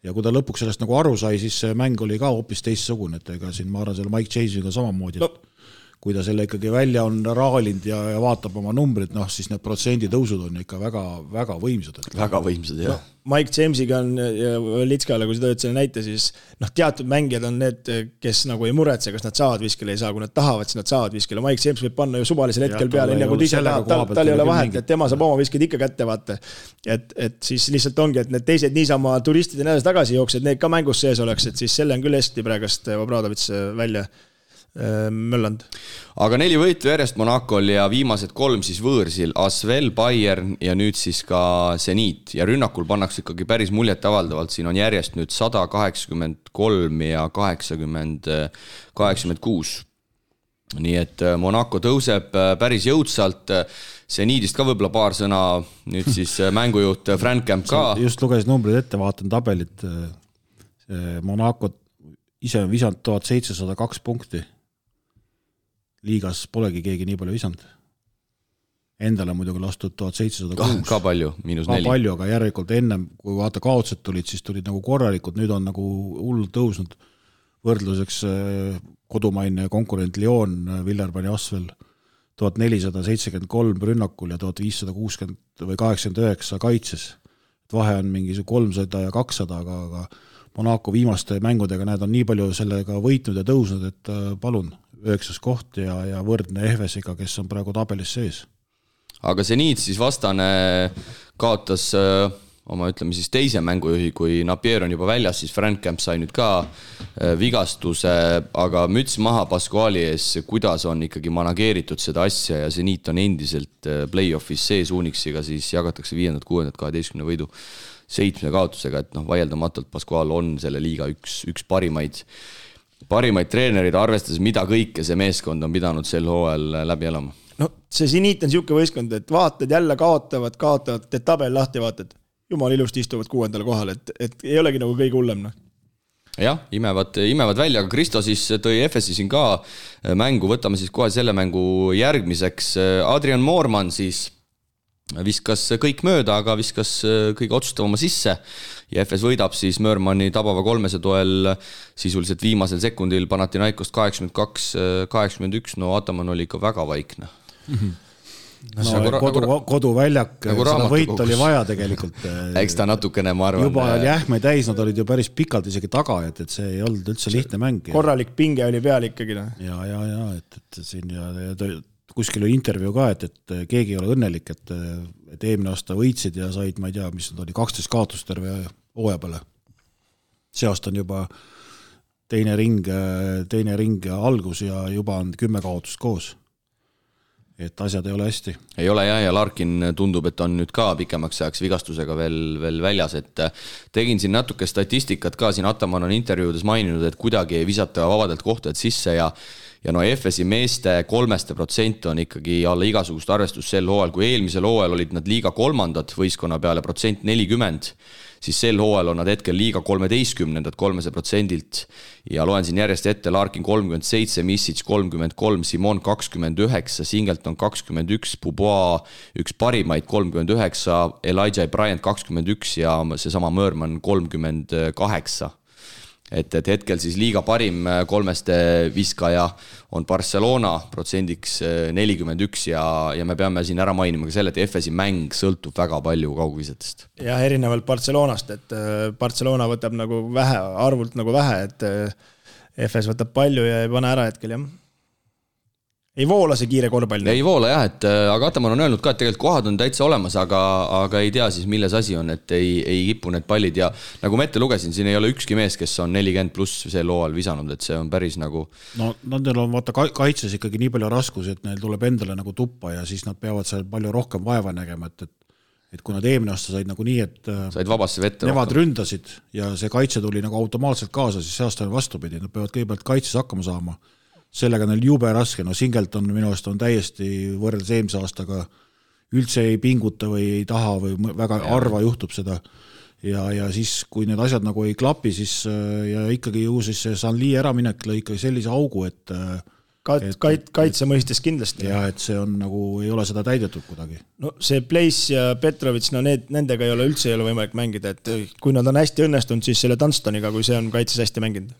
Ja kui ta lõpuks sellest nagu aru sai, siis see mäng oli ka hoopis teistsugune, et ega siin ma arvan selle Mike Jamesiga samamoodi, et kui ta selle ikkagi välja on raalinud ja vaatab oma numbrid, siis need protsenditõusud on ikka väga, väga võimsad.
Väga võimsad, jah.
Mike Jamesiga on ja Litskale, kui sa tõid selle näite, siis teatud mängijad on need, kes nagu ei muretse, kas nad saavad viskele, ei saa, kui nad tahavad, siis nad saavad viskele. Mike James võib panna ju suvalisel hetkel peale, enne kui ise tahab, tal ei ole vahet, et tema saab oma visked ikka kätte, vaata. Et siis lihtsalt ongi, et need teised niisama turistid ja näedes tagasi jooksed, need ka mängus sees oleks, et siis selle on küll hästi praegast Obradovits välja möllanud.
Aga 4 võitu järjest Monacol ja viimased 3 siis võõrsil, Asvel, Bayern ja nüüd siis ka Zenit. Ja rünnakul pannakse ikkagi päris muljet avaldavalt, siin on järjest nüüd 183 ja 86. Nii et Monaco tõuseb päris jõudsalt, Zenitist ka võib-olla paar sõna, nüüd siis mängujuht Frank Camp ka.
Just lugesin numbrid ette, vaatan tabelit, Monaco ise on visanud 1702 punkti. Liigas polegi keegi nii palju visanud. Endale muidugi lastud 1706.
Ka palju, -4.
Ka palju, aga järelikult ennem, kui vaata kaotsed tulid, siis tulid nagu korralikud, nüüd on nagu hullult tõusnud võrdluseks kodumaine konkurent Lyon, Villarban ja Asvel 1473 rünnakul ja 1560 või 89 kaitses. Vahe on mingi 300 ja 200, aga Monaco viimaste mängudega näed on nii palju sellega võitnud ja tõusnud, et palun 9. koht ja võrdne Efesiga, kes on praegu tabelis sees.
Aga Zenit siis vastane kaotas oma, ütleme siis teise mängujuhi, kui Napier on juba väljas, siis Frank Camp sai nüüd ka vigastuse, aga müts maha Pasquali ees, kuidas on ikkagi manageeritud seda asja ja Zenit on endiselt play-offis sees Unixiga, siis jagatakse 5., 6., 12 võidu 7 kaotusega, et vaieldamatult Pasqual on selle liiga üks parimaid treenerid, arvestades mida kõike see meeskond on pidanud sel hooajal läbi elama.
See Zenit on siuke võistkond, et vaatad jälle kaotavad, teed tabel lahti ja vaatad, jumal ilusti istuvad 6. kohal, et ei olegi nagu kõige hullem.
Jah, imevad välja, aga Kristo siis tõi Efesi siin ka mängu, võtame siis kohe selle mängu järgmiseks. Adrian Moorman siis viskas kõik mööda, aga viskas kõige otsustavama sisse ja Efes võidab siis Mörmani tabava 300 toel sisuliselt viimasel sekundil Panathinaikost 82-81, Ataman oli ikka väga vaikne.
Koduväljak, seda võit oli vaja tegelikult.
Eks ta natukene, ma arvan.
Juba jähme täis, nad olid ju päris pikalt isegi taga, et see ei olnud üldse lihtne mäng.
Korralik pinge oli peal ikkagi.
Ja, et siin kuskil oli intervjuu ka, et keegi ei ole õnnelik, et eelmine aasta võitsid ja said, ma ei tea, mis nad oli, 12 kaotust terve hooaja peale. See aasta on juba teine ring algus ja juba on 10 kaotust koos. Et asjad ei ole hästi.
Ei ole jah, ja Larkin tundub, et on nüüd ka pikemaks ajaks vigastusega veel väljas, et tegin siin natuke statistikat ka, siin Ataman on intervjuudes maininud, et kuidagi ei visata vabadelt kohtadelt sisse ja Efesi meeste 3% on ikkagi alla igasugust arvestust sel hooajal, kui eelmisel hooajal olid nad liiga 3. võistkonna peale % 40, siis sel hooajal on nad hetkel liiga 13. 300% ja loen siin järjest ette Larkin 37, Misic 33, Simon 29, Singleton 21, Pubois üks parimaid 39, Elijah Bryant 21 ja seesama Mörman 38. Et hetkel siis liiga parim 3 viskaja on Barcelona protsendiks 41 ja me peame siin ära mainima ka selle, et Efesi mäng sõltub väga palju kaugvisetest.
Ja erinevalt Barcelonast, et Barcelona võtab nagu vähe, arvult nagu vähe, et Efes võtab palju ja ei pane ära hetkel, jah. Ei voola see kiire korvpall.
Ei voola jah, et aga Ataman on öelnud ka, et tegelikult kohad on täitsa olemas, aga ei tea siis milles asi on, et ei kipu need pallid ja nagu ma ette lugesin, siin ei ole ükski mees, kes on 40 pluss sel hooajal visanud, et see on päris nagu...
No nendel on vaata kaitses ikkagi nii palju raskus, et neil tuleb endale nagu tuppa ja siis nad peavad seal palju rohkem vaeva nägema, et kui nad eelmine aasta said nagu nii, et
said vabasse vette
nemad ründasid ja see kaitse tuli nagu automaatselt kaasa, siis see aasta on vastupidi, nad peavad kõigepealt kaitses hakkama saama. Sellega neil jube raske, Singleton minu aast on täiesti võrreldes eelmise aastaga üldse ei pinguta või ei taha või väga harva juhtub seda ja siis kui need asjad nagu ei klapi, siis ja ikkagi ju siis see Sanli äraminek lõi ikkagi sellise augu, et
kaitse mõistes kindlasti.
Ja et see on nagu, ei ole seda täidetud kuidagi.
No see Place ja Petrovits, nendega ei ole üldse võimalik mängida, et kui nad on hästi õnnestunud, siis selle Dunstoniga, kui see on kaitses hästi mänginud.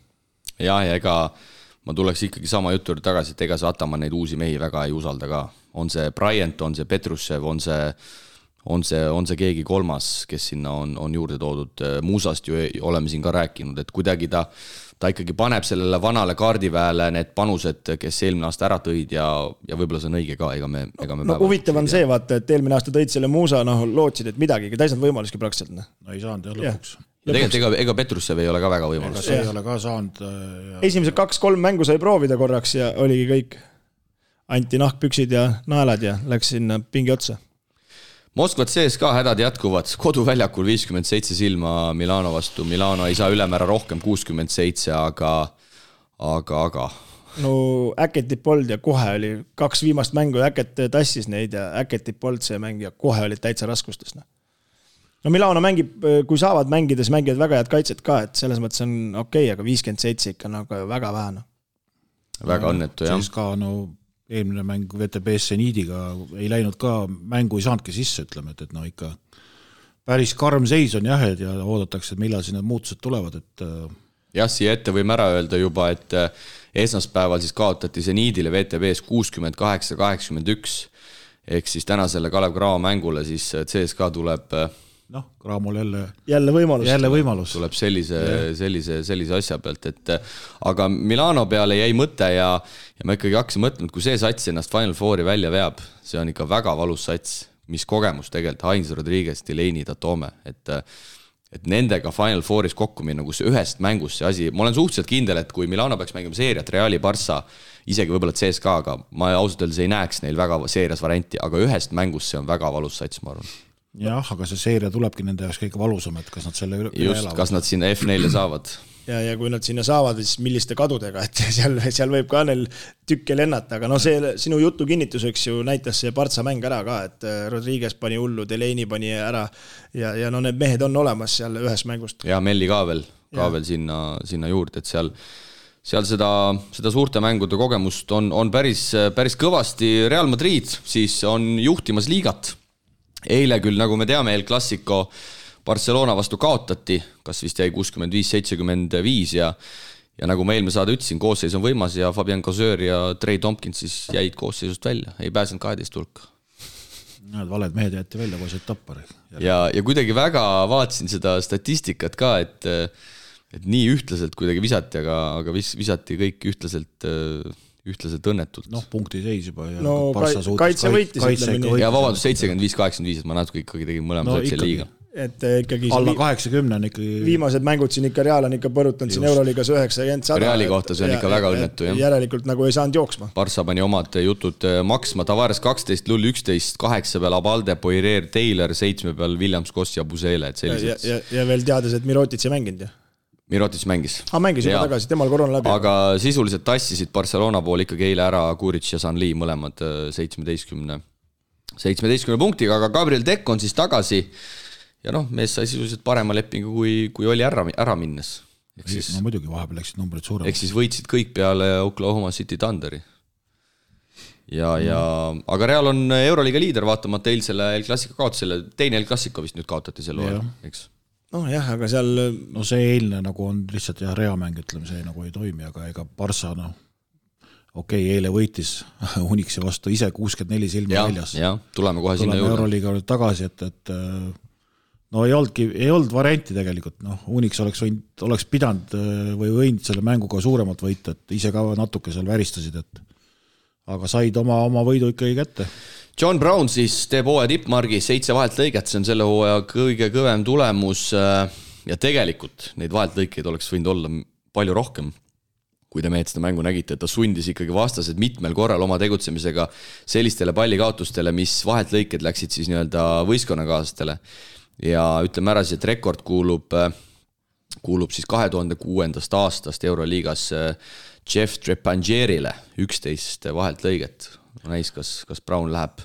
Ja ega ma tuleks ikkagi sama jutu tagasi, et ega see Ataman neid uusi mehi väga ei usalda ka. On see Bryant, on see Petrushev, on see keegi kolmas, kes sinna on juurde toodud. Muusast ju oleme siin ka rääkinud, et kuidagi ta ikkagi paneb sellele vanale kaardiväele need panused, kes eelmine aasta ära tõid ja võib-olla see on õige ka, ega me
no huvitav on see, vaata, et eelmine aasta tõid selle Muusa, lootsid, et midagi, täis nad võimaluski praktiliselt.
No ei saanud lõpuks.
Ja tegelikult ega Petrussev ei ole ka väga võimalus.
See ei ole ka saanud.
Esimesed 2-3 mängu sai proovida korraks ja oligi kõik. Anti nahkpüksid ja naelad ja läks sinna pingi otsa.
Moskvat CSKA hädad jätkuvad, koduväljakul 57 silma Milano vastu, Milano ei saa ülemäära rohkem 67, aga.
No Äketip polnud ja kohe oli 2 viimast mängu, Äket tassis neid ja Äketip polnud see mäng ja kohe olid täitsa raskustes. No Milano mängib, kui saavad mängides, mängivad väga head kaitset ka, et selles mõttes on okei, aga 57 ikka nagu väga vähe.
Väga õnnetu, jah.
CSKA eelmine mäng VTB Seniidiga ei läinud ka, mängu ei saanudki sisse, ütleme, et ikka päris karm seis on jah, ja oodatakse, et millal siin need muutused tulevad, et
jah, siia ette võime ära öelda juba, et esmaspäeval siis kaotati Seniidile VTB-s 68-81, ehk siis tänasele Kalev Cramo mängule siis CSKA tuleb
Cramol
jälle võimalus.
Tuleb sellise asja pealt, et aga Milano peale jäi mõte ja ma ikkagi hakkasin mõtlema, et kui see sats ennast Final Fouri välja veab, see on ikka väga valus sats, mis kogemus tegelikult Heinz Rodriguez, Delaney, Tatome, et nendega Final Fouris kokku minna, kus ühest mängust see asi, ma olen suhteliselt kindel, et kui Milano peaks mängima seeriat Reali Barça, isegi võib-olla CSKA, aga ma ausalt öeldes ei näeks neil väga seerias varianti, aga ühest mängust see on väga valus sats, ma arvan.
Jah, aga see seeria tulebki nende jaoks kõige valusam, et kas nad selle üle
elavad. Kas nad sinna F4 saavad.
Ja kui nad sinna saavad, siis milliste kadudega, et seal võib ka neil tükke lennata, aga see sinu jutu kinnituseks ju näitas see Partsa mäng ära ka, et Rodriguez pani hullu, Delaney pani ära ja need mehed on olemas seal ühes mängust.
Ja Melli ka veel sinna juurde, et seal seda suurte mängude kogemust on päris kõvasti. Real Madrid siis on juhtimas liigat. Eile küll, nagu me teame, El Clasico Barcelona vastu kaotati, kas vist jäi 65-75 ja nagu ma eelmine saade ütlesin, koosseis on võimas ja Fabian Coseur ja Trey Tompkins siis jäid koosseisust välja, ei pääsenud 12 hulka.
Need valed mehed jäeti välja, kui said tappari.
Ja kuidagi väga vaatasin seda statistikat ka, et nii ühtlaselt kuidagi visati, aga visati kõik ühtlaselt õnnetult.
Punkti seis juba.
Kaitse võitis.
Ja vabandust, 75-85, et ma natuke ikkagi tegin mõlema satsi liiga.
Et ikkagi
alla 80 on ikkagi
viimased mängud siin ikka Real on ikka põrutanud siin Euroliigas 90-100.
Reali kohta see on ikka väga õnnetu.
Järelikult nagu ei saanud jooksma.
Barça pani omad jutud maksma, Tavares 12, Lull 11, 8 peal Abalde, Poirier, Taylor, 7 peal Williams, Koss ja Busele.
Ja veel teades, et Mirotic ei mänginud ja
Mirotic mängis.
Mängis juba tagasi, temal korona läbi.
Aga sisuliselt tassisid Barcelona pool ikkagi eile ära Kuric ja Sanli mõlemad 17 punktiga, aga Gabriel Deck on siis tagasi ja mees sai sisuliselt parema lepingu, kui oli ära minnes.
Muidugi vahepeal läksid numbrid suuremad.
Ehk siis võitsid kõik peale Oklahoma City Thunderi. Aga Real on Euroliiga liider, vaatamata eilsele El Clasico kaotusele, teine El Clasico vist nüüd kaotati selle hooajal, eks?
Aga seal
see eilne nagu on lihtsalt reamäng, ütleme, see nagu ei toimi, aga ega Barça eile võitis Unixi vastu ise 64 silma väljas.
Tuleme kohe sinna juurde.
Euroliiga tagasi, et ei olnud varianti tegelikult. Unix oleks pidanud või võinud selle mänguga suuremalt võita, et ise ka natuke seal väristasid, aga said oma võidu ikkagi kätte.
John Brown siis teeb hooaja tippmargi 7 vaheltlõiget, see on selle hooaja kõige kõvem tulemus ja tegelikult neid vaheltlõikeid oleks võinud olla palju rohkem, kui te mehed seda mängu nägite, et ta sundis ikkagi vastased mitmel korral oma tegutsemisega sellistele pallikaotustele, mis vaheltlõiked läksid siis nii-öelda võistkonnakaaslastele ja ütleme ära, et rekord kuulub siis 2006. aastast Euroliigas Jeff Trepangierile 11 vaheltlõiget. Näis, kas Brown läheb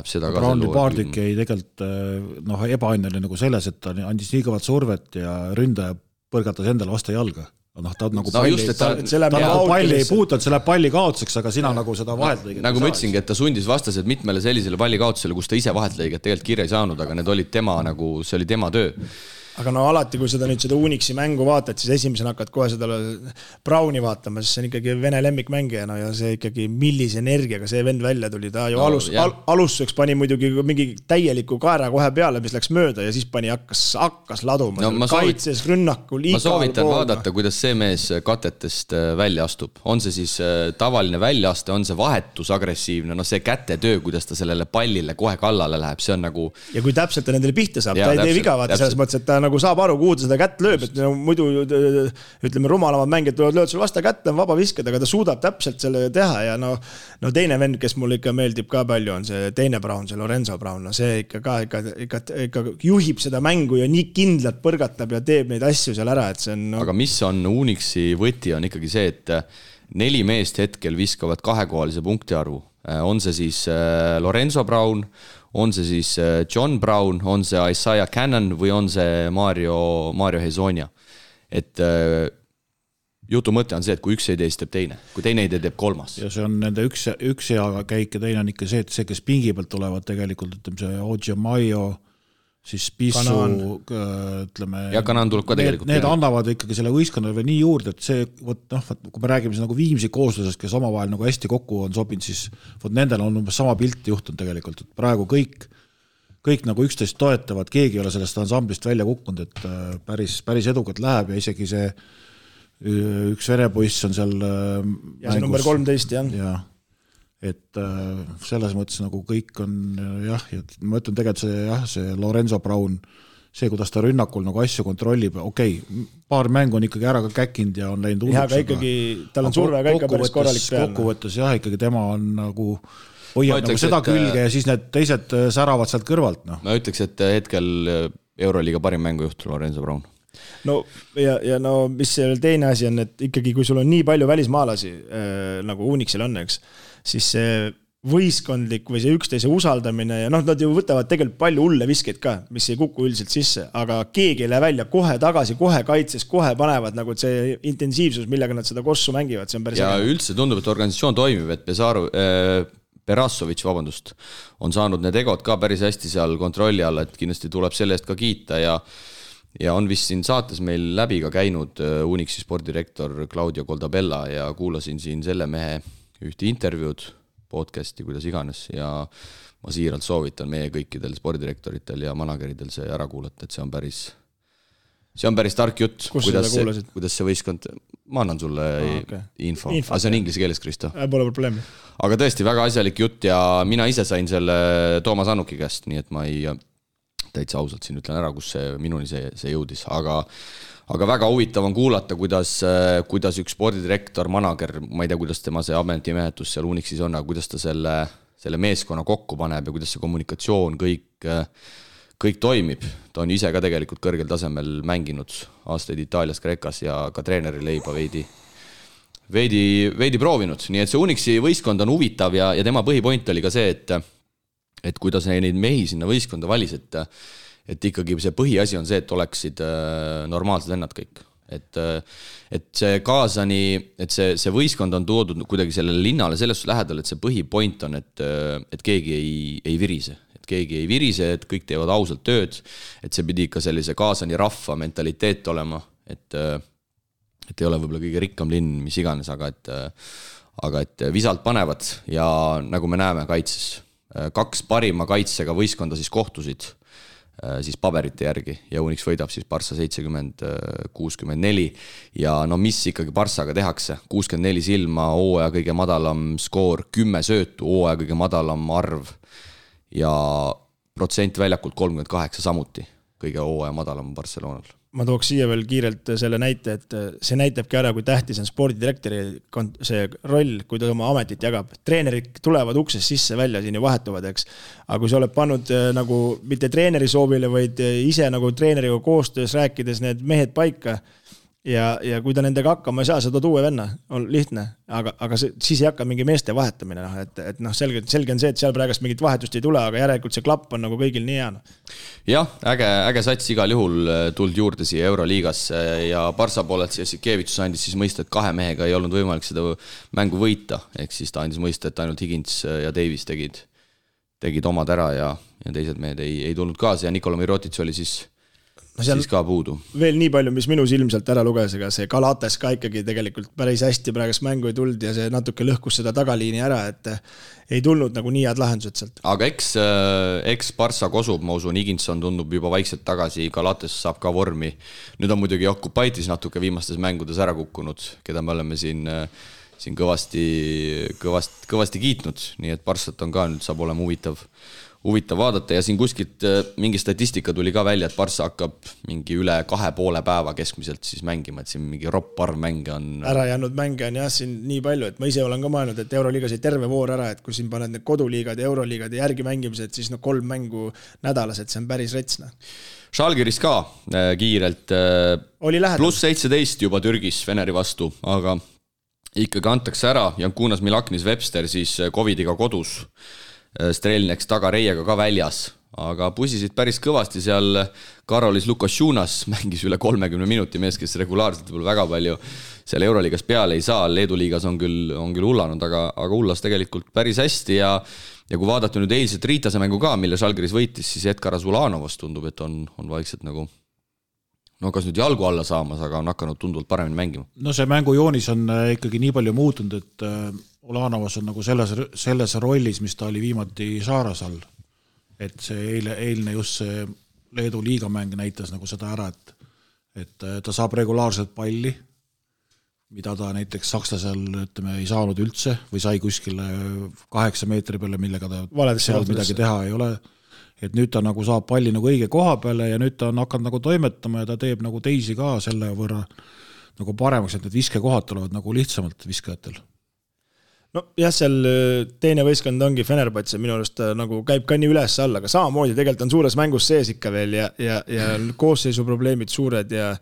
seda ka.
Brown'i paardik jäi tegelikult ebaõnneline nagu selles, et ta andis nii kõvat survet ja ründaja põrgatas endale vastu jalga. Ta nagu palli ei puutanud, see läheb palli kaotuseks, aga sina nagu seda vaheltlõiget.
Nagu ma ütlesingi, et ta sundis vastased mitmele sellisele palli kaotusele, kus ta ise vaheltlõiget tegelikult kirja ei saanud, aga need olid tema, nagu see oli tema töö.
aga no alati, kui seda Unixi mängu vaatad, siis esimesena hakkad kohe seda Browni vaatama, sest see on ikkagi Vene lemmikmängija, no ja see ikkagi millise energiaga see vend välja tuli, ta ju alustuseks pani muidugi mingi täieliku kaera kohe peale, mis läks mööda ja siis hakkas laduma, kaitses, rünnakul,
ma soovitan vaadata, kuidas see mees katetest välja astub, on see siis tavaline väljaaste, on see vahetus agressiivne, no see kätetöö, kuidas ta sellele pallile kohe kallale läheb, see on nagu
ja kui täpselt ta nendele pihta saab, ta ei tee viga vaata selles mõttes, et ta nagu saab aru, kuhu ta seda kätt lööb, et muidu ütleme rumalamad mängijad lööd sul vasta kätte, on vaba viskada, aga ta suudab täpselt selle teha ja no teine vend, kes mulle ikka meeldib ka palju, on see teine Brown, see Lorenzo Brown, no see ikka juhib seda mängu ja nii kindlalt põrgatab ja teeb neid asju seal ära, et see on
Aga mis on Unixi võti, on ikkagi see, et 4 meest hetkel viskavad 2-kohalise punktiarvu. On see siis Lorenzo Brown, on see siis John Brown, on see Isaiah Cannon või on see Mario Hezonja. Et jutu mõte on see, et kui üks ei tee, siis teeb teine. Kui teine ei tee, teeb kolmas.
Ja see on nende üks hea käik ja teine on ikka see, et see, kes pingi pealt tulevad tegelikult, ütleme see Ojamayo, siis Pissu, ütleme,
ja Kanan tuleb ka tegelikult.
Need annavad ikkagi selle võistkonnale nii juurde, et see, kui me räägime nagu Viimsi kooslusest, kes omavahel nagu hästi kokku on sobinud, siis nendel on umbes sama pilti juhtunud tegelikult, et praegu kõik nagu üksteist toetavad, keegi ei ole sellest ansamblist välja kukkunud, et päris edukalt läheb ja isegi see üks Vene poiss on seal
ja see number 13,
jah. Et selles mõttes nagu kõik on jah, ma ütlen tegelikult see Lorenzo Brown, see, kuidas ta rünnakul nagu asju kontrollib, paar mängu on ikkagi ära ka käkinud ja on läinud
uudeks. Ja ikkagi, tal on surve ka ikka päris korralik peal.
Kokkuvõttes jah, ikkagi tema on nagu hoiab nagu seda külge ja siis need teised säravad sealt kõrvalt. No.
Ma ütleks, et hetkel Euroliiga parim mängujuht Lorenzo Brown.
No ja no mis see teine asi on, et ikkagi kui sul on nii palju välismaalasi nagu Unixil on, eks, siis see võistkondlik või see üksteise usaldamine ja nad ju võtavad tegelikult palju hulle viskeid ka, mis ei kuku üldiselt sisse, aga keegi ei lähe välja kohe tagasi, kohe kaitses, kohe panevad nagu see intensiivsus, millega nad seda kossu mängivad, see on päris
ja üldse tundub, et organisatsioon toimib, et Perassovitš, on saanud need egod ka päris hästi seal kontrolli alla, et kindlasti tuleb selle eest ka kiita ja on vist siin saates meil läbi ka käinud Unixi spordirektor Claudio Goldabella ja kuulasin siin selle mehe ühte intervjuud, podcasti, kuidas iganes ja ma siiralt soovitan meie kõikidel spordirektoritel ja manageridel see ära kuulata, et see on päris tark jutt, kuidas see võistkond, ma annan sulle info. Aga see on inglise keeles, Kristo.
Pole probleemi.
Aga tõesti väga asjalik jutt ja mina ise sain selle Toomas Annuki käest, nii et ma ei täitsa ausalt siin ütlen ära, kus minuni see jõudis, aga väga huvitav on kuulata, kuidas üks spordidirektor, manager, ma ei tea, kuidas tema see ametimehetus seal Unixis on, aga kuidas ta selle meeskonna kokku paneb ja kuidas see kommunikatsioon kõik toimib. Ta on ise ka tegelikult kõrgel tasemel mänginud aastaid Itaalias, Kreekas ja ka treeneri leiba veidi proovinud. Nii et see Unixi võistkond on huvitav ja tema põhipoint oli ka see, et kuidas neid mehi sinna võistkonda valis, et ikkagi see põhiasi on see, et oleksid normaalsed vennad kõik. Et see Kaasani, et see võistkond on toodud kuidagi sellele linnale selles lähedal, et see põhipoint on, et keegi ei virise. Et keegi ei virise, et kõik teevad ausalt tööd, et see pidi ikka sellise Kaasani rahva mentaliteet olema, et ei ole võib-olla kõige rikkam linn, mis iganes, aga et visalt panevad ja nagu me näeme kaitses, 2 parima kaitsega võistkonda siis kohtusid siis paberite järgi ja Unix võidab siis Barça 70-64 ja no mis ikkagi Barçaga tehakse, 64 silma, hooaja kõige madalam skoor, 10 söötu, hooaja kõige madalam arv ja protsent väljakult 38 samuti, kõige hooaja madalam Barcelonal.
Ma tooks siia veel kiirelt selle näite, et see näitabki ära, kui tähtis on spordidirektori see roll, kui ta oma ametit jagab. Treenerid tulevad uksest sisse välja, siin ju vahetuvad, eks. Aga kui sa oled pannud nagu mitte treeneri soovile, vaid ise nagu treeneriga koostöös rääkides need mehed paika ja kui ta nendega hakkama ei saa, sa tood uue venna, on lihtne, aga siis ei hakka mingi meeste vahetamine, et selge on see, et seal praegust mingit vahetust ei tule, aga järelikult see klapp on nagu kõigil nii hea.
Jah, äge sats igal juhul tuld juurde siia Euroliigasse ja Barça poolelt Jassikevitsus andis siis mõista, et 2 mehega ei olnud võimalik seda mängu võita, ehk siis ta andis mõista, et ainult Higgins ja Davis tegid omad ära ja teised mehed ei tulnud kaasa ja Nikola Mirotic oli siis siis ka puudu.
Veel nii palju, mis minu silmselt ära luges, aga see Galatas ka ikkagi tegelikult päris hästi praegust mängu ei tulnud ja see natuke lõhkus seda tagaliini ära, et ei tulnud nagu nii head lahendused sealt.
Aga eks Barça kosub, ma usun, Higginson tundub juba vaikselt tagasi, Galatas saab ka vormi. Nüüd on muidugi Jokubaitis natuke viimastes mängudes ära kukkunud, keda me oleme siin kõvasti kiitnud, nii et Barçat on ka nüüd saab olema huvitav vaadata ja siin kuskilt mingi statistika tuli ka välja, et Barça hakkab mingi üle 2,5 päeva keskmiselt siis mängima, et siin mingi ropp arv mänge on.
Ära jäänud mänge on jah siin nii palju, et ma ise olen ka mõelnud, et Euroliigas ei terve voor ära, et kui siin paned need koduliigad ja Euroliigad ja järgi mängimised, siis 3 mängu nädalas, et see on päris retsna.
Žalgiris ka kiirelt pluss 17 juba Türgis Veneri vastu, aga ikkagi antakse ära Jankunas Milaknis Webster siis Covidiga kodus. Strelneks tagareiega ka väljas, aga pusisid päris kõvasti seal Karolis Lukasjunas mängis üle 30 minuti mees, kes regulaarselt võib väga palju seal Euroliigas peale ei saa, Leedu liigas on küll hullanud, aga hullas tegelikult päris hästi ja kui vaadata nüüd eilset Riitase mängu ka, mille Žalgiris võitis, siis Edgar Azulanovast tundub, et on vaikselt nagu kas nüüd jalgu alla saamas, aga on hakanud tunduvalt paremini mängima.
No see mängujoonis on ikkagi nii palju muutunud, et Ulanovas on nagu selles rollis, mis ta oli viimati Saaras all. Et see eilne just see Leedu liigamäng näitas nagu seda ära, et ta saab regulaarselt palli, mida ta näiteks sakslasel ei saanud üldse või sai kuskile 8 meetri peale, millega ta seal midagi teha ei ole. Et nüüd ta nagu saab palli nagu õige koha peale ja nüüd ta on hakanud nagu toimetama ja ta teeb nagu teisi ka selle võrra nagu paremaks, et need viskekohad tulevad nagu lihtsamalt viskajatel.
No jah, seal teine võistkond ongi Fenerbahce, minu arust nagu käib ka nii üles alla, aga samamoodi tegelikult on suures mängus sees ikka veel ja koosseisu probleemid suured ja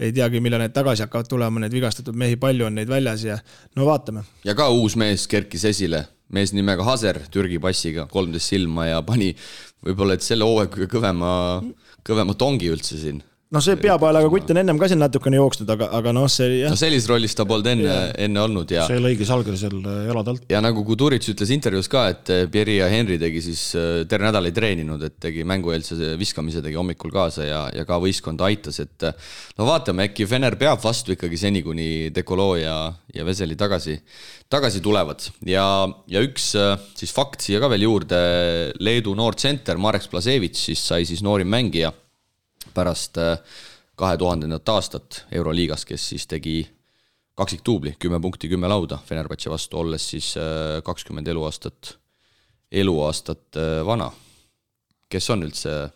ei teagi, mille need tagasi hakkavad tulema, need vigastatud mehi palju on neid väljas ja no vaatame.
Ja ka uus mees kerkis esile, mees nimega Haser Türgi passiga, 13 silma ja pani võib-olla, et selle hooaeg kõvema tongi üldse siin.
No see peapaelaga kutt on ennem ka siin natukene jooksnud, aga see...
No sellis rollis ta polnud enne olnud ja...
See lõigi Žalgiris seal jaladalt.
Ja nagu Kuduric ütles intervjuus ka, et Pieri ja Henri tegi siis terve nädal ei treeninud, et tegi mängueelse viskamise tegi hommikul kaasa ja ka võistkond aitas, et no vaatame, äkki Fener peab vastu ikkagi seni, kuni Dekolo ja Veseli tagasi tulevad. Ja üks siis fakt siia ka veel juurde, Leedu noor tsenter Marek Splasevits siis sai siis noorim mängija pärast 2000. aastat Euroliigas, kes siis tegi kaksiktuubli, 10 punkti, 10 lauda Fenerbahce vastu, olles siis 20 eluaastat vana. Kes on üldse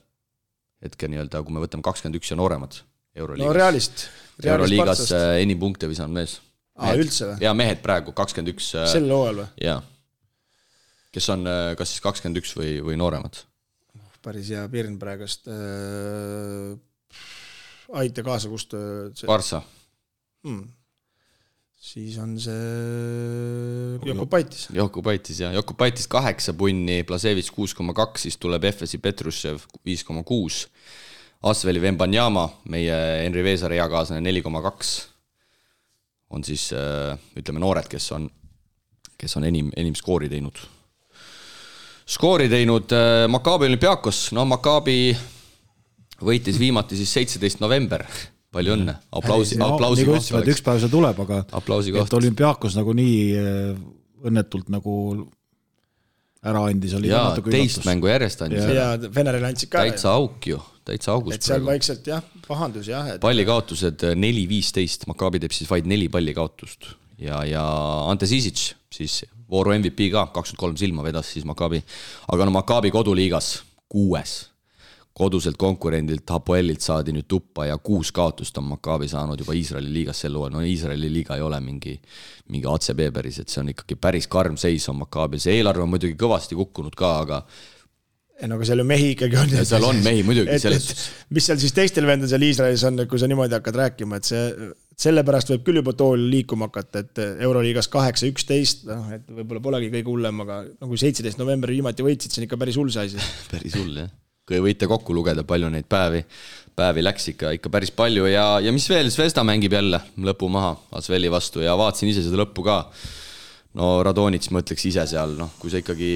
hetke nii-öelda, kui me võtame 21 ja nooremad Euroliigas?
No realist
Euroliigas enim punkte visanud mees.
Üldse või?
Ja mehed praegu, 21.
Sel hooajal või?
Jaa. Kes on kas siis 21 või nooremad?
Päris hea pirn praegust aita kaasa, kust
Barça.
Siis on see Jokubaitis.
Jokubaitis 8 punni, Plasevits 6,2, siis tuleb Efesi Petrushev 5,6, Asveli Vembanyama, meie Henri Veesari eakaaslane 4,2 on siis ütleme noored, kes on enim skoori teinud. Maccabi Olympiakos, Maccabi võitis viimati siis 17. november, palju õnne, aplausi koht
oleks. Üks päev see tuleb, aga
et
Olympiakos nagu nii õnnetult nagu ära andis.
Ja teist mängu järjest andis.
Ja Feneril andsid ka.
Täitsa auk ju, täitsa august.
Et seal vaikselt jah, pahandus jah.
Pallikaotused 4-15, Maccabi teeb siis vaid 4 pallikaotust ja Ante Sisic siis vooru MVP ka, 23 silma vedas siis Maccabi. Aga Maccabi koduliigas 6. Koduselt konkurendilt Hapoelilt saadi nüüd tuppa ja 6 kaotust on Maccabi saanud juba Iisraeli liigas sel hooajal. No Iisraeli liiga ei ole mingi ACB päris, et see on ikkagi päris karm seis on Maccabi. See eelarve on muidugi kõvasti kukkunud ka, aga
aga seal ju mehi ikkagi on.
Ja seal on mehi muidugi.
Mis seal siis teistel vendel seal Iisraelis on, kui sa niimoodi hakkad rääkima, et sellepärast võib küll juba tool liikuma hakata, et Euroliigas 8-11, et võib-olla polegi kõige hullem, aga nagu 17. novembri viimati võitsid, see on ikka päris hull see asi.
Päris hull, jah. Kui võite kokku lugeda, palju neid päevi läks ikka päris palju ja mis veel, Zvezda mängib jälle lõpu maha Asveli vastu ja vaatasin ise seda lõppu ka. No Radonits mõtleks ise seal, kui sa ikkagi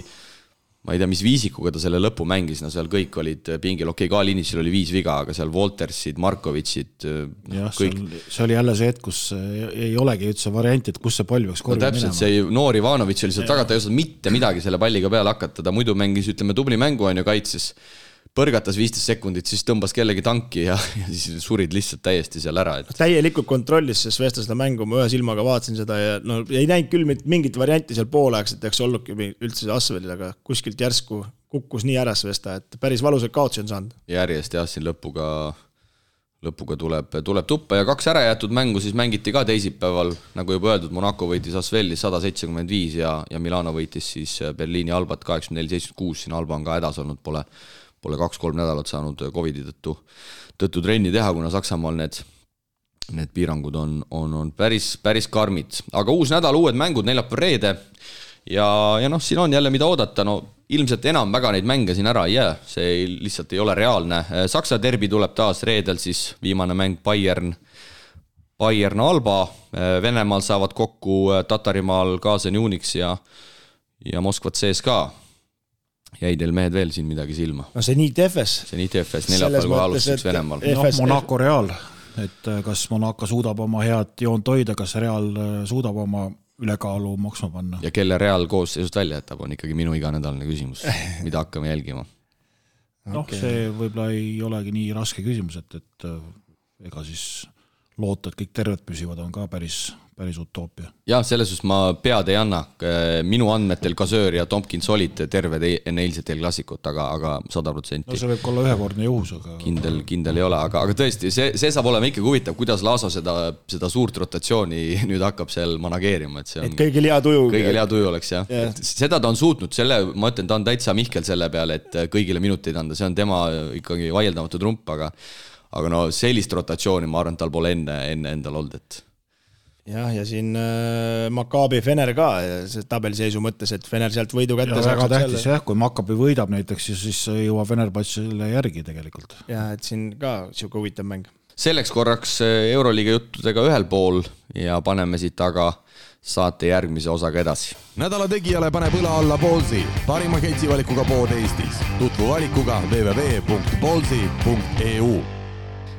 ma ei tea, mis viisikuga ta selle lõpu mängis, no seal kõik olid pingil, okei, Kalinitšil oli 5 viga, aga seal Woltersid, Markovitšid, kõik.
See oli jälle see hetk, kus ei olegi üldse varianti, et kus see pall peaks korvi
täpselt, see noor Ivanović oli seal tagant, ta ei osanud mitte midagi selle palliga peale hakata, ta muidu mängis, ütleme, tubli mängu on ju kaitses, põrgatas 15 sekundit, siis tõmbas kellegi tanki ja siis surid lihtsalt täiesti seal ära.
Täielikult kontrollis, sest Vesta seda mängu, ma ühe silmaga vaatasin seda ja no ei näinud küll mingit varianti seal poolaegs, et eks olnudki üldse see Asvelil, aga kuskilt järsku kukkus nii äras Vesta, et päris valusad kaotsi on saanud.
Järjest jah, siin lõpuga tuleb tuppa ja 2 ära jäetud mängu siis mängiti ka teisipäeval, nagu juba öeldud, Monaco võitis Asveli 175 ja Milano võitis siis Berliini Albat 84-76, siin Alba on ka hädas olnud, pole 2-3 nädalat saanud Covidi tõttu trenni teha, kuna Saksamaal need piirangud on päris karmid. Aga uus nädal, uued mängud, neljapäev reede ja noh, siin on jälle mida oodata, no ilmselt enam väga neid mänge siin ära ei jää, see lihtsalt ei ole reaalne. Saksa derbi tuleb taas reedel, siis viimane mäng Bayern Alba, Venemaal saavad kokku Tatarimaal Kaasen Unix ja Moskvat CSKA. Jäi teil mehed veel siin midagi silma?
No see nii TFS.
Neljapäeval kohe alustuseks Venemaal.
Monaco Real, et kas Monaco suudab oma head joont hoida, kas Real suudab oma ülekaalu maksma panna.
Ja kelle Real koosseisust välja jätab, on ikkagi minu iganädalane küsimus, mida hakkame jälgima.
See võib-olla ei olegi nii raske küsimus, et ega siis loota, et kõik terved püsivad, on ka päris utoopia.
Jah, selles suhtes ma pead ei anna. Minu andmetel Kasöör ja Tompkins olid terved enne eilset eelklassikut, aga 100%.
No see võib olla ühekordne juhus, aga...
Kindel ei ole, aga tõesti, see saab olema ikkagi huvitav, kuidas Laaso seda suurt rotatsiooni nüüd hakkab seal manageerima.
Et kõigil hea tuju
oleks, jah. Yeah. Seda ta on suutnud, ma ütlen, ta on täitsa Mihkel selle peale, et kõigile minuteid anda, see on tema ikkagi vaieldamatu trump, aga no sellist rotatsiooni ma arvan, tal pole enne endal olnud, et...
Ja siin Maccabi Fener ka see tabeliseisu mõttes, et Fener sealt võidu kätte
saab. Väga tähtis jah, kui Maccabi võidab näiteks, siis jõuab Fenerbahcele järgi tegelikult.
Ja, et siin ka siuke huvitav mäng.
Selleks korraks Euroliiga juttudega ühel pool ja paneme siit taga saate järgmise osaga edasi.
Nädala tegijale paneb õla alla Ballsi, parima ketsivalikuga pood Eestis. Tutvu valikuga www.ballsi.eu.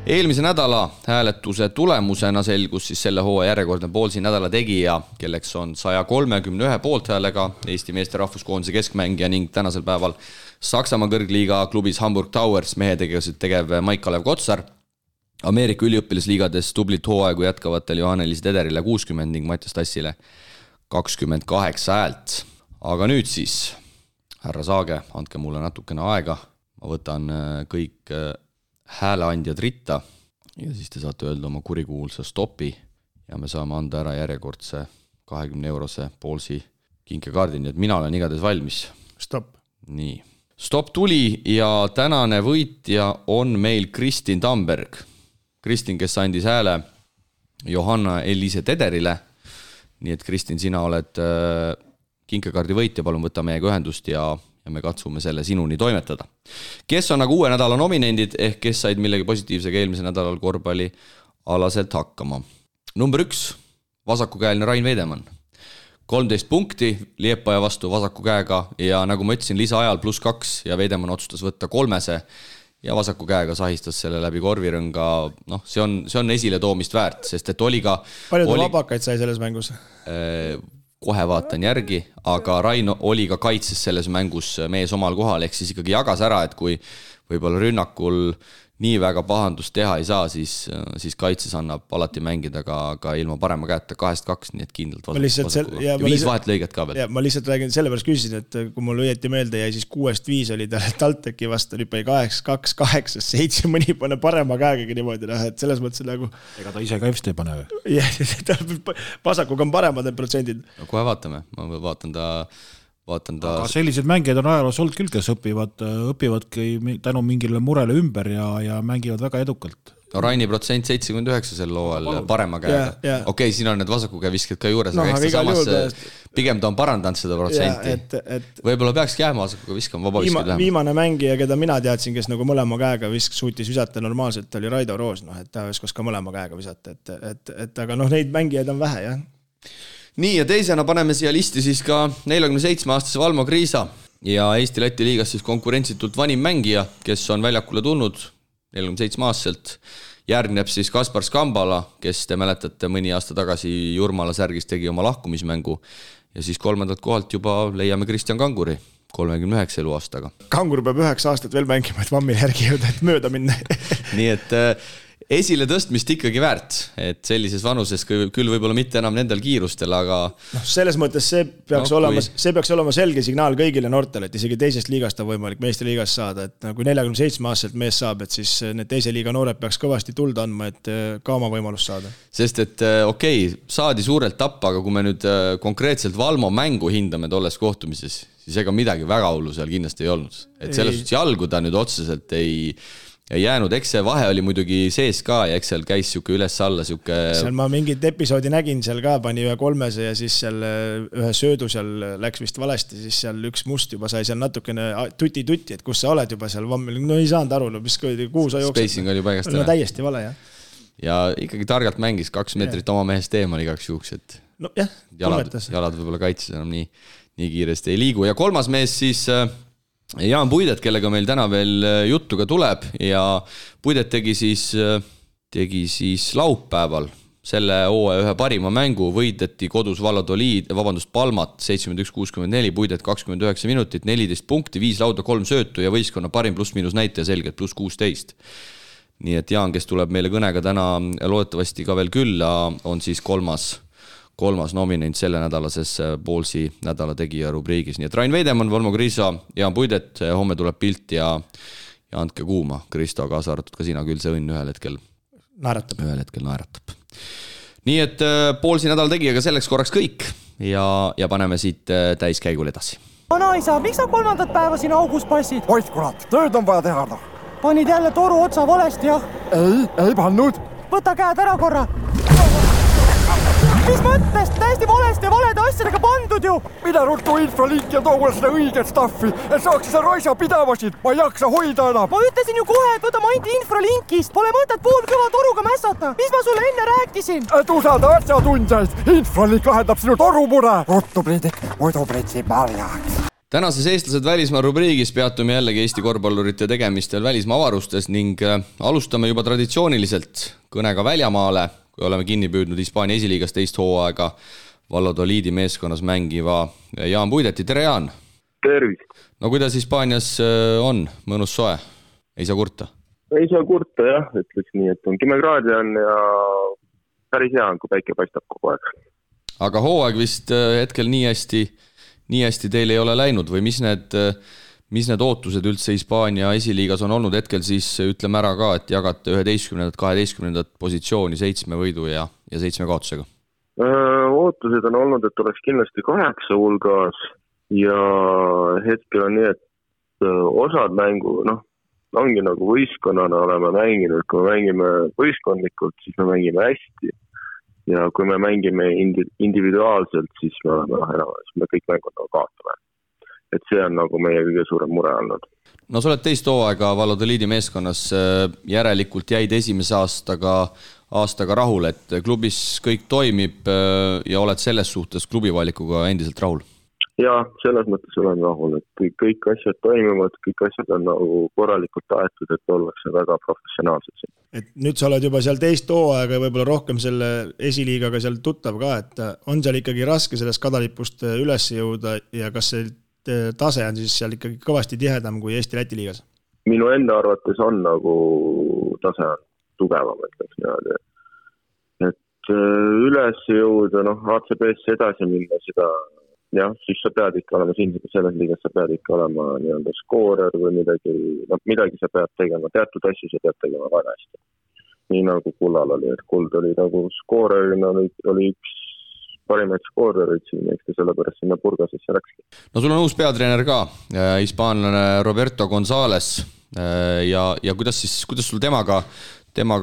Eelmise nädala hääletuse tulemusena selgus siis selle hooaja järjekordne Ballsi nädala tegija, kelleks on 131 poolthäälega Eesti meeste rahvuskoondise keskmängija ning tänasel päeval Saksamaa kõrgliiga klubis Hamburg Towers mehetegevused tegev Maik-Kalev Kotsar. Ameerika üliõpilasliigades tublit hooaegu jätkavatel Johannelis Tederile 60 ning Mattias Tassile 28 häält. Aga nüüd siis, härra Saage, andke mulle natukene aega. Ma võtan kõik hääleandjad ritta ja siis te saate öelda oma kurikuulsa stopi ja me saame anda ära järjekordse 20-eurose Ballsi kinkekaardi, nii et mina olen igatahes valmis.
Stop.
Nii. Stop tuli ja tänane võitja on meil Kristin Tamberg. Kristin, kes andis hääle Johanna Elise Tederile. Nii et Kristin, sina oled kinkekaardi võitja, palun võta meiega ühendust ja me katsume selle sinuni toimetada. Kes on nagu uue nädala nominendid ehk kes said millegi positiivsega eelmise nädalal korvpalli alaselt hakkama. Number 1, vasakukäeline Rain Veidemann. 13 punkti Liepaja vastu vasaku käega ja nagu ma ütlesin, lisaajal +2 ja Veidemann otsustas võtta 3 ja vasaku käega sahistas selle läbi korvirõnga. No, see on esile toomist väärt, sest et oli ka...
Palju ta vabakaid sai selles mängus?
Kohe vaatan järgi, aga Rain oli ka kaitses selles mängus mees omal kohal, ehk siis ikkagi jagas ära, et kui võib-olla rünnakul nii väga pahandust teha ei saa, siis kaitses annab alati mängida ka ilma parema käeta 2-2, nii et kindlalt vasaku. Ja 5 vahetlõiget ka veel.
Ma lihtsalt räägin, sellepärast küsisin, et kui mul õieti meelde jäi, siis 6-5 oli Talteki vastu, oli 8-2, 8-7, mõni pane parema käegagi niimoodi, et selles mõttes nagu...
Ega ta ise ka EFST ei pane või?
Jah, vasakuga on paremad need protsendid.
Kohe vaatame, ma vaatan ta...
Aga sellised mängijad on ajaloos olnud küll, kes õpivadki tänu mingile murele ümber ja mängivad väga edukalt.
No Raini protsent 79 sel looval parema käega. Okei, siin on need vasaku käe visked ka juures, aga eks ta samas pigem ta on parandanud seda protsenti. Võib-olla peakski jääma vasaku käe viskama vabaviskid lähema.
Viimane mängija, keda mina teadsin, kes nagu mõlema käega suutis visata normaalselt, oli Raido Roos, et ta viskas ka mõlema käega visata. Aga neid mängijaid on vähe, jah.
Nii ja teisena paneme siia listi siis ka 47-aastase Valmo Kriisa. ja Eesti-Läti liigas siis konkurentsitult vanim mängija, kes on väljakule tulnud 47-aastaselt. Järgneb siis Kaspar Skambala, kes te mäletate mõni aasta tagasi Jurmala särgis tegi oma lahkumismängu ja siis 3. kohalt juba leiame Kristjan Kanguri 39 eluaastaga.
Kangur peab 9 aastat veel mängima, et Vammil järgi jõuda, et mööda minna.
Nii et esile tõstmist ikkagi väärt, et sellises vanuses küll võib-olla mitte enam nendel kiirustel, aga
selles mõttes see peaks olema selge signaal kõigile noortele, et isegi teisest liigast on võimalik meistriliigast saada, et kui 47-aastaselt mees saab, et siis need teise liiga noored peaks kõvasti tuld andma, et ka oma võimalust saada.
Sest et saadi suurelt tappa, aga kui me nüüd konkreetselt Valmo mängu hindame tolles kohtumises, siis ega midagi väga hullu seal kindlasti ei olnud. Et selles suhtes jalgu ta nüüd otseselt ei jäänud, eks see vahe oli muidugi sees ka ja eks seal käis siuke üles-alla siuke...
Seal ma mingit episoodi nägin, seal ka pani ühe 300 ja siis seal ühe söödu seal läks vist valesti, siis seal üks must juba sai seal natukene tuti, et kus sa oled juba seal Vammil, no ei saanud aru, mis kuhu sa jooksed.
Spacing oli paigast
ära. No täiesti vale, jah.
Ja ikkagi targalt mängis 2 meetrit oma mehest eemal igaks juhuks, et
no, jah,
jalad võib-olla kaitses enam nii kiiresti ei liigu. Ja 3. mees siis... Jaan Puidet, kellega meil täna veel juttu ka tuleb ja Puidet tegi siis laupäeval selle hooaja ühe parima mängu, võideti kodus Palmat 71-64, Puidet 29 minutit, 14 punkti, 5 lauda, 3 söötu ja võistkonna parim pluss-miinus näitaja selgelt pluss 16. Nii et Jaan, kes tuleb meile kõnega täna loodetavasti ka veel külla, on siis kolmas nominent selle nädalases Poolsi nädala tegija rubriigis. Nii et Rain Veidemann, Valmo Kriisa, Jaan Puidet, homme tuleb pilt ja andke kuuma. Kristo, kaasa arvatud ka sina, küll see õnn ühel hetkel naeratab. Nii et Poolsi nädala tegijaga selleks korraks kõik ja paneme siit täiskäigul edasi.
Vanaisa, miks sa 3. päeva siin augus passid?
Oit kurat, tööd on vaja teha.
Panid jälle toru otsa valesti, jah?
Ei pannud.
Võta käed ära korra. Mis mõttest? Täiesti valesti ja valede asjadega pandud ju!
Mida ruttu infralink ja too seda õiget staffi, et saaks seda raisa pidavasid, ma ei jaksa hoida enam.
Ma ütlesin ju kohe, et võta mainti infralinkist, pole mõtet poolkõva toruga mässata. Mis ma sulle enne rääkisin?
Et usada asjatundjaid, infralink lahendab sinu torumure. Ruttu Priidik, muidu pritsi marjaks.
Tänases eestlased välismaa rubriigis peatume jällegi Eesti korvpallurite tegemistel välismaa avarustes ning alustame juba traditsiooniliselt kõnega väljamaale, kui oleme kinni püüdnud Hispaania esiliigas teist hooaega Valladoliidi meeskonnas mängiva Jaan Puideti. Tere, Jaan!
Tervist!
No kuidas Hispaanias on? Mõnus soe? Ei saa kurta?
Ei saa kurta, jah. Ütleks nii, et on 10 kraadi on ja päris hea on, kui päike paistab kogu aeg.
Aga hooaeg vist hetkel nii hästi teil ei ole läinud või mis need ootused üldse Hispaania esiliigas on olnud hetkel, siis ütleme ära ka, et jagate 11. 12. positsiooni 7 võidu ja 7 kaotusega?
Ootused on olnud, et oleks kindlasti 8 hulgas ja hetkel on nii, et osad mängu, ongi nagu võistkonnana oleme mänginud, kui me mängime võistkondlikult, siis me mängime hästi. Ja kui me mängime individuaalselt, siis me kõik mängud nagu kaotame. Et see on nagu meie kõige suurem mure olnud.
No sa oled teist hooaega Valladoliidi meeskonnas, järelikult jäid esimese aastaga rahul, et klubis kõik toimib ja oled selles suhtes klubivalikuga endiselt rahul?
Ja, selles mõttes olen rahul, et kõik asjad toimivad, kõik asjad on nagu korralikult aetud, et ollakse väga professionaalsed.
Et nüüd sa oled juba seal teist hooaega ja võib-olla rohkem selle esiliigaga seal tuttav ka, et on seal ikkagi raske sellest kadalipust üles jõuda ja kas see tase on siis seal ikkagi kõvasti tihedam kui Eesti-Läti liigas?
Minu enda arvates on nagu tase on tugevam, ütleks niimoodi. Et üles jõuda, ACB-sse edasi minna seda, jah, siis sa pead ikka olema selles liigas, sa pead ikka olema nii-öelda skoorer või midagi sa pead tegema, teatud asju sa pead tegema väga hästi. Nii nagu Kullal oli, et Kuld oli nagu skoorerina, oli üks parimaid skoorerid siin, eks sellepärast sinna Burgasesse läkski.
No sul on uus peatreener ka, hispaanlane Roberto González ja kuidas sul temaga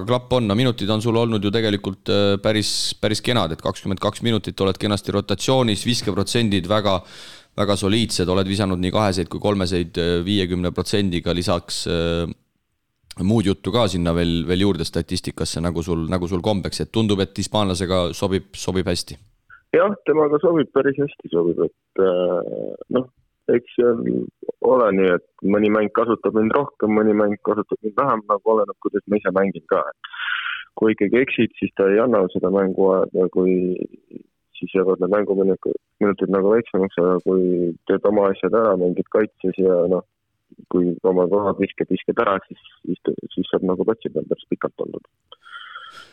klapp on? No minutid on sul olnud ju tegelikult päris kenad, et 22 minutit oled kenasti rotatsioonis, viskeprotsendid väga soliidsed, oled visanud nii 2 kui 3 50%-ga, lisaks muud juttu ka sinna veel juurde statistikasse, nagu sul kombeks, et tundub, et hispaanlasega sobib hästi.
Jah, temaga sobib päris hästi, et eks ole nii, et mõni mäng kasutab mind rohkem, mõni mäng kasutab mind vähem, nagu oleneb, kuidas ma ise mängin ka. Kui ikkagi eksid, siis ta ei anna seda mängu aega, kui siis jäävad need mänguminutid nagu väiksemaks, aga kui teed oma asjad ära, mängid kaitses ja kui oma kohad visked ära, siis saab nagu patsi peal päris pikalt olnud.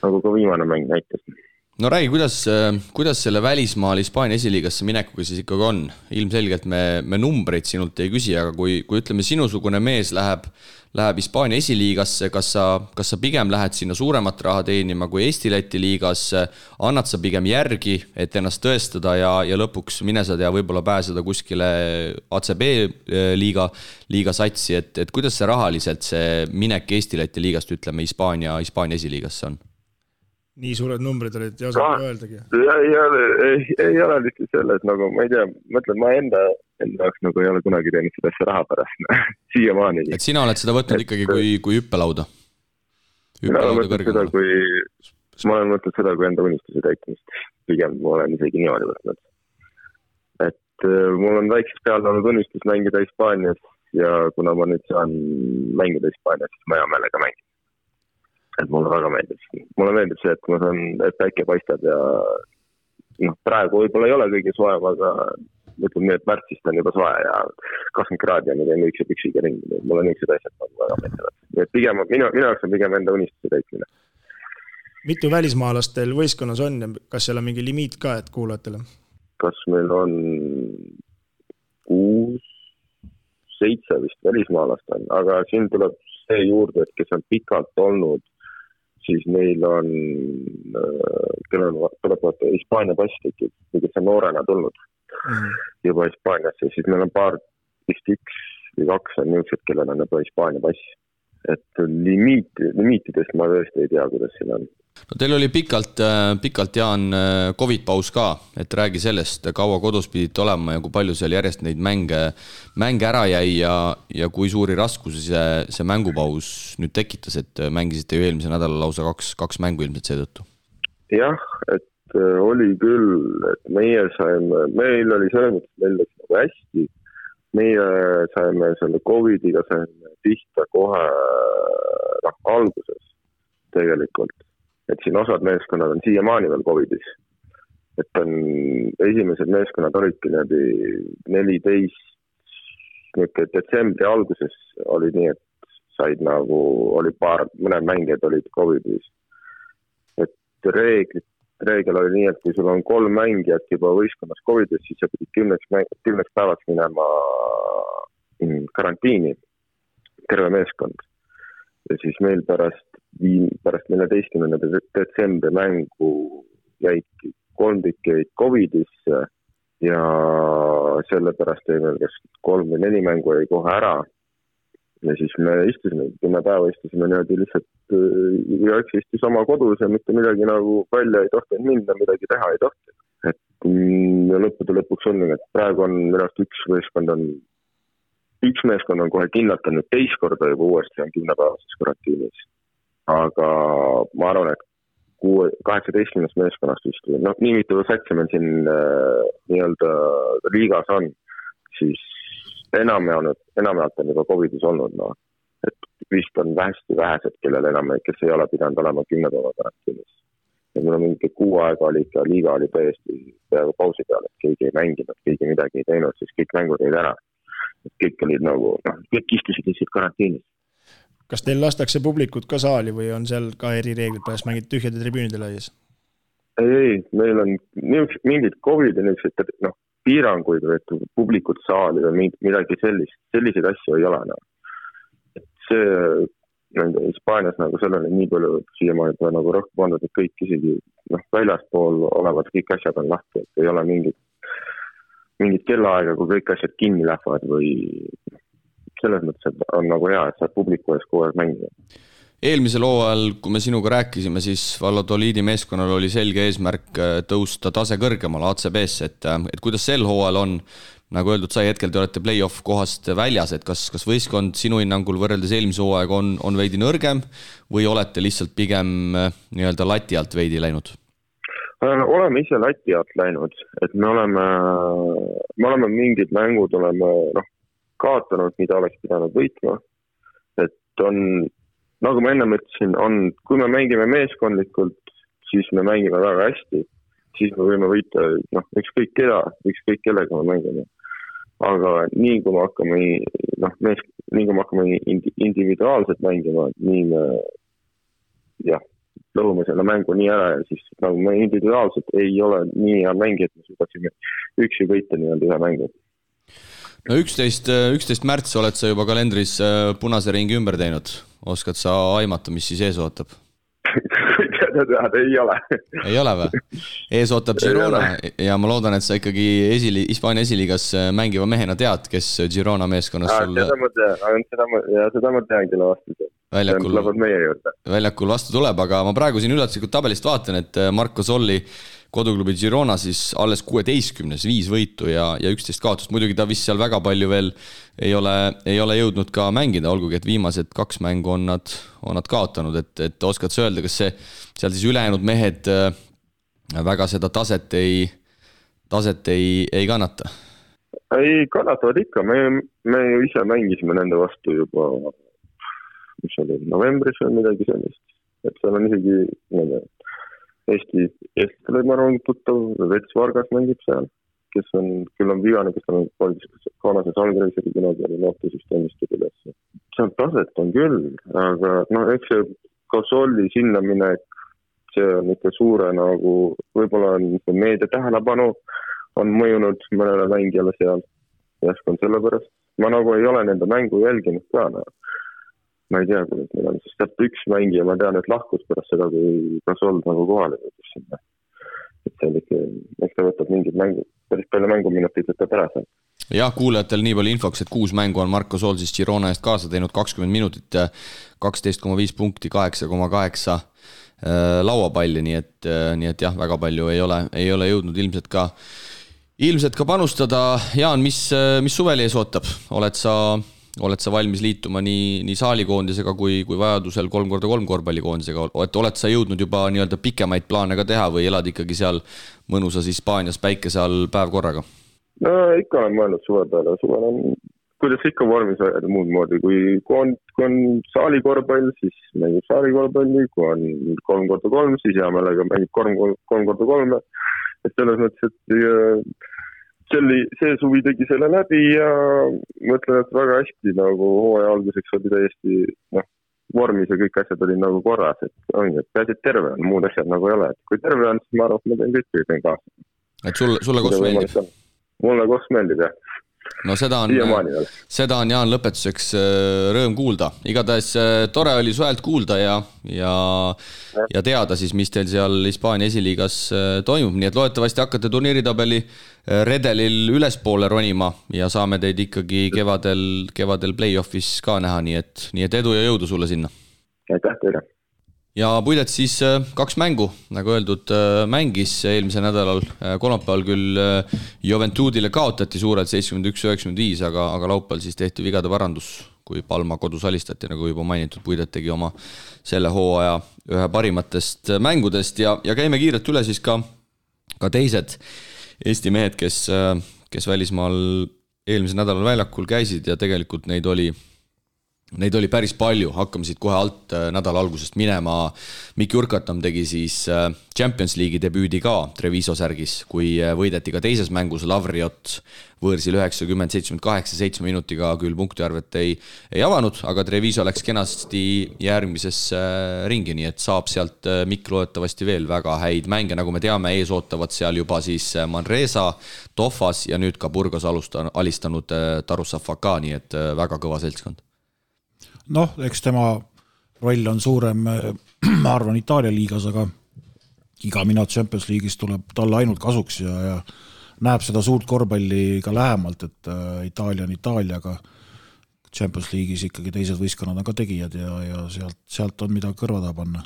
Nagu ka viimane mäng näitas.
No räägi, kuidas selle välismaal Hispaania esiliigasse minekuga siis ikkagi on? Ilmselgelt me numbreid sinult ei küsi, aga kui ütleme sinusugune mees läheb Hispaania esiliigasse, kas sa pigem lähed sinna suuremat raha teenima kui Eesti-Läti liigas, annad sa pigem järgi, et ennast tõestada ja lõpuks mine sa tea võib-olla pääseda kuskile ACB liiga satsi, et kuidas see rahaliselt see minek Eesti-Läti liigast, ütleme Hispaania esiliigasse on?
Nii suured numbrid olid ja osad öeldagi.
Ei ole lihtsalt selles, nagu ma ei tea, mõtlen, ma enda jaoks nagu ei ole kunagi teinud seda asja raha pärast, siiamaani.
Et sina oled seda võtnud ikkagi kui hüppelauda?
Ma olen mõtnud seda kui enda unistuse täitmist. Pigem ma olen isegi niimoodi võtnud. Et mul on väiksest peale olnud unistus mängida Hispaanias ja kuna ma nüüd saan mängida Hispaanias, siis ma hea meelega mängin. Et mulle väga meeldib. Mulle meeldib see, et ma saan, et päike paistab ja praegu võib-olla ei ole kõige soev, aga ütleme nii, et märtsist on juba soe ja 20 kraadi on ja ükse püksiga ringi. Mulle niisugused asjad väga meeldivad. Et pigem, minu jaoks on pigem enda unistuse täitmine.
Mitu välismaalastel võistkonnas on ja kas seal on mingi limiit ka, et kuulajatele?
Kas meil on 6, 7 vist välismaalast on, aga siin tuleb see juurde, et kes on pikalt olnud, siis neil on, kellel tuleb Hispaania pass tekib, kes on noorena tulnud juba Hispaaniasse, siis meil on paar, vist 1 või 2 on niisugused, kellel on juba Hispaania pass. Et limiitidest ma tõesti ei tea, kuidas siin on.
No teil oli pikalt Jaan COVID-paus ka, et räägi sellest, kaua kodus pidite olema ja kui palju seal järjest neid mänge ära jäi ja kui suuri raskusi see mängupaus nüüd tekitas, et mängisite ju eelmise nädala lausa 2 mängu ilmselt seetõttu?
Jah, et oli küll, et meil oli selles mõttes, meil läks nagu hästi. Meie saime selle COVID-iga pihta kohe alguses tegelikult. Et siin osad meeskonnad on siiamaani veel COVID-is. Et on esimesed meeskonnad olidki 14 detsembri alguses oli nii, et said nagu, oli mõned mängijad olid COVID-is. Et reegel oli nii, et kui sul on 3 mängijat juba võistkonnas COVID-is, siis sa pidid 10 päevaks minema karantiini, terve meeskond. Ja siis meil pärast 14. detsembri mängu jäidki 3 tükkeid COVID-isse ja sellepärast jäi meil kas 3 või 4 mängu jäi kohe ära. Ja siis me istusime, 10 päeva istusime niimoodi lihtsalt ja istus oma kodus ja mitte midagi nagu välja ei tohtinud minna, midagi teha ei tohtinud. Et ja lõppude lõpuks on, et praegu on minust üks meeskond on kohe kinnatanud teist korda juba uuesti on 10 päevases karantiinis. Aga ma arvan, et 18 meeskonnast vist, nii mitu satsi meil siin nii-öelda liigas on, siis enamjaolt on juba COVID-is olnud. Et vist on hästi vähesed, kellel kes ei ole pidanud olema 10 päeva karantiinis. Ja mul on mingi 6 aega oli ikka, liiga oli täiesti peaaegu pausi peal, et keegi ei mänginud, keegi midagi ei teinud, siis kõik mängud jäid ära. Et kõik olid nagu, kõik istusid lihtsalt karantiinis.
Kas teil lastakse publikut ka saali või on seal ka erireeglid, pärast mängid tühjade tribüünide laias?
Ei, meil on mingid COVID-i piiranguid või publikut saali või midagi selliseid asju ei ole. Et see Hispaanias nagu sellele nii palju siiamaani nagu rohkem pandud, et kõik isegi väljaspool olevad kõik asjad on lahti, et ei ole mingid kellaaega, kui kõik asjad kinni lähevad või selles mõttes, et on nagu hea, et saab publiku ees kogu aeg mängida.
Eelmisel hooajal, kui me sinuga rääkisime, siis Valladoliidi meeskonnal oli selge eesmärk tõusta tase kõrgemale ACB-sse, et kuidas sel hooajal on, nagu öeldud sai, hetkel te olete play-off kohast väljas, et kas võistkond sinu hinnangul võrreldes eelmise hooaega on veidi nõrgem või olete lihtsalt pigem nii-öelda lati alt veidi läinud?
oleme ise lati alt läinud, et me oleme mingid mängud kaotanud, mida oleks pidanud võitma. Et on, nagu ma enne mõtlesin, kui me mängime meeskondlikult, siis me mängime väga hästi, siis me võime võita ükskõik kellega me mängime. Aga nii kui me hakkame individuaalselt mängima, nii me lõhume selle mängu nii ära ja siis nagu me individuaalselt ei ole nii hea mängi, et me suudaksime üksi võita nii-öelda ühe mängu.
No 11 märts oled sa juba kalendris punase ringi ümber teinud. Oskad sa aimata, mis siis ees ootab?
Ei ole.
Ei ole või? Ees ootab Girona ja ma loodan, et sa ikkagi Hispaania esiliigas mängiva mehena tead, kes Girona meeskonnas sul...
Seda ma tean kelle vastu.
Väljakul vastu tuleb, aga ma praegu siin üllatuslikult tabelist vaatan, et Marco Solli koduklubi Girona siis alles 16, 5 võitu ja 11 kaotust. Muidugi ta vist seal väga palju veel ei ole jõudnud ka mängida, olgugi et viimased 2 mängu on nad kaotanud, et oskad sa öelda, kas seal siis ülejäänud mehed väga seda taset ei kannata?
Ei kannatavad ikka, me ju ise mängisime nende vastu juba mis oli novembris või midagi sellist, et seal on isegi Eestile ma arvan tuttav, Vets Vargas mängib seal, kes küll on vigane, kes on Koonases Algreiseri kunagi oli noortesüsteemist üles. Seal taset on küll, aga eks see Kosolli sinna minek, see on ikka suure võib-olla on meedia tähelepanu on mõjunud mõnele mängijale seal. Jäskon sellepärast. Ma ei ole nende mängu jälginud ka. Ma ei tea, kuidas meil on, sest üks mängija, ma tean, et lahkus pärast seda, kui Gasol kohale võitis sinna. Et see on ikka, eks ta võtab mingid päris palju mänguminutid võtab ära seal.
Jah, kuulajatel nii palju infoks, et 6 mängu on Marco Sol siis Girona eest kaasa teinud 20 minutit, 12,5 punkti, 8,8 lauapalli, nii et jah, väga palju ei ole jõudnud ilmselt ka panustada. Jaan, mis suveli ees ootab? Oled sa valmis liituma nii saalikoondisega kui vajadusel 3x3 korvpallikoondisega? Oled sa jõudnud juba nii-öelda pikemaid plaane ka teha või elad ikkagi seal mõnusas Hispaanias päikese all päev korraga?
No ikka olen mõelnud suve peale. Suvel on, kuidas ikka vormis ajada muud moodi. Kui on saalikorvpall, siis mängib saalikorvpalli. Kui on 3x3, siis hea meelega mängib 3x3. Et selles mõttes, et see suvi tegi selle läbi ja mõtlen, et väga hästi hooaja alguseks oli täiesti vormis ja kõik asjad olid korras, et peaasi, et terve on, muud asjad ei ole. Et kui terve on, siis ma arvan, et ma teen kõik kaasa.
Et sulle koos meeldib?
Mulle koos meeldib, jah.
No seda on Jaan lõpetuseks rõõm kuulda. Igatahes tore oli suhelt kuulda ja teada siis, mis teil seal Hispaania esiliigas toimub. Nii et loodetavasti hakkate turniiritabeli redelil ülespoole ronima ja saame teid ikkagi kevadel play-offis ka näha. Nii et edu ja jõudu sulle sinna.
Aitäh teile.
Ja Puidet siis 2 mängu, nagu öeldud, mängis eelmise nädalal. Kolmapäeval küll Juventudile kaotati suurelt 71-95, aga laupäeval siis tehti vigade parandus, kui Palma kodus alistati, nagu juba mainitud. Puidet tegi oma selle hooaja ühe parimatest mängudest ja käime kiirelt üle siis ka teised Eesti mehed, kes välismaal eelmise nädalal väljakul käisid ja tegelikult neid oli päris palju, hakkame siit kohe alt nädala algusest minema. Mikki Urkatam tegi siis Champions League'i debüüdi ka Treviso särgis, kui võideti ka teises mängus Lavriot võõrsil 90-78 7 minutiga küll punktiarvet ei avanud, aga Treviso läks kenasti järgmisesse ringi, nii et saab sealt Mikk loodetavasti veel väga häid mänge, nagu me teame, ees ootavad seal juba siis Manresa, Tofas ja nüüd ka Burgos alistanud Tarussafaka, nii et väga kõva seltskond.
Eks tema roll on suurem, ma arvan, Itaalia liigas, aga iga minut Champions League'is tuleb talle ainult kasuks ja näeb seda suurt korvpalli ka lähemalt, et Itaalia on Itaalia, aga Champions League'is ikkagi teised võistkonnad on ka tegijad ja sealt on mida kõrvada panna.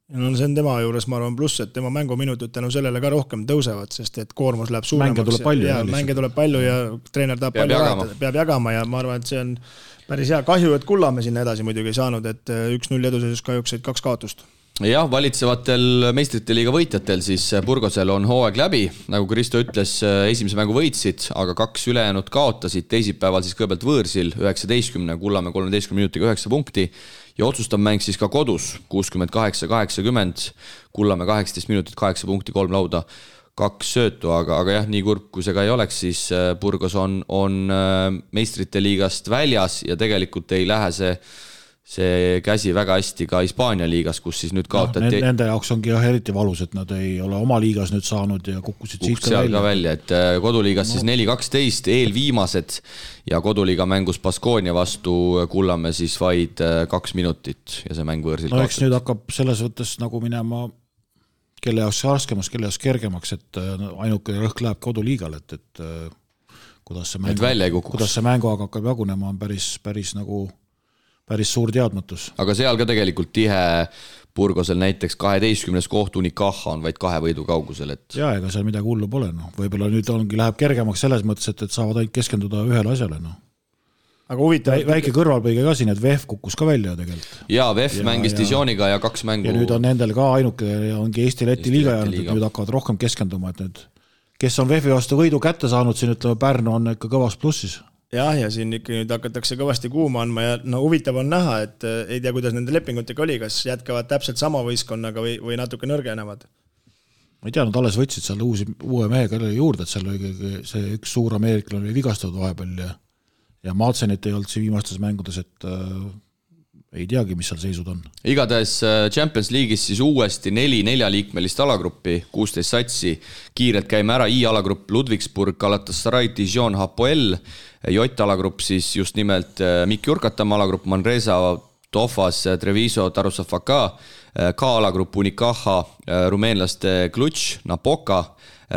See on tema juures, ma arvan, pluss, et tema mänguminutid tänu sellele ka rohkem tõusevad, sest et koormus läheb suuremaks. Mänge tuleb palju ja treener tahab peab jagama ja ma arvan, et see on päris hea. Kahju, et Kullamäe sinna edasi muidugi ei saanud, et 1-0 eduseisus kahjuks 2 kaotust.
jah, valitsevatel meistrite liiga võitjatel siis Burgosel on hooaeg läbi, nagu Kristo ütles, esimese mängu võitsid, aga 2 ülejäänud kaotasid, teisipäeval siis kõigepealt võõrsil 19, Kullamäe 13 minutiga 9 punkti ja otsustav mäng siis ka kodus 68-80, Kullamäe 18 minutit, 8 punkti, 3 lauda, 2 söötu, aga jah, nii kurb kui see ka ei oleks, siis Burgos on meistrite liigast väljas ja tegelikult ei lähe see käsi väga hästi ka Hispaania liigas, kus siis nüüd kaotati.
Nende jaoks ongi jah eriti valus, et nad ei ole oma liigas nüüd saanud ja kukkusid siit
ka välja. Et koduliigas siis 4-12 eelviimased ja koduliiga mängus Baskonia vastu Kullamäe siis vaid 2 minutit ja see mäng võõrsil
kaotati. Eks nüüd hakkab selles võttes nagu minema kelle jaoks raskemaks, kelle jaoks kergemaks, et ainuke rõhk läheb koduliigale, et kuidas see mänguaeg hakkab jagunema on päris suur teadmatus.
Aga seal ka tegelikult tihe Burgosel näiteks 12. koht Unicaja on vaid 2 võidu kaugusel.
Ja ega seal midagi hullu pole. Võib-olla nüüd läheb kergemaks selles mõttes, et saavad ainult keskenduda ühele asjale. Aga huvitav. Väike kõrvalpõige ka siin, et VF kukkus ka välja tegelikult.
Jaa, VF mängis Dijoniga ja 2 mängu.
Ja nüüd on nendel ka ainuke ongi Eesti-Läti liiga jäänud, et nüüd hakkavad rohkem keskenduma, et nüüd kes on VF-i vastu võidu kätte saanud, siin ütleme Pärnu on ikka kõvas plussis.
Jah, ja siin ikka nüüd hakatakse kõvasti kuuma andma ja huvitav on näha, et ei tea, kuidas nende lepingutega oli, kas jätkavad täpselt sama võistkonnaga või natuke nõrgenevad.
Ma ei tea, nad alles võtsid seal uue mehe juurde, et seal oli see üks suur ameeriklane oli vigastatud vahepeal ja Madsenit ei olnud siin viimastes mängudes, et ei teagi, mis seal seisud on.
Igatahes Champions League'is siis uuesti 4 liikmelist alagruppi, 16 satsi. Kiirelt käime ära I-alagrupp Ludwigsburg, Galatasaray, Dijon, Hapoel. J-alagrupp siis just nimelt Mikk Jurkatam alagrupp, Manresa, Tofas, Treviso, Tarussafaka. K-alagrupp Unicaja, rumeenlaste Klutš, Napoka,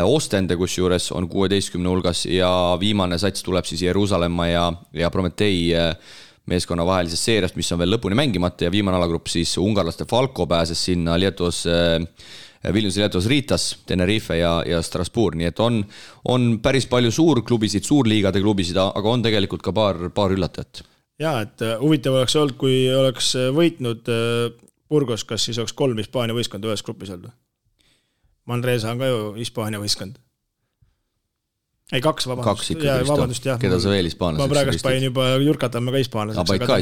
Ostende, kus juures on 16 hulgas ja viimane sats tuleb siis Jeruusalemma ja Prometei meeskonna vahelisest seeriast, mis on veel lõpuni mängimata ja viimane alagrupp siis ungarlaste Falko pääses sinna Vilniuse Lietuas Ritas, Tenerife ja Strasbourg, nii et on päris palju suurklubisid, suurliigade klubisid, aga on tegelikult ka paar üllatajat.
Jaa, et huvitav oleks olnud, kui oleks võitnud Burgos, kas siis oleks 3 Hispaania võistkond ühes grupis olnud? Manresa on ka ju Hispaania võistkond. Ei, 2, vabandust.
Keda sa veel hispaanlaseks?
Ma praegust panin juba Jurkatamme ka hispaanlaseks, aga ta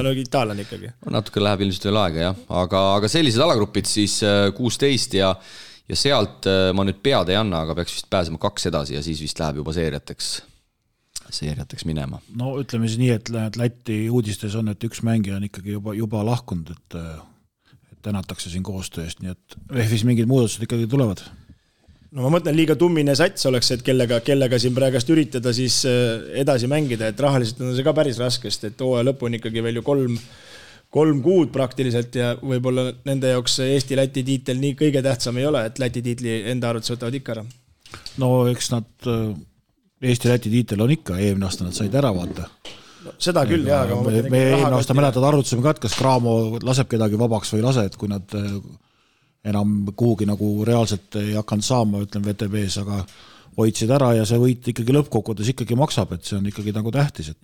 on itaalane ikkagi.
Natuke läheb ilmselt veel aega, jah. Aga sellised alagrupid siis 16 ja sealt ma nüüd pead ei anna, aga peaks vist pääsema 2 edasi ja siis vist läheb juba seeriateks minema.
No ütleme siis nii, et Läti uudistes on, et üks mängija on ikkagi juba lahkunud, et tänatakse siin koostööst, nii et VF-is mingid muudatused ikkagi tulevad.
No ma mõtlen, liiga tummine sats oleks, et kellega siin praegast üritada siis edasi mängida, et rahaliselt on see ka päris raskest, et hooaja lõpu on ikkagi veel ju 3 kuud praktiliselt ja võib-olla nende jaoks Eesti-Läti tiitel nii kõige tähtsam ei ole, et Läti tiitli enda arvates võtavad ikka ära.
No eks nad Eesti-Läti tiitel on ikka, eelmine aasta nad said ära vaata.
No, seda küll, jah.
Me eelmine aasta mäletad arvutusime ka, et kas Graamo laseb kedagi vabaks või lase, et kui nad enam kuhugi nagu reaalselt ei hakanud saama, ütlen VTB-s, aga hoidsid ära ja see võit ikkagi lõppkokkuvõttes ikkagi maksab, et see on ikkagi nagu tähtis, et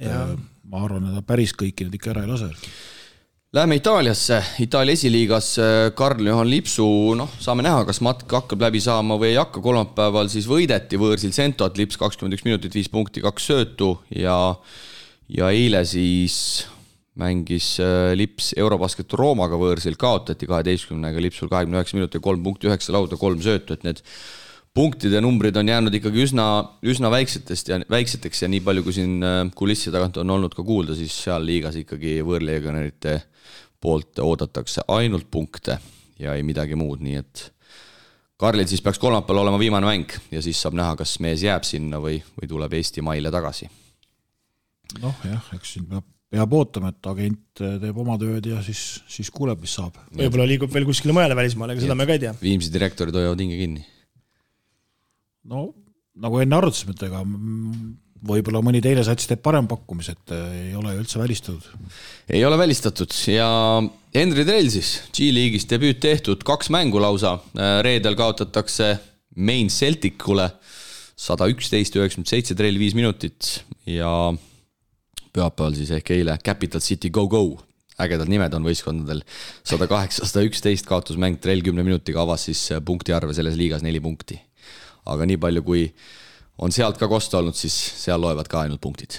ma arvan, et päris kõiki nüüd ikka ära ei lase.
Läheme Itaaliasse, Itaalia esiliigas Karl-Johan Lipsu, saame näha, kas matk hakkab läbi saama või ei hakka, kolmapäeval siis võideti võõrsil Sentot, Lips 21 minutit, 5 punkti, 2 söötu ja eile siis mängis Lips Eurobasket Roomaga võõrsil, kaotati 12-ga Lipsul 29 minutit, 3 punkti, 9 lauda, 3 söötu, et need punktide numbrid on jäänud ikkagi üsna väikseteks ja nii palju, kui siin kulissi tagant on olnud ka kuulda, siis seal liigas ikkagi võõrlegionärite poolt oodatakse ainult punkte ja ei midagi muud, nii et Karlil siis peaks kolmapäeval olema viimane mäng ja siis saab näha, kas mees jääb sinna või tuleb Eesti maile tagasi.
Eks siin peab ootama, et agent teeb oma tööd ja siis kuuleb, mis saab.
Võib-olla liigub veel kuskile mujale välismaale, aga seda me ka ei tea.
Viimsi direktorid hoiavad hinge kinni.
No, nagu enne arutasime, et ega võib-olla mõni teine sats teeb parem pakkumis, et ei ole üldse välistatud.
Ei ole välistatud ja Henri Trell siis G-liigis debüüt tehtud, 2 mängu lausa. Reedel kaotatakse Main Celticule 111-97, Trell 5 minutit ja pühapäeval siis ehk eile Capital City Go! ägedad nimed on võistkondadel. 108-111 kaotusmäng, Trell 10 minutiga avas siis punkti arve selles liigas 4 punkti. Aga nii palju, kui on sealt ka kosta olnud, siis seal loevad ka ainult punktid.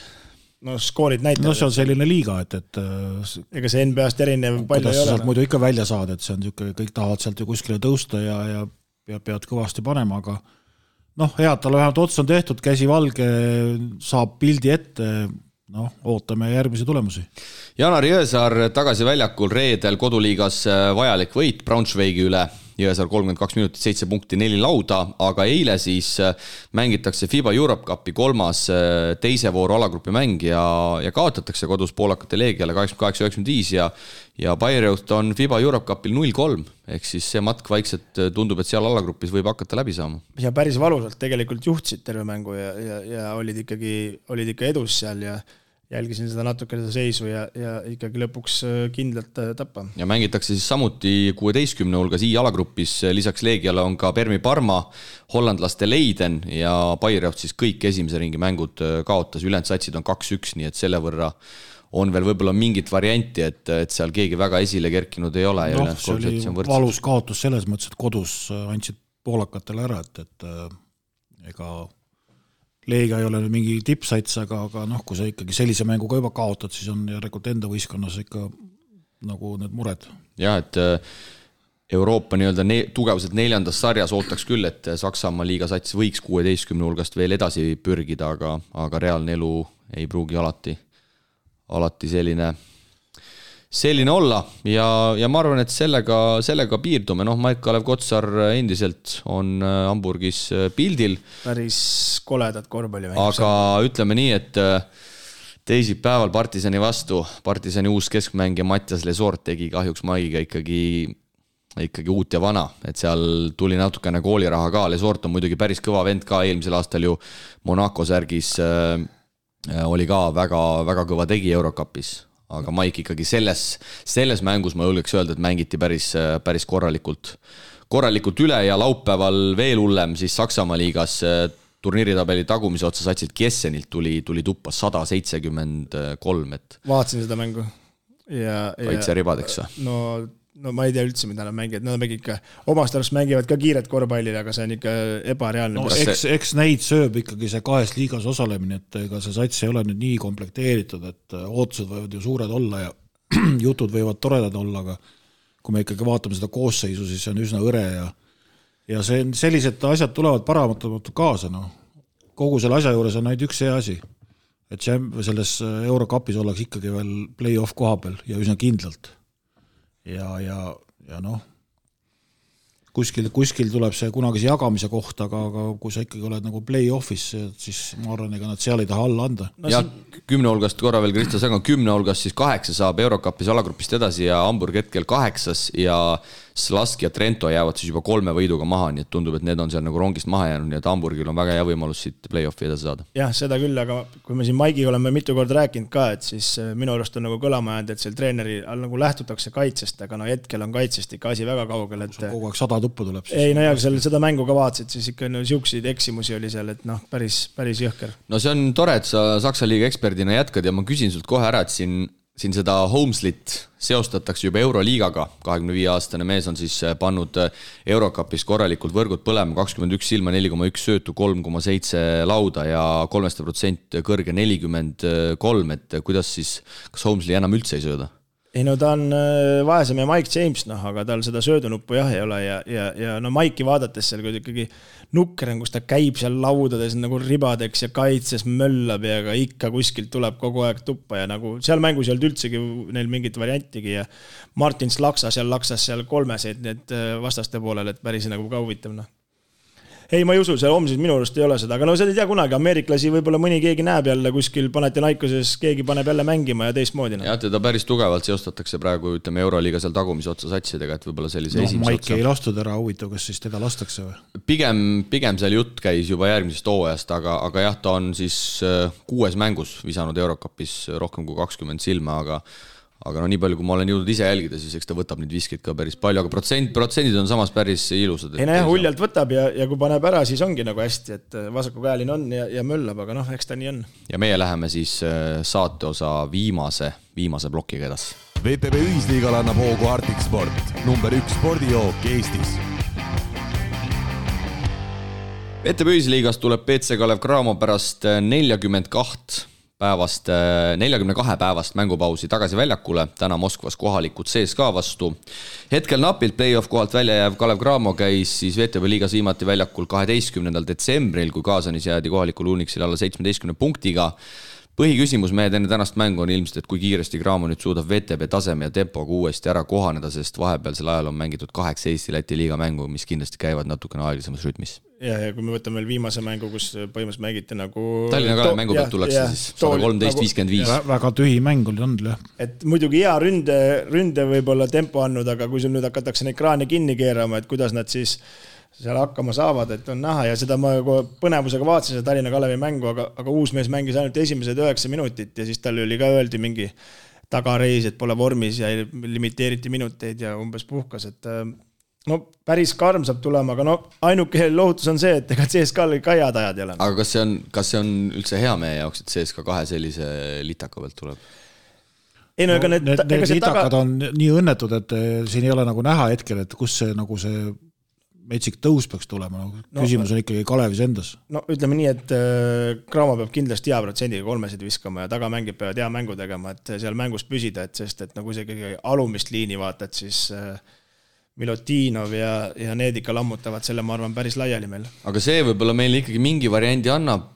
No skoorid näitavad.
No see on selline liiga, et
ega see NBA-st erinev palju ei ole.
Sealt muidu ikka välja saada, et see on niisugune, kõik tahavad sealt ju kuskile tõusta ja pead kõvasti panema, aga head, tal vähemalt ots on tehtud, käsi valge, saab pildi ette, ootame järgmisi tulemusi.
Janar Jõesaar tagasi väljakul reedel koduliigas vajalik võit Braunschweigi üle. Jõesaar 32 minutit, 7 punkti, 4 lauda, aga eile siis mängitakse FIBA Europe Cupi 3. teise vooru alagrupi mäng ja kaotatakse kodus poolakate Leegiale 88-95 ja Bayreuth on FIBA Europe Cupil 0-3, ehk siis see matk vaikselt tundub, et seal alagrupis võib hakata läbi saama.
Ja päris valusalt tegelikult juhtsid terve mängu ja olid ikka edus seal ja jälgisin seda natuke seda seisu ja ikkagi lõpuks kindlalt tappa.
Ja mängitakse siis samuti 16 hulgas I-alagrupis, lisaks Leegiale on ka Permi Parma, hollandlaste Leiden ja Bayreuth siis kõik esimese ringi mängud kaotas, ülejäänud satsid on 2-1, nii et selle võrra on veel võib-olla mingit varianti, et seal keegi väga esile kerkinud ei ole.
See oli valus kaotus selles mõttes, et kodus andsid poolakatele ära, et ega Leegia ei ole mingi tippsats, aga kui sa ikkagi sellise mänguga juba kaotad, siis on järelikult enda võistkonnas ikka nagu need mured.
Ja, et Euroopa tugevuselt 4. sarjas ootaks küll, et Saksamaa liigasats võiks 16 hulgast veel edasi pürgida, aga reaalne elu ei pruugi alati selline olla ja ma arvan, et sellega piirdume. Maik-Kalev Kotsar endiselt on Hamburgis pildil.
Päris koledad korvpalli.
Aga ütleme nii, et teisipäeval Partisani vastu, Partisani uus keskmängija Mattias Lesort tegi kahjuks Maiga ikkagi uut ja vana, et seal tuli natukene kooliraha ka. Lesort on muidugi päris kõva vend ka, eelmisel aastal ju Monaco särgis oli ka väga, väga kõva tegi Eurocupis. Aga Maik ikkagi selles mängus ma julgeks öelda, et mängiti päris korralikult üle ja laupäeval veel hullem siis Saksamaa liigas turniiritabeli tagumise otsa satsid Kiessenilt tuli tuppa 173.
Vaatasin seda mängu.
Kaitse ribadeks või?
No ma ei tea üldse, mida nad mängivad. Nad ikka omast arust mängivad ka kiiret korvpallile, aga see on ikka ebareaalne.
Eks neid sööb ikkagi see 2 liigas osalemine, et ega see sats ei ole nüüd nii komplekteeritud, et ootused võivad ju suured olla ja jutud võivad toredad olla, aga kui me ikkagi vaatame seda koosseisu, siis see on üsna õre ja sellised asjad tulevad paratamatult kaasa. Kogu selle asja juures on ainult üks see asi, et selles Eurocupis ollakse ikkagi veel play-off koha peal ja üsna kindlalt. Ja kuskil tuleb see kunagise jagamise koht, aga kui sa ikkagi oled nagu play-offis, siis ma arvan, ega nad seal ei taha alla anda.
Ja 10 hulgast korra veel Kristo Säng on 10 hulgast, siis 8 saab Eurocupis alagrupist edasi ja Hamburg hetkel 8 ja Slask ja Trento jäävad siis juba 3 võiduga maha, nii et tundub, et need on seal nagu rongist maha jäänud, nii et Hamburgil on väga hea võimalus siit play-offi edasi saada.
Jah, seda küll, aga kui me siin Maigi oleme mitu korda rääkinud ka, et siis minu arust on nagu kõlama jäänud, et seal treeneri nagu lähtutakse kaitsest, aga hetkel on kaitsest ikka asi väga kaugel.
Kogu aeg 100 tuppu tuleb siis.
Ei, ja seda mängu ka vaatasid, siis ikka siukseid eksimusi oli seal, et päris jõhker.
No see on tore, et sa Saksa liiga eksperdina jätkad ja ma küsin sult kohe ära, et siin seda Holmeslit seostatakse juba Euroliigaga. 25-aastane mees on siis pannud Eurocupis korralikult võrgud põlema, 21 silma, 4,1 söötu, 3,7 lauda ja 3% kõrge 43, et kuidas siis, kas Holmesli enam üldse ei sööda?
Ei ta on vaesem ja Mike James, aga tal seda söödunuppu jah ei ole ja Mike'i vaadates seal ikkagi nukker on, kus ta käib seal laudades nagu ribadeks ja kaitses möllab ja ikka kuskilt tuleb kogu aeg tuppa ja nagu seal mängus ei olnud üldsegi neil mingit variantigi ja Martins laksas seal 3 need vastaste poolel, et päris nagu ka huvitav. Ei, ma ei usu, see homsis minu arust ei ole seda, aga seda ei tea kunagi, ameeriklasi võib-olla mõni keegi näeb jälle kuskil Panathinaikoses, keegi paneb jälle mängima ja teistmoodi.
Ja teda päris tugevalt seostatakse praegu, ütleme, Euroliiga seal tagumise otsa satsidega, et võib-olla sellise esimese
Maiki otsa. Ei lastud ära, huvitav, kas siis teda lastakse või?
Pigem seal jutt käis juba järgmisest hooajast, aga jah, ta on siis 6 mängus visanud Eurocupis rohkem kui 20 silma, aga nii palju, kui ma olen jõudnud ise jälgida, siis eks ta võtab neid viskeid ka päris palju, aga protsendid on samas päris ilusad.
Ei huljalt võtab ja kui paneb ära, siis ongi nagu hästi, et vasakukäeline on ja möllab, aga eks ta nii on.
Ja meie läheme siis saateosa viimase plokiga edasi.
VTB ühisliigal annab hoogu Arctic Sport, number 1 spordijook Eestis.
VTB ühisliigas tuleb BC Kalev Cramo pärast 42 päevast mängupausi tagasi väljakule, täna Moskvas kohalikud CSKA vastu. Hetkel napilt play-off kohalt välja jääv Kalev Cramo käis siis VTB liigas viimati väljakul 12. detsembril, kui Kaasanis jäädi kohalikul Unixil alla 17 punktiga. Põhiküsimus mehed enne tänast mängu on ilmselt, et kui kiiresti Cramo nüüd suudab VTB taseme ja tempoga uuesti ära kohaneda, sest vahepealsel ajal on mängitud 8 Eesti-Läti liiga mängu, mis kindlasti käivad natukene aeglasemas rütmis.
Ja kui me võtame veel viimase mängu, kus põhimõtteliselt mängiti nagu...
Tallinna Kalev mängu pealt tullakse siis 113-55.
Väga tühi mäng oli olnud, jah.
Et muidugi hea ründe võib-olla tempo andnud, aga kui sul nüüd hakatakse neid kraane kinni keerama, et kuidas nad siis seal hakkama saavad, et on näha ja seda ma põnevusega vaatasin seda Tallinna Kalevi mängu, aga uus mees mängis ainult esimesed 9 minutit ja siis tal oli ka öeldi mingi tagareis, et pole vormis ja limiteeriti minuteid ja umbes puhkas, et no päris karm saab tulema, aga no ainuke lohutus on see, et ega CSKA-l ka head ajad ei ole.
Aga kas see on üldse hea meie jaoks, et CSKA 2 sellise litaka pealt tuleb?
Ei, no, ega
need litakad on nii õnnetud, et siin ei ole nagu näha hetkel, et kus see nagu see metsik tõus peaks tulema. Küsimus on ikkagi Kalevis endas.
No ütleme nii, et Cramo peab kindlasti hea protsendiga 3 viskama ja tagamängid peavad hea mängu tegema, et seal mängus püsida, et sest et nagu see kõige alumist liini vaatad, siis Milutinov ja need ikka lammutavad selle, ma arvan, päris laiali meil.
Aga see võib-olla meile ikkagi mingi variandi annab,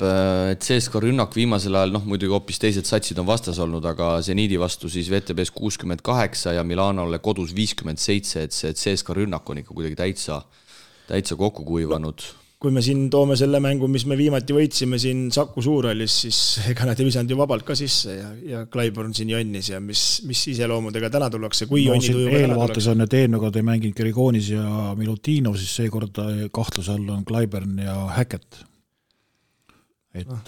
et CSKA rünnak viimasel ajal, muidugi hoopis teised satsid on vastas olnud, aga Zeniidi vastu siis VTBs 68 ja Milanole kodus 57, et see CSKA rünnak on ikka kuidagi täitsa kokku kuivanud.
Kui me siin toome selle mängu, mis me viimati võitsime siin Saku Suurhallis, siis ega nad ei visanud ju vabalt ka sisse ja Clyburn siin jonnis ja mis iseloomudega täna tullakse, kui jonni tujuga täna
tullakse. Eelvaates on, et eelmine kord ei mänginud Gerigoonis ja Milutinov, siis seekord kahtluse all on Clyburn ja Hackett. Et...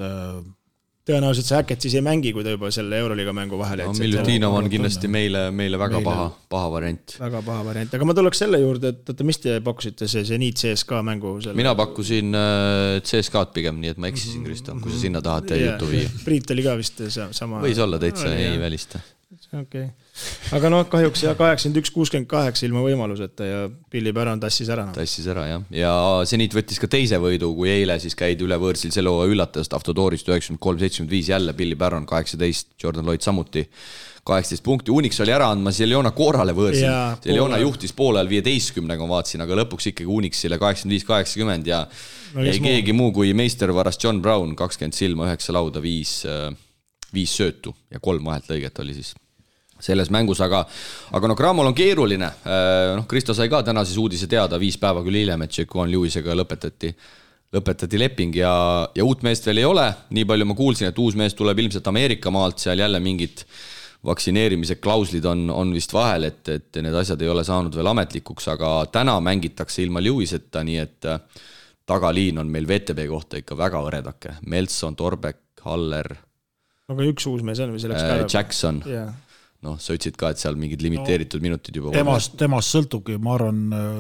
Tõenäoliselt see Hackett siis ei mängi, kui ta juba selle Euroliiga mängu vahele.
No, Milutinov on kindlasti meile väga paha variant.
Väga paha variant, aga ma tuleks selle juurde, et mis te pakkusite see Zeniit CSKA mängu?
Mina pakkusin CSKA-d pigem, nii et ma eksisin, Kristo, kui sa sinna tahad teie jutu viia.
Priit oli ka vist sama.
Võis olla täitsa, ei välista.
Okay. Aga kahjuks 81-68 ilma võimaluseta ja Billy Baron tassis ära.
Tassis ära, jah. Ja Zeniit võttis ka teise võidu, kui eile siis käidi üle võõrsil selle üllatajast Avtodoorist 93-75 jälle Billy Baron 18, Jordan Lloyd samuti 18 punkti. Unix oli ära andmas Jeljona Koorale võõrsil. Jeljona juhtis poole ajal 15-ga vaatsin, aga lõpuks ikkagi Unixile 85-80 ja ei keegi muu kui meistervaras John Brown, 20 silma, 9 lauda, 5 söötu ja 3 vahelt lõiget oli siis selles mängus, aga Cramol on keeruline. Kristo sai ka täna siis uudise teada 5 päeva küll hiljem, et Jaquan Lewisega lõpetati leping ja uut meest veel ei ole. Nii palju ma kuulsin, et uus mees tuleb ilmselt Ameerika maalt, seal jälle mingid vaktsineerimise klauslid on vist vahel, et need asjad ei ole saanud veel ametlikuks, aga täna mängitakse ilma Lewiseta, nii et tagaliin on meil VTB kohta ikka väga õredake. Meltson, Torbek, Haller.
Aga üks uus mees on või selleks päeva?
Jackson. Sa ütlesid ka, et seal mingid limiteeritud minutid juba
temast sõltubki, ma arvan,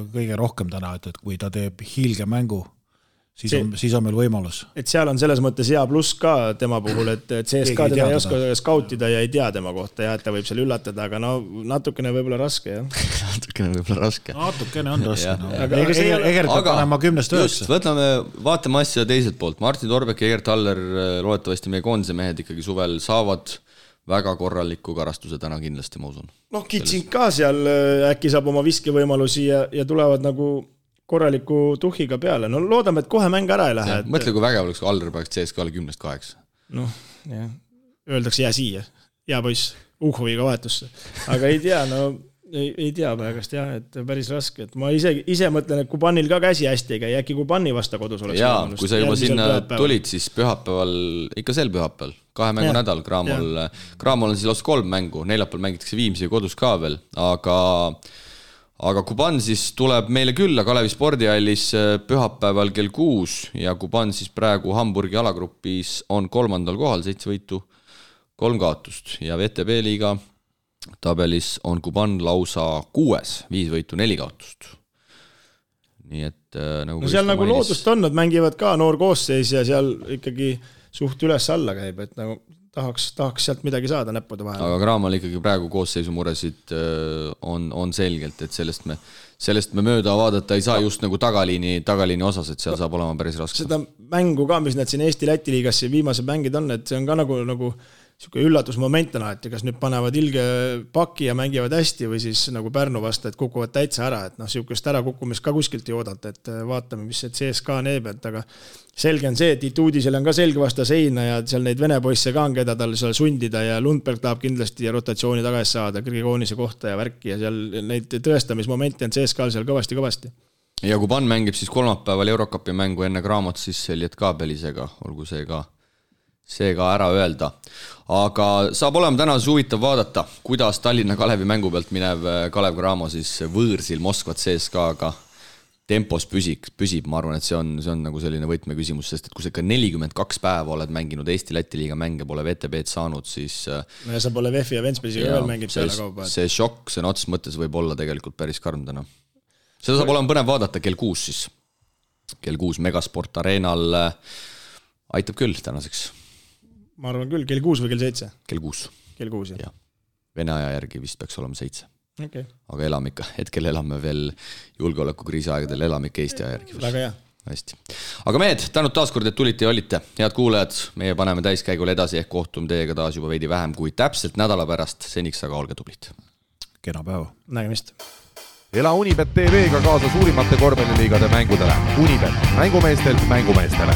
kõige rohkem täna, et kui ta teeb hiilge mängu, siis on meil võimalus.
Et seal on selles mõttes hea pluss ka tema puhul, et CSKA teda ei oska skautida ja ei tea tema kohta ja et ta võib seal üllatada, aga natukene võib-olla raske, jah.
Natukene võib-olla raske.
Natukene on raske. Egert peab panema 10-9.
Vaatame asja teiselt poolt. Martin Torbek ja Egert Haller, loodetavasti meie koondise mehed ikkagi suvel saavad väga korraliku karastuse täna kindlasti, ma usun.
Kitsing ka seal äkki saab oma viskevõimalusi ja tulevad nagu korraliku tuhhiga peale. Loodame, et kohe mäng ära ei lähe.
Mõtle, kui vägev oleks, kui Aller peaks CSKA-le 10-8.
Öeldakse jää siia. Hea poiss, Uhoviga vahetusse. Aga ei tea, ei tea praegast jah, et päris raske. Et ma ise mõtlen, et Kubanil ka käsi hästi ei käi, äkki Kubani vasta kodus oleks.
Jaa, kui sa juba sinna tulid, siis pühapäeval, ikka sel pühapäeval, 2 mängu nädal Cramol on siis lausa 3 mängu, neljapäeval mängitakse Viimsi kodus ka veel, aga Kuban siis tuleb meile külla Kalevi spordihallis pühapäeval kell 6 ja Kuban siis praegu Hamburgi alagrupis on 3. kohal, 7 võitu, 3 kaotust ja VTB liiga tabelis on Kuban lausa 6, 5 võitu, 4 kaotust. Nii et
seal nagu loodust on, nad mängivad ka noor koosseis ja seal ikkagi suht üles-alla käib, et nagu tahaks sealt midagi saada näppude vahel.
Aga Craamal ikkagi praegu koosseisu muresid on selgelt, et sellest me mööda vaadata ei saa just nagu tagaliini osas, et seal saab olema päris raske.
Seda mängu ka, mis need siin Eesti-Läti liigas viimased mängid on, et see on ka nagu siuke üllatusmoment on alati, kas nüüd panevad ilge paki ja mängivad hästi või siis nagu Pärnu vastu, et kukuvad täitsa ära, et siukest ärakukkumist ka kuskilt ei oodata, et vaatame, mis see CSKA neeb, et aga selge on see, et Ituudisel on ka selge vasta seina ja seal neid vene poisse ka on, keda tal seal sundida ja Lundberg tahab kindlasti rotatsiooni tagasi saada, Grigoonise kohta ja värki ja seal neid tõestamismomente on CSKA-l seal kõvasti.
Ja kui Pan mängib siis kolmapäeval Eurocupi mängu enne Craamot, siis Elliot Kaabelisega, olgu see ka ära öelda. Aga saab olema täna huvitav vaadata, kuidas Tallinna Kalevi mängu pealt minev Kalev Cramo siis võõrsil Moskvat CSKA-ga tempos püsib, ma arvan, et see on nagu selline võtmeküsimus, sest et kui sa ikka 42 päeva oled mänginud Eesti-Läti liiga mänge, pole VTB-d saanud, siis
no ja sa pole Veffi ja Ventspilsiga veel mängib peale kaupa.
See šokk, see ots mõttes võib olla tegelikult päris karm täna. Seda saab olema põnev vaadata kell 6 siis. Kell 6 Megasport Arenal aitab küll tänaseks.
Ma arvan küll, kell 6 või kell 7?
Kell 6.
Kell 6, jah.
Vene aja järgi vist peaks olema 7.
Okay.
Aga elame ikka, hetkel elame veel julgeolekukriisi aegadel, elame ikka Eesti aja järgi.
Väga hea.
Hästi. Aga mehed, tänud taaskord, et tulite ja olite. Head kuulajad, meie paneme täiskäigule edasi ehk kohtume teiega taas juba veidi vähem kui täpselt nädala pärast. Seniks aga olge tublid.
Kena päeva.
Nägemist.
Ela Unibet TV-ga kaasa suurimate korvpalliliigade mängudele. Unibet, mängumeestelt mängumeestele.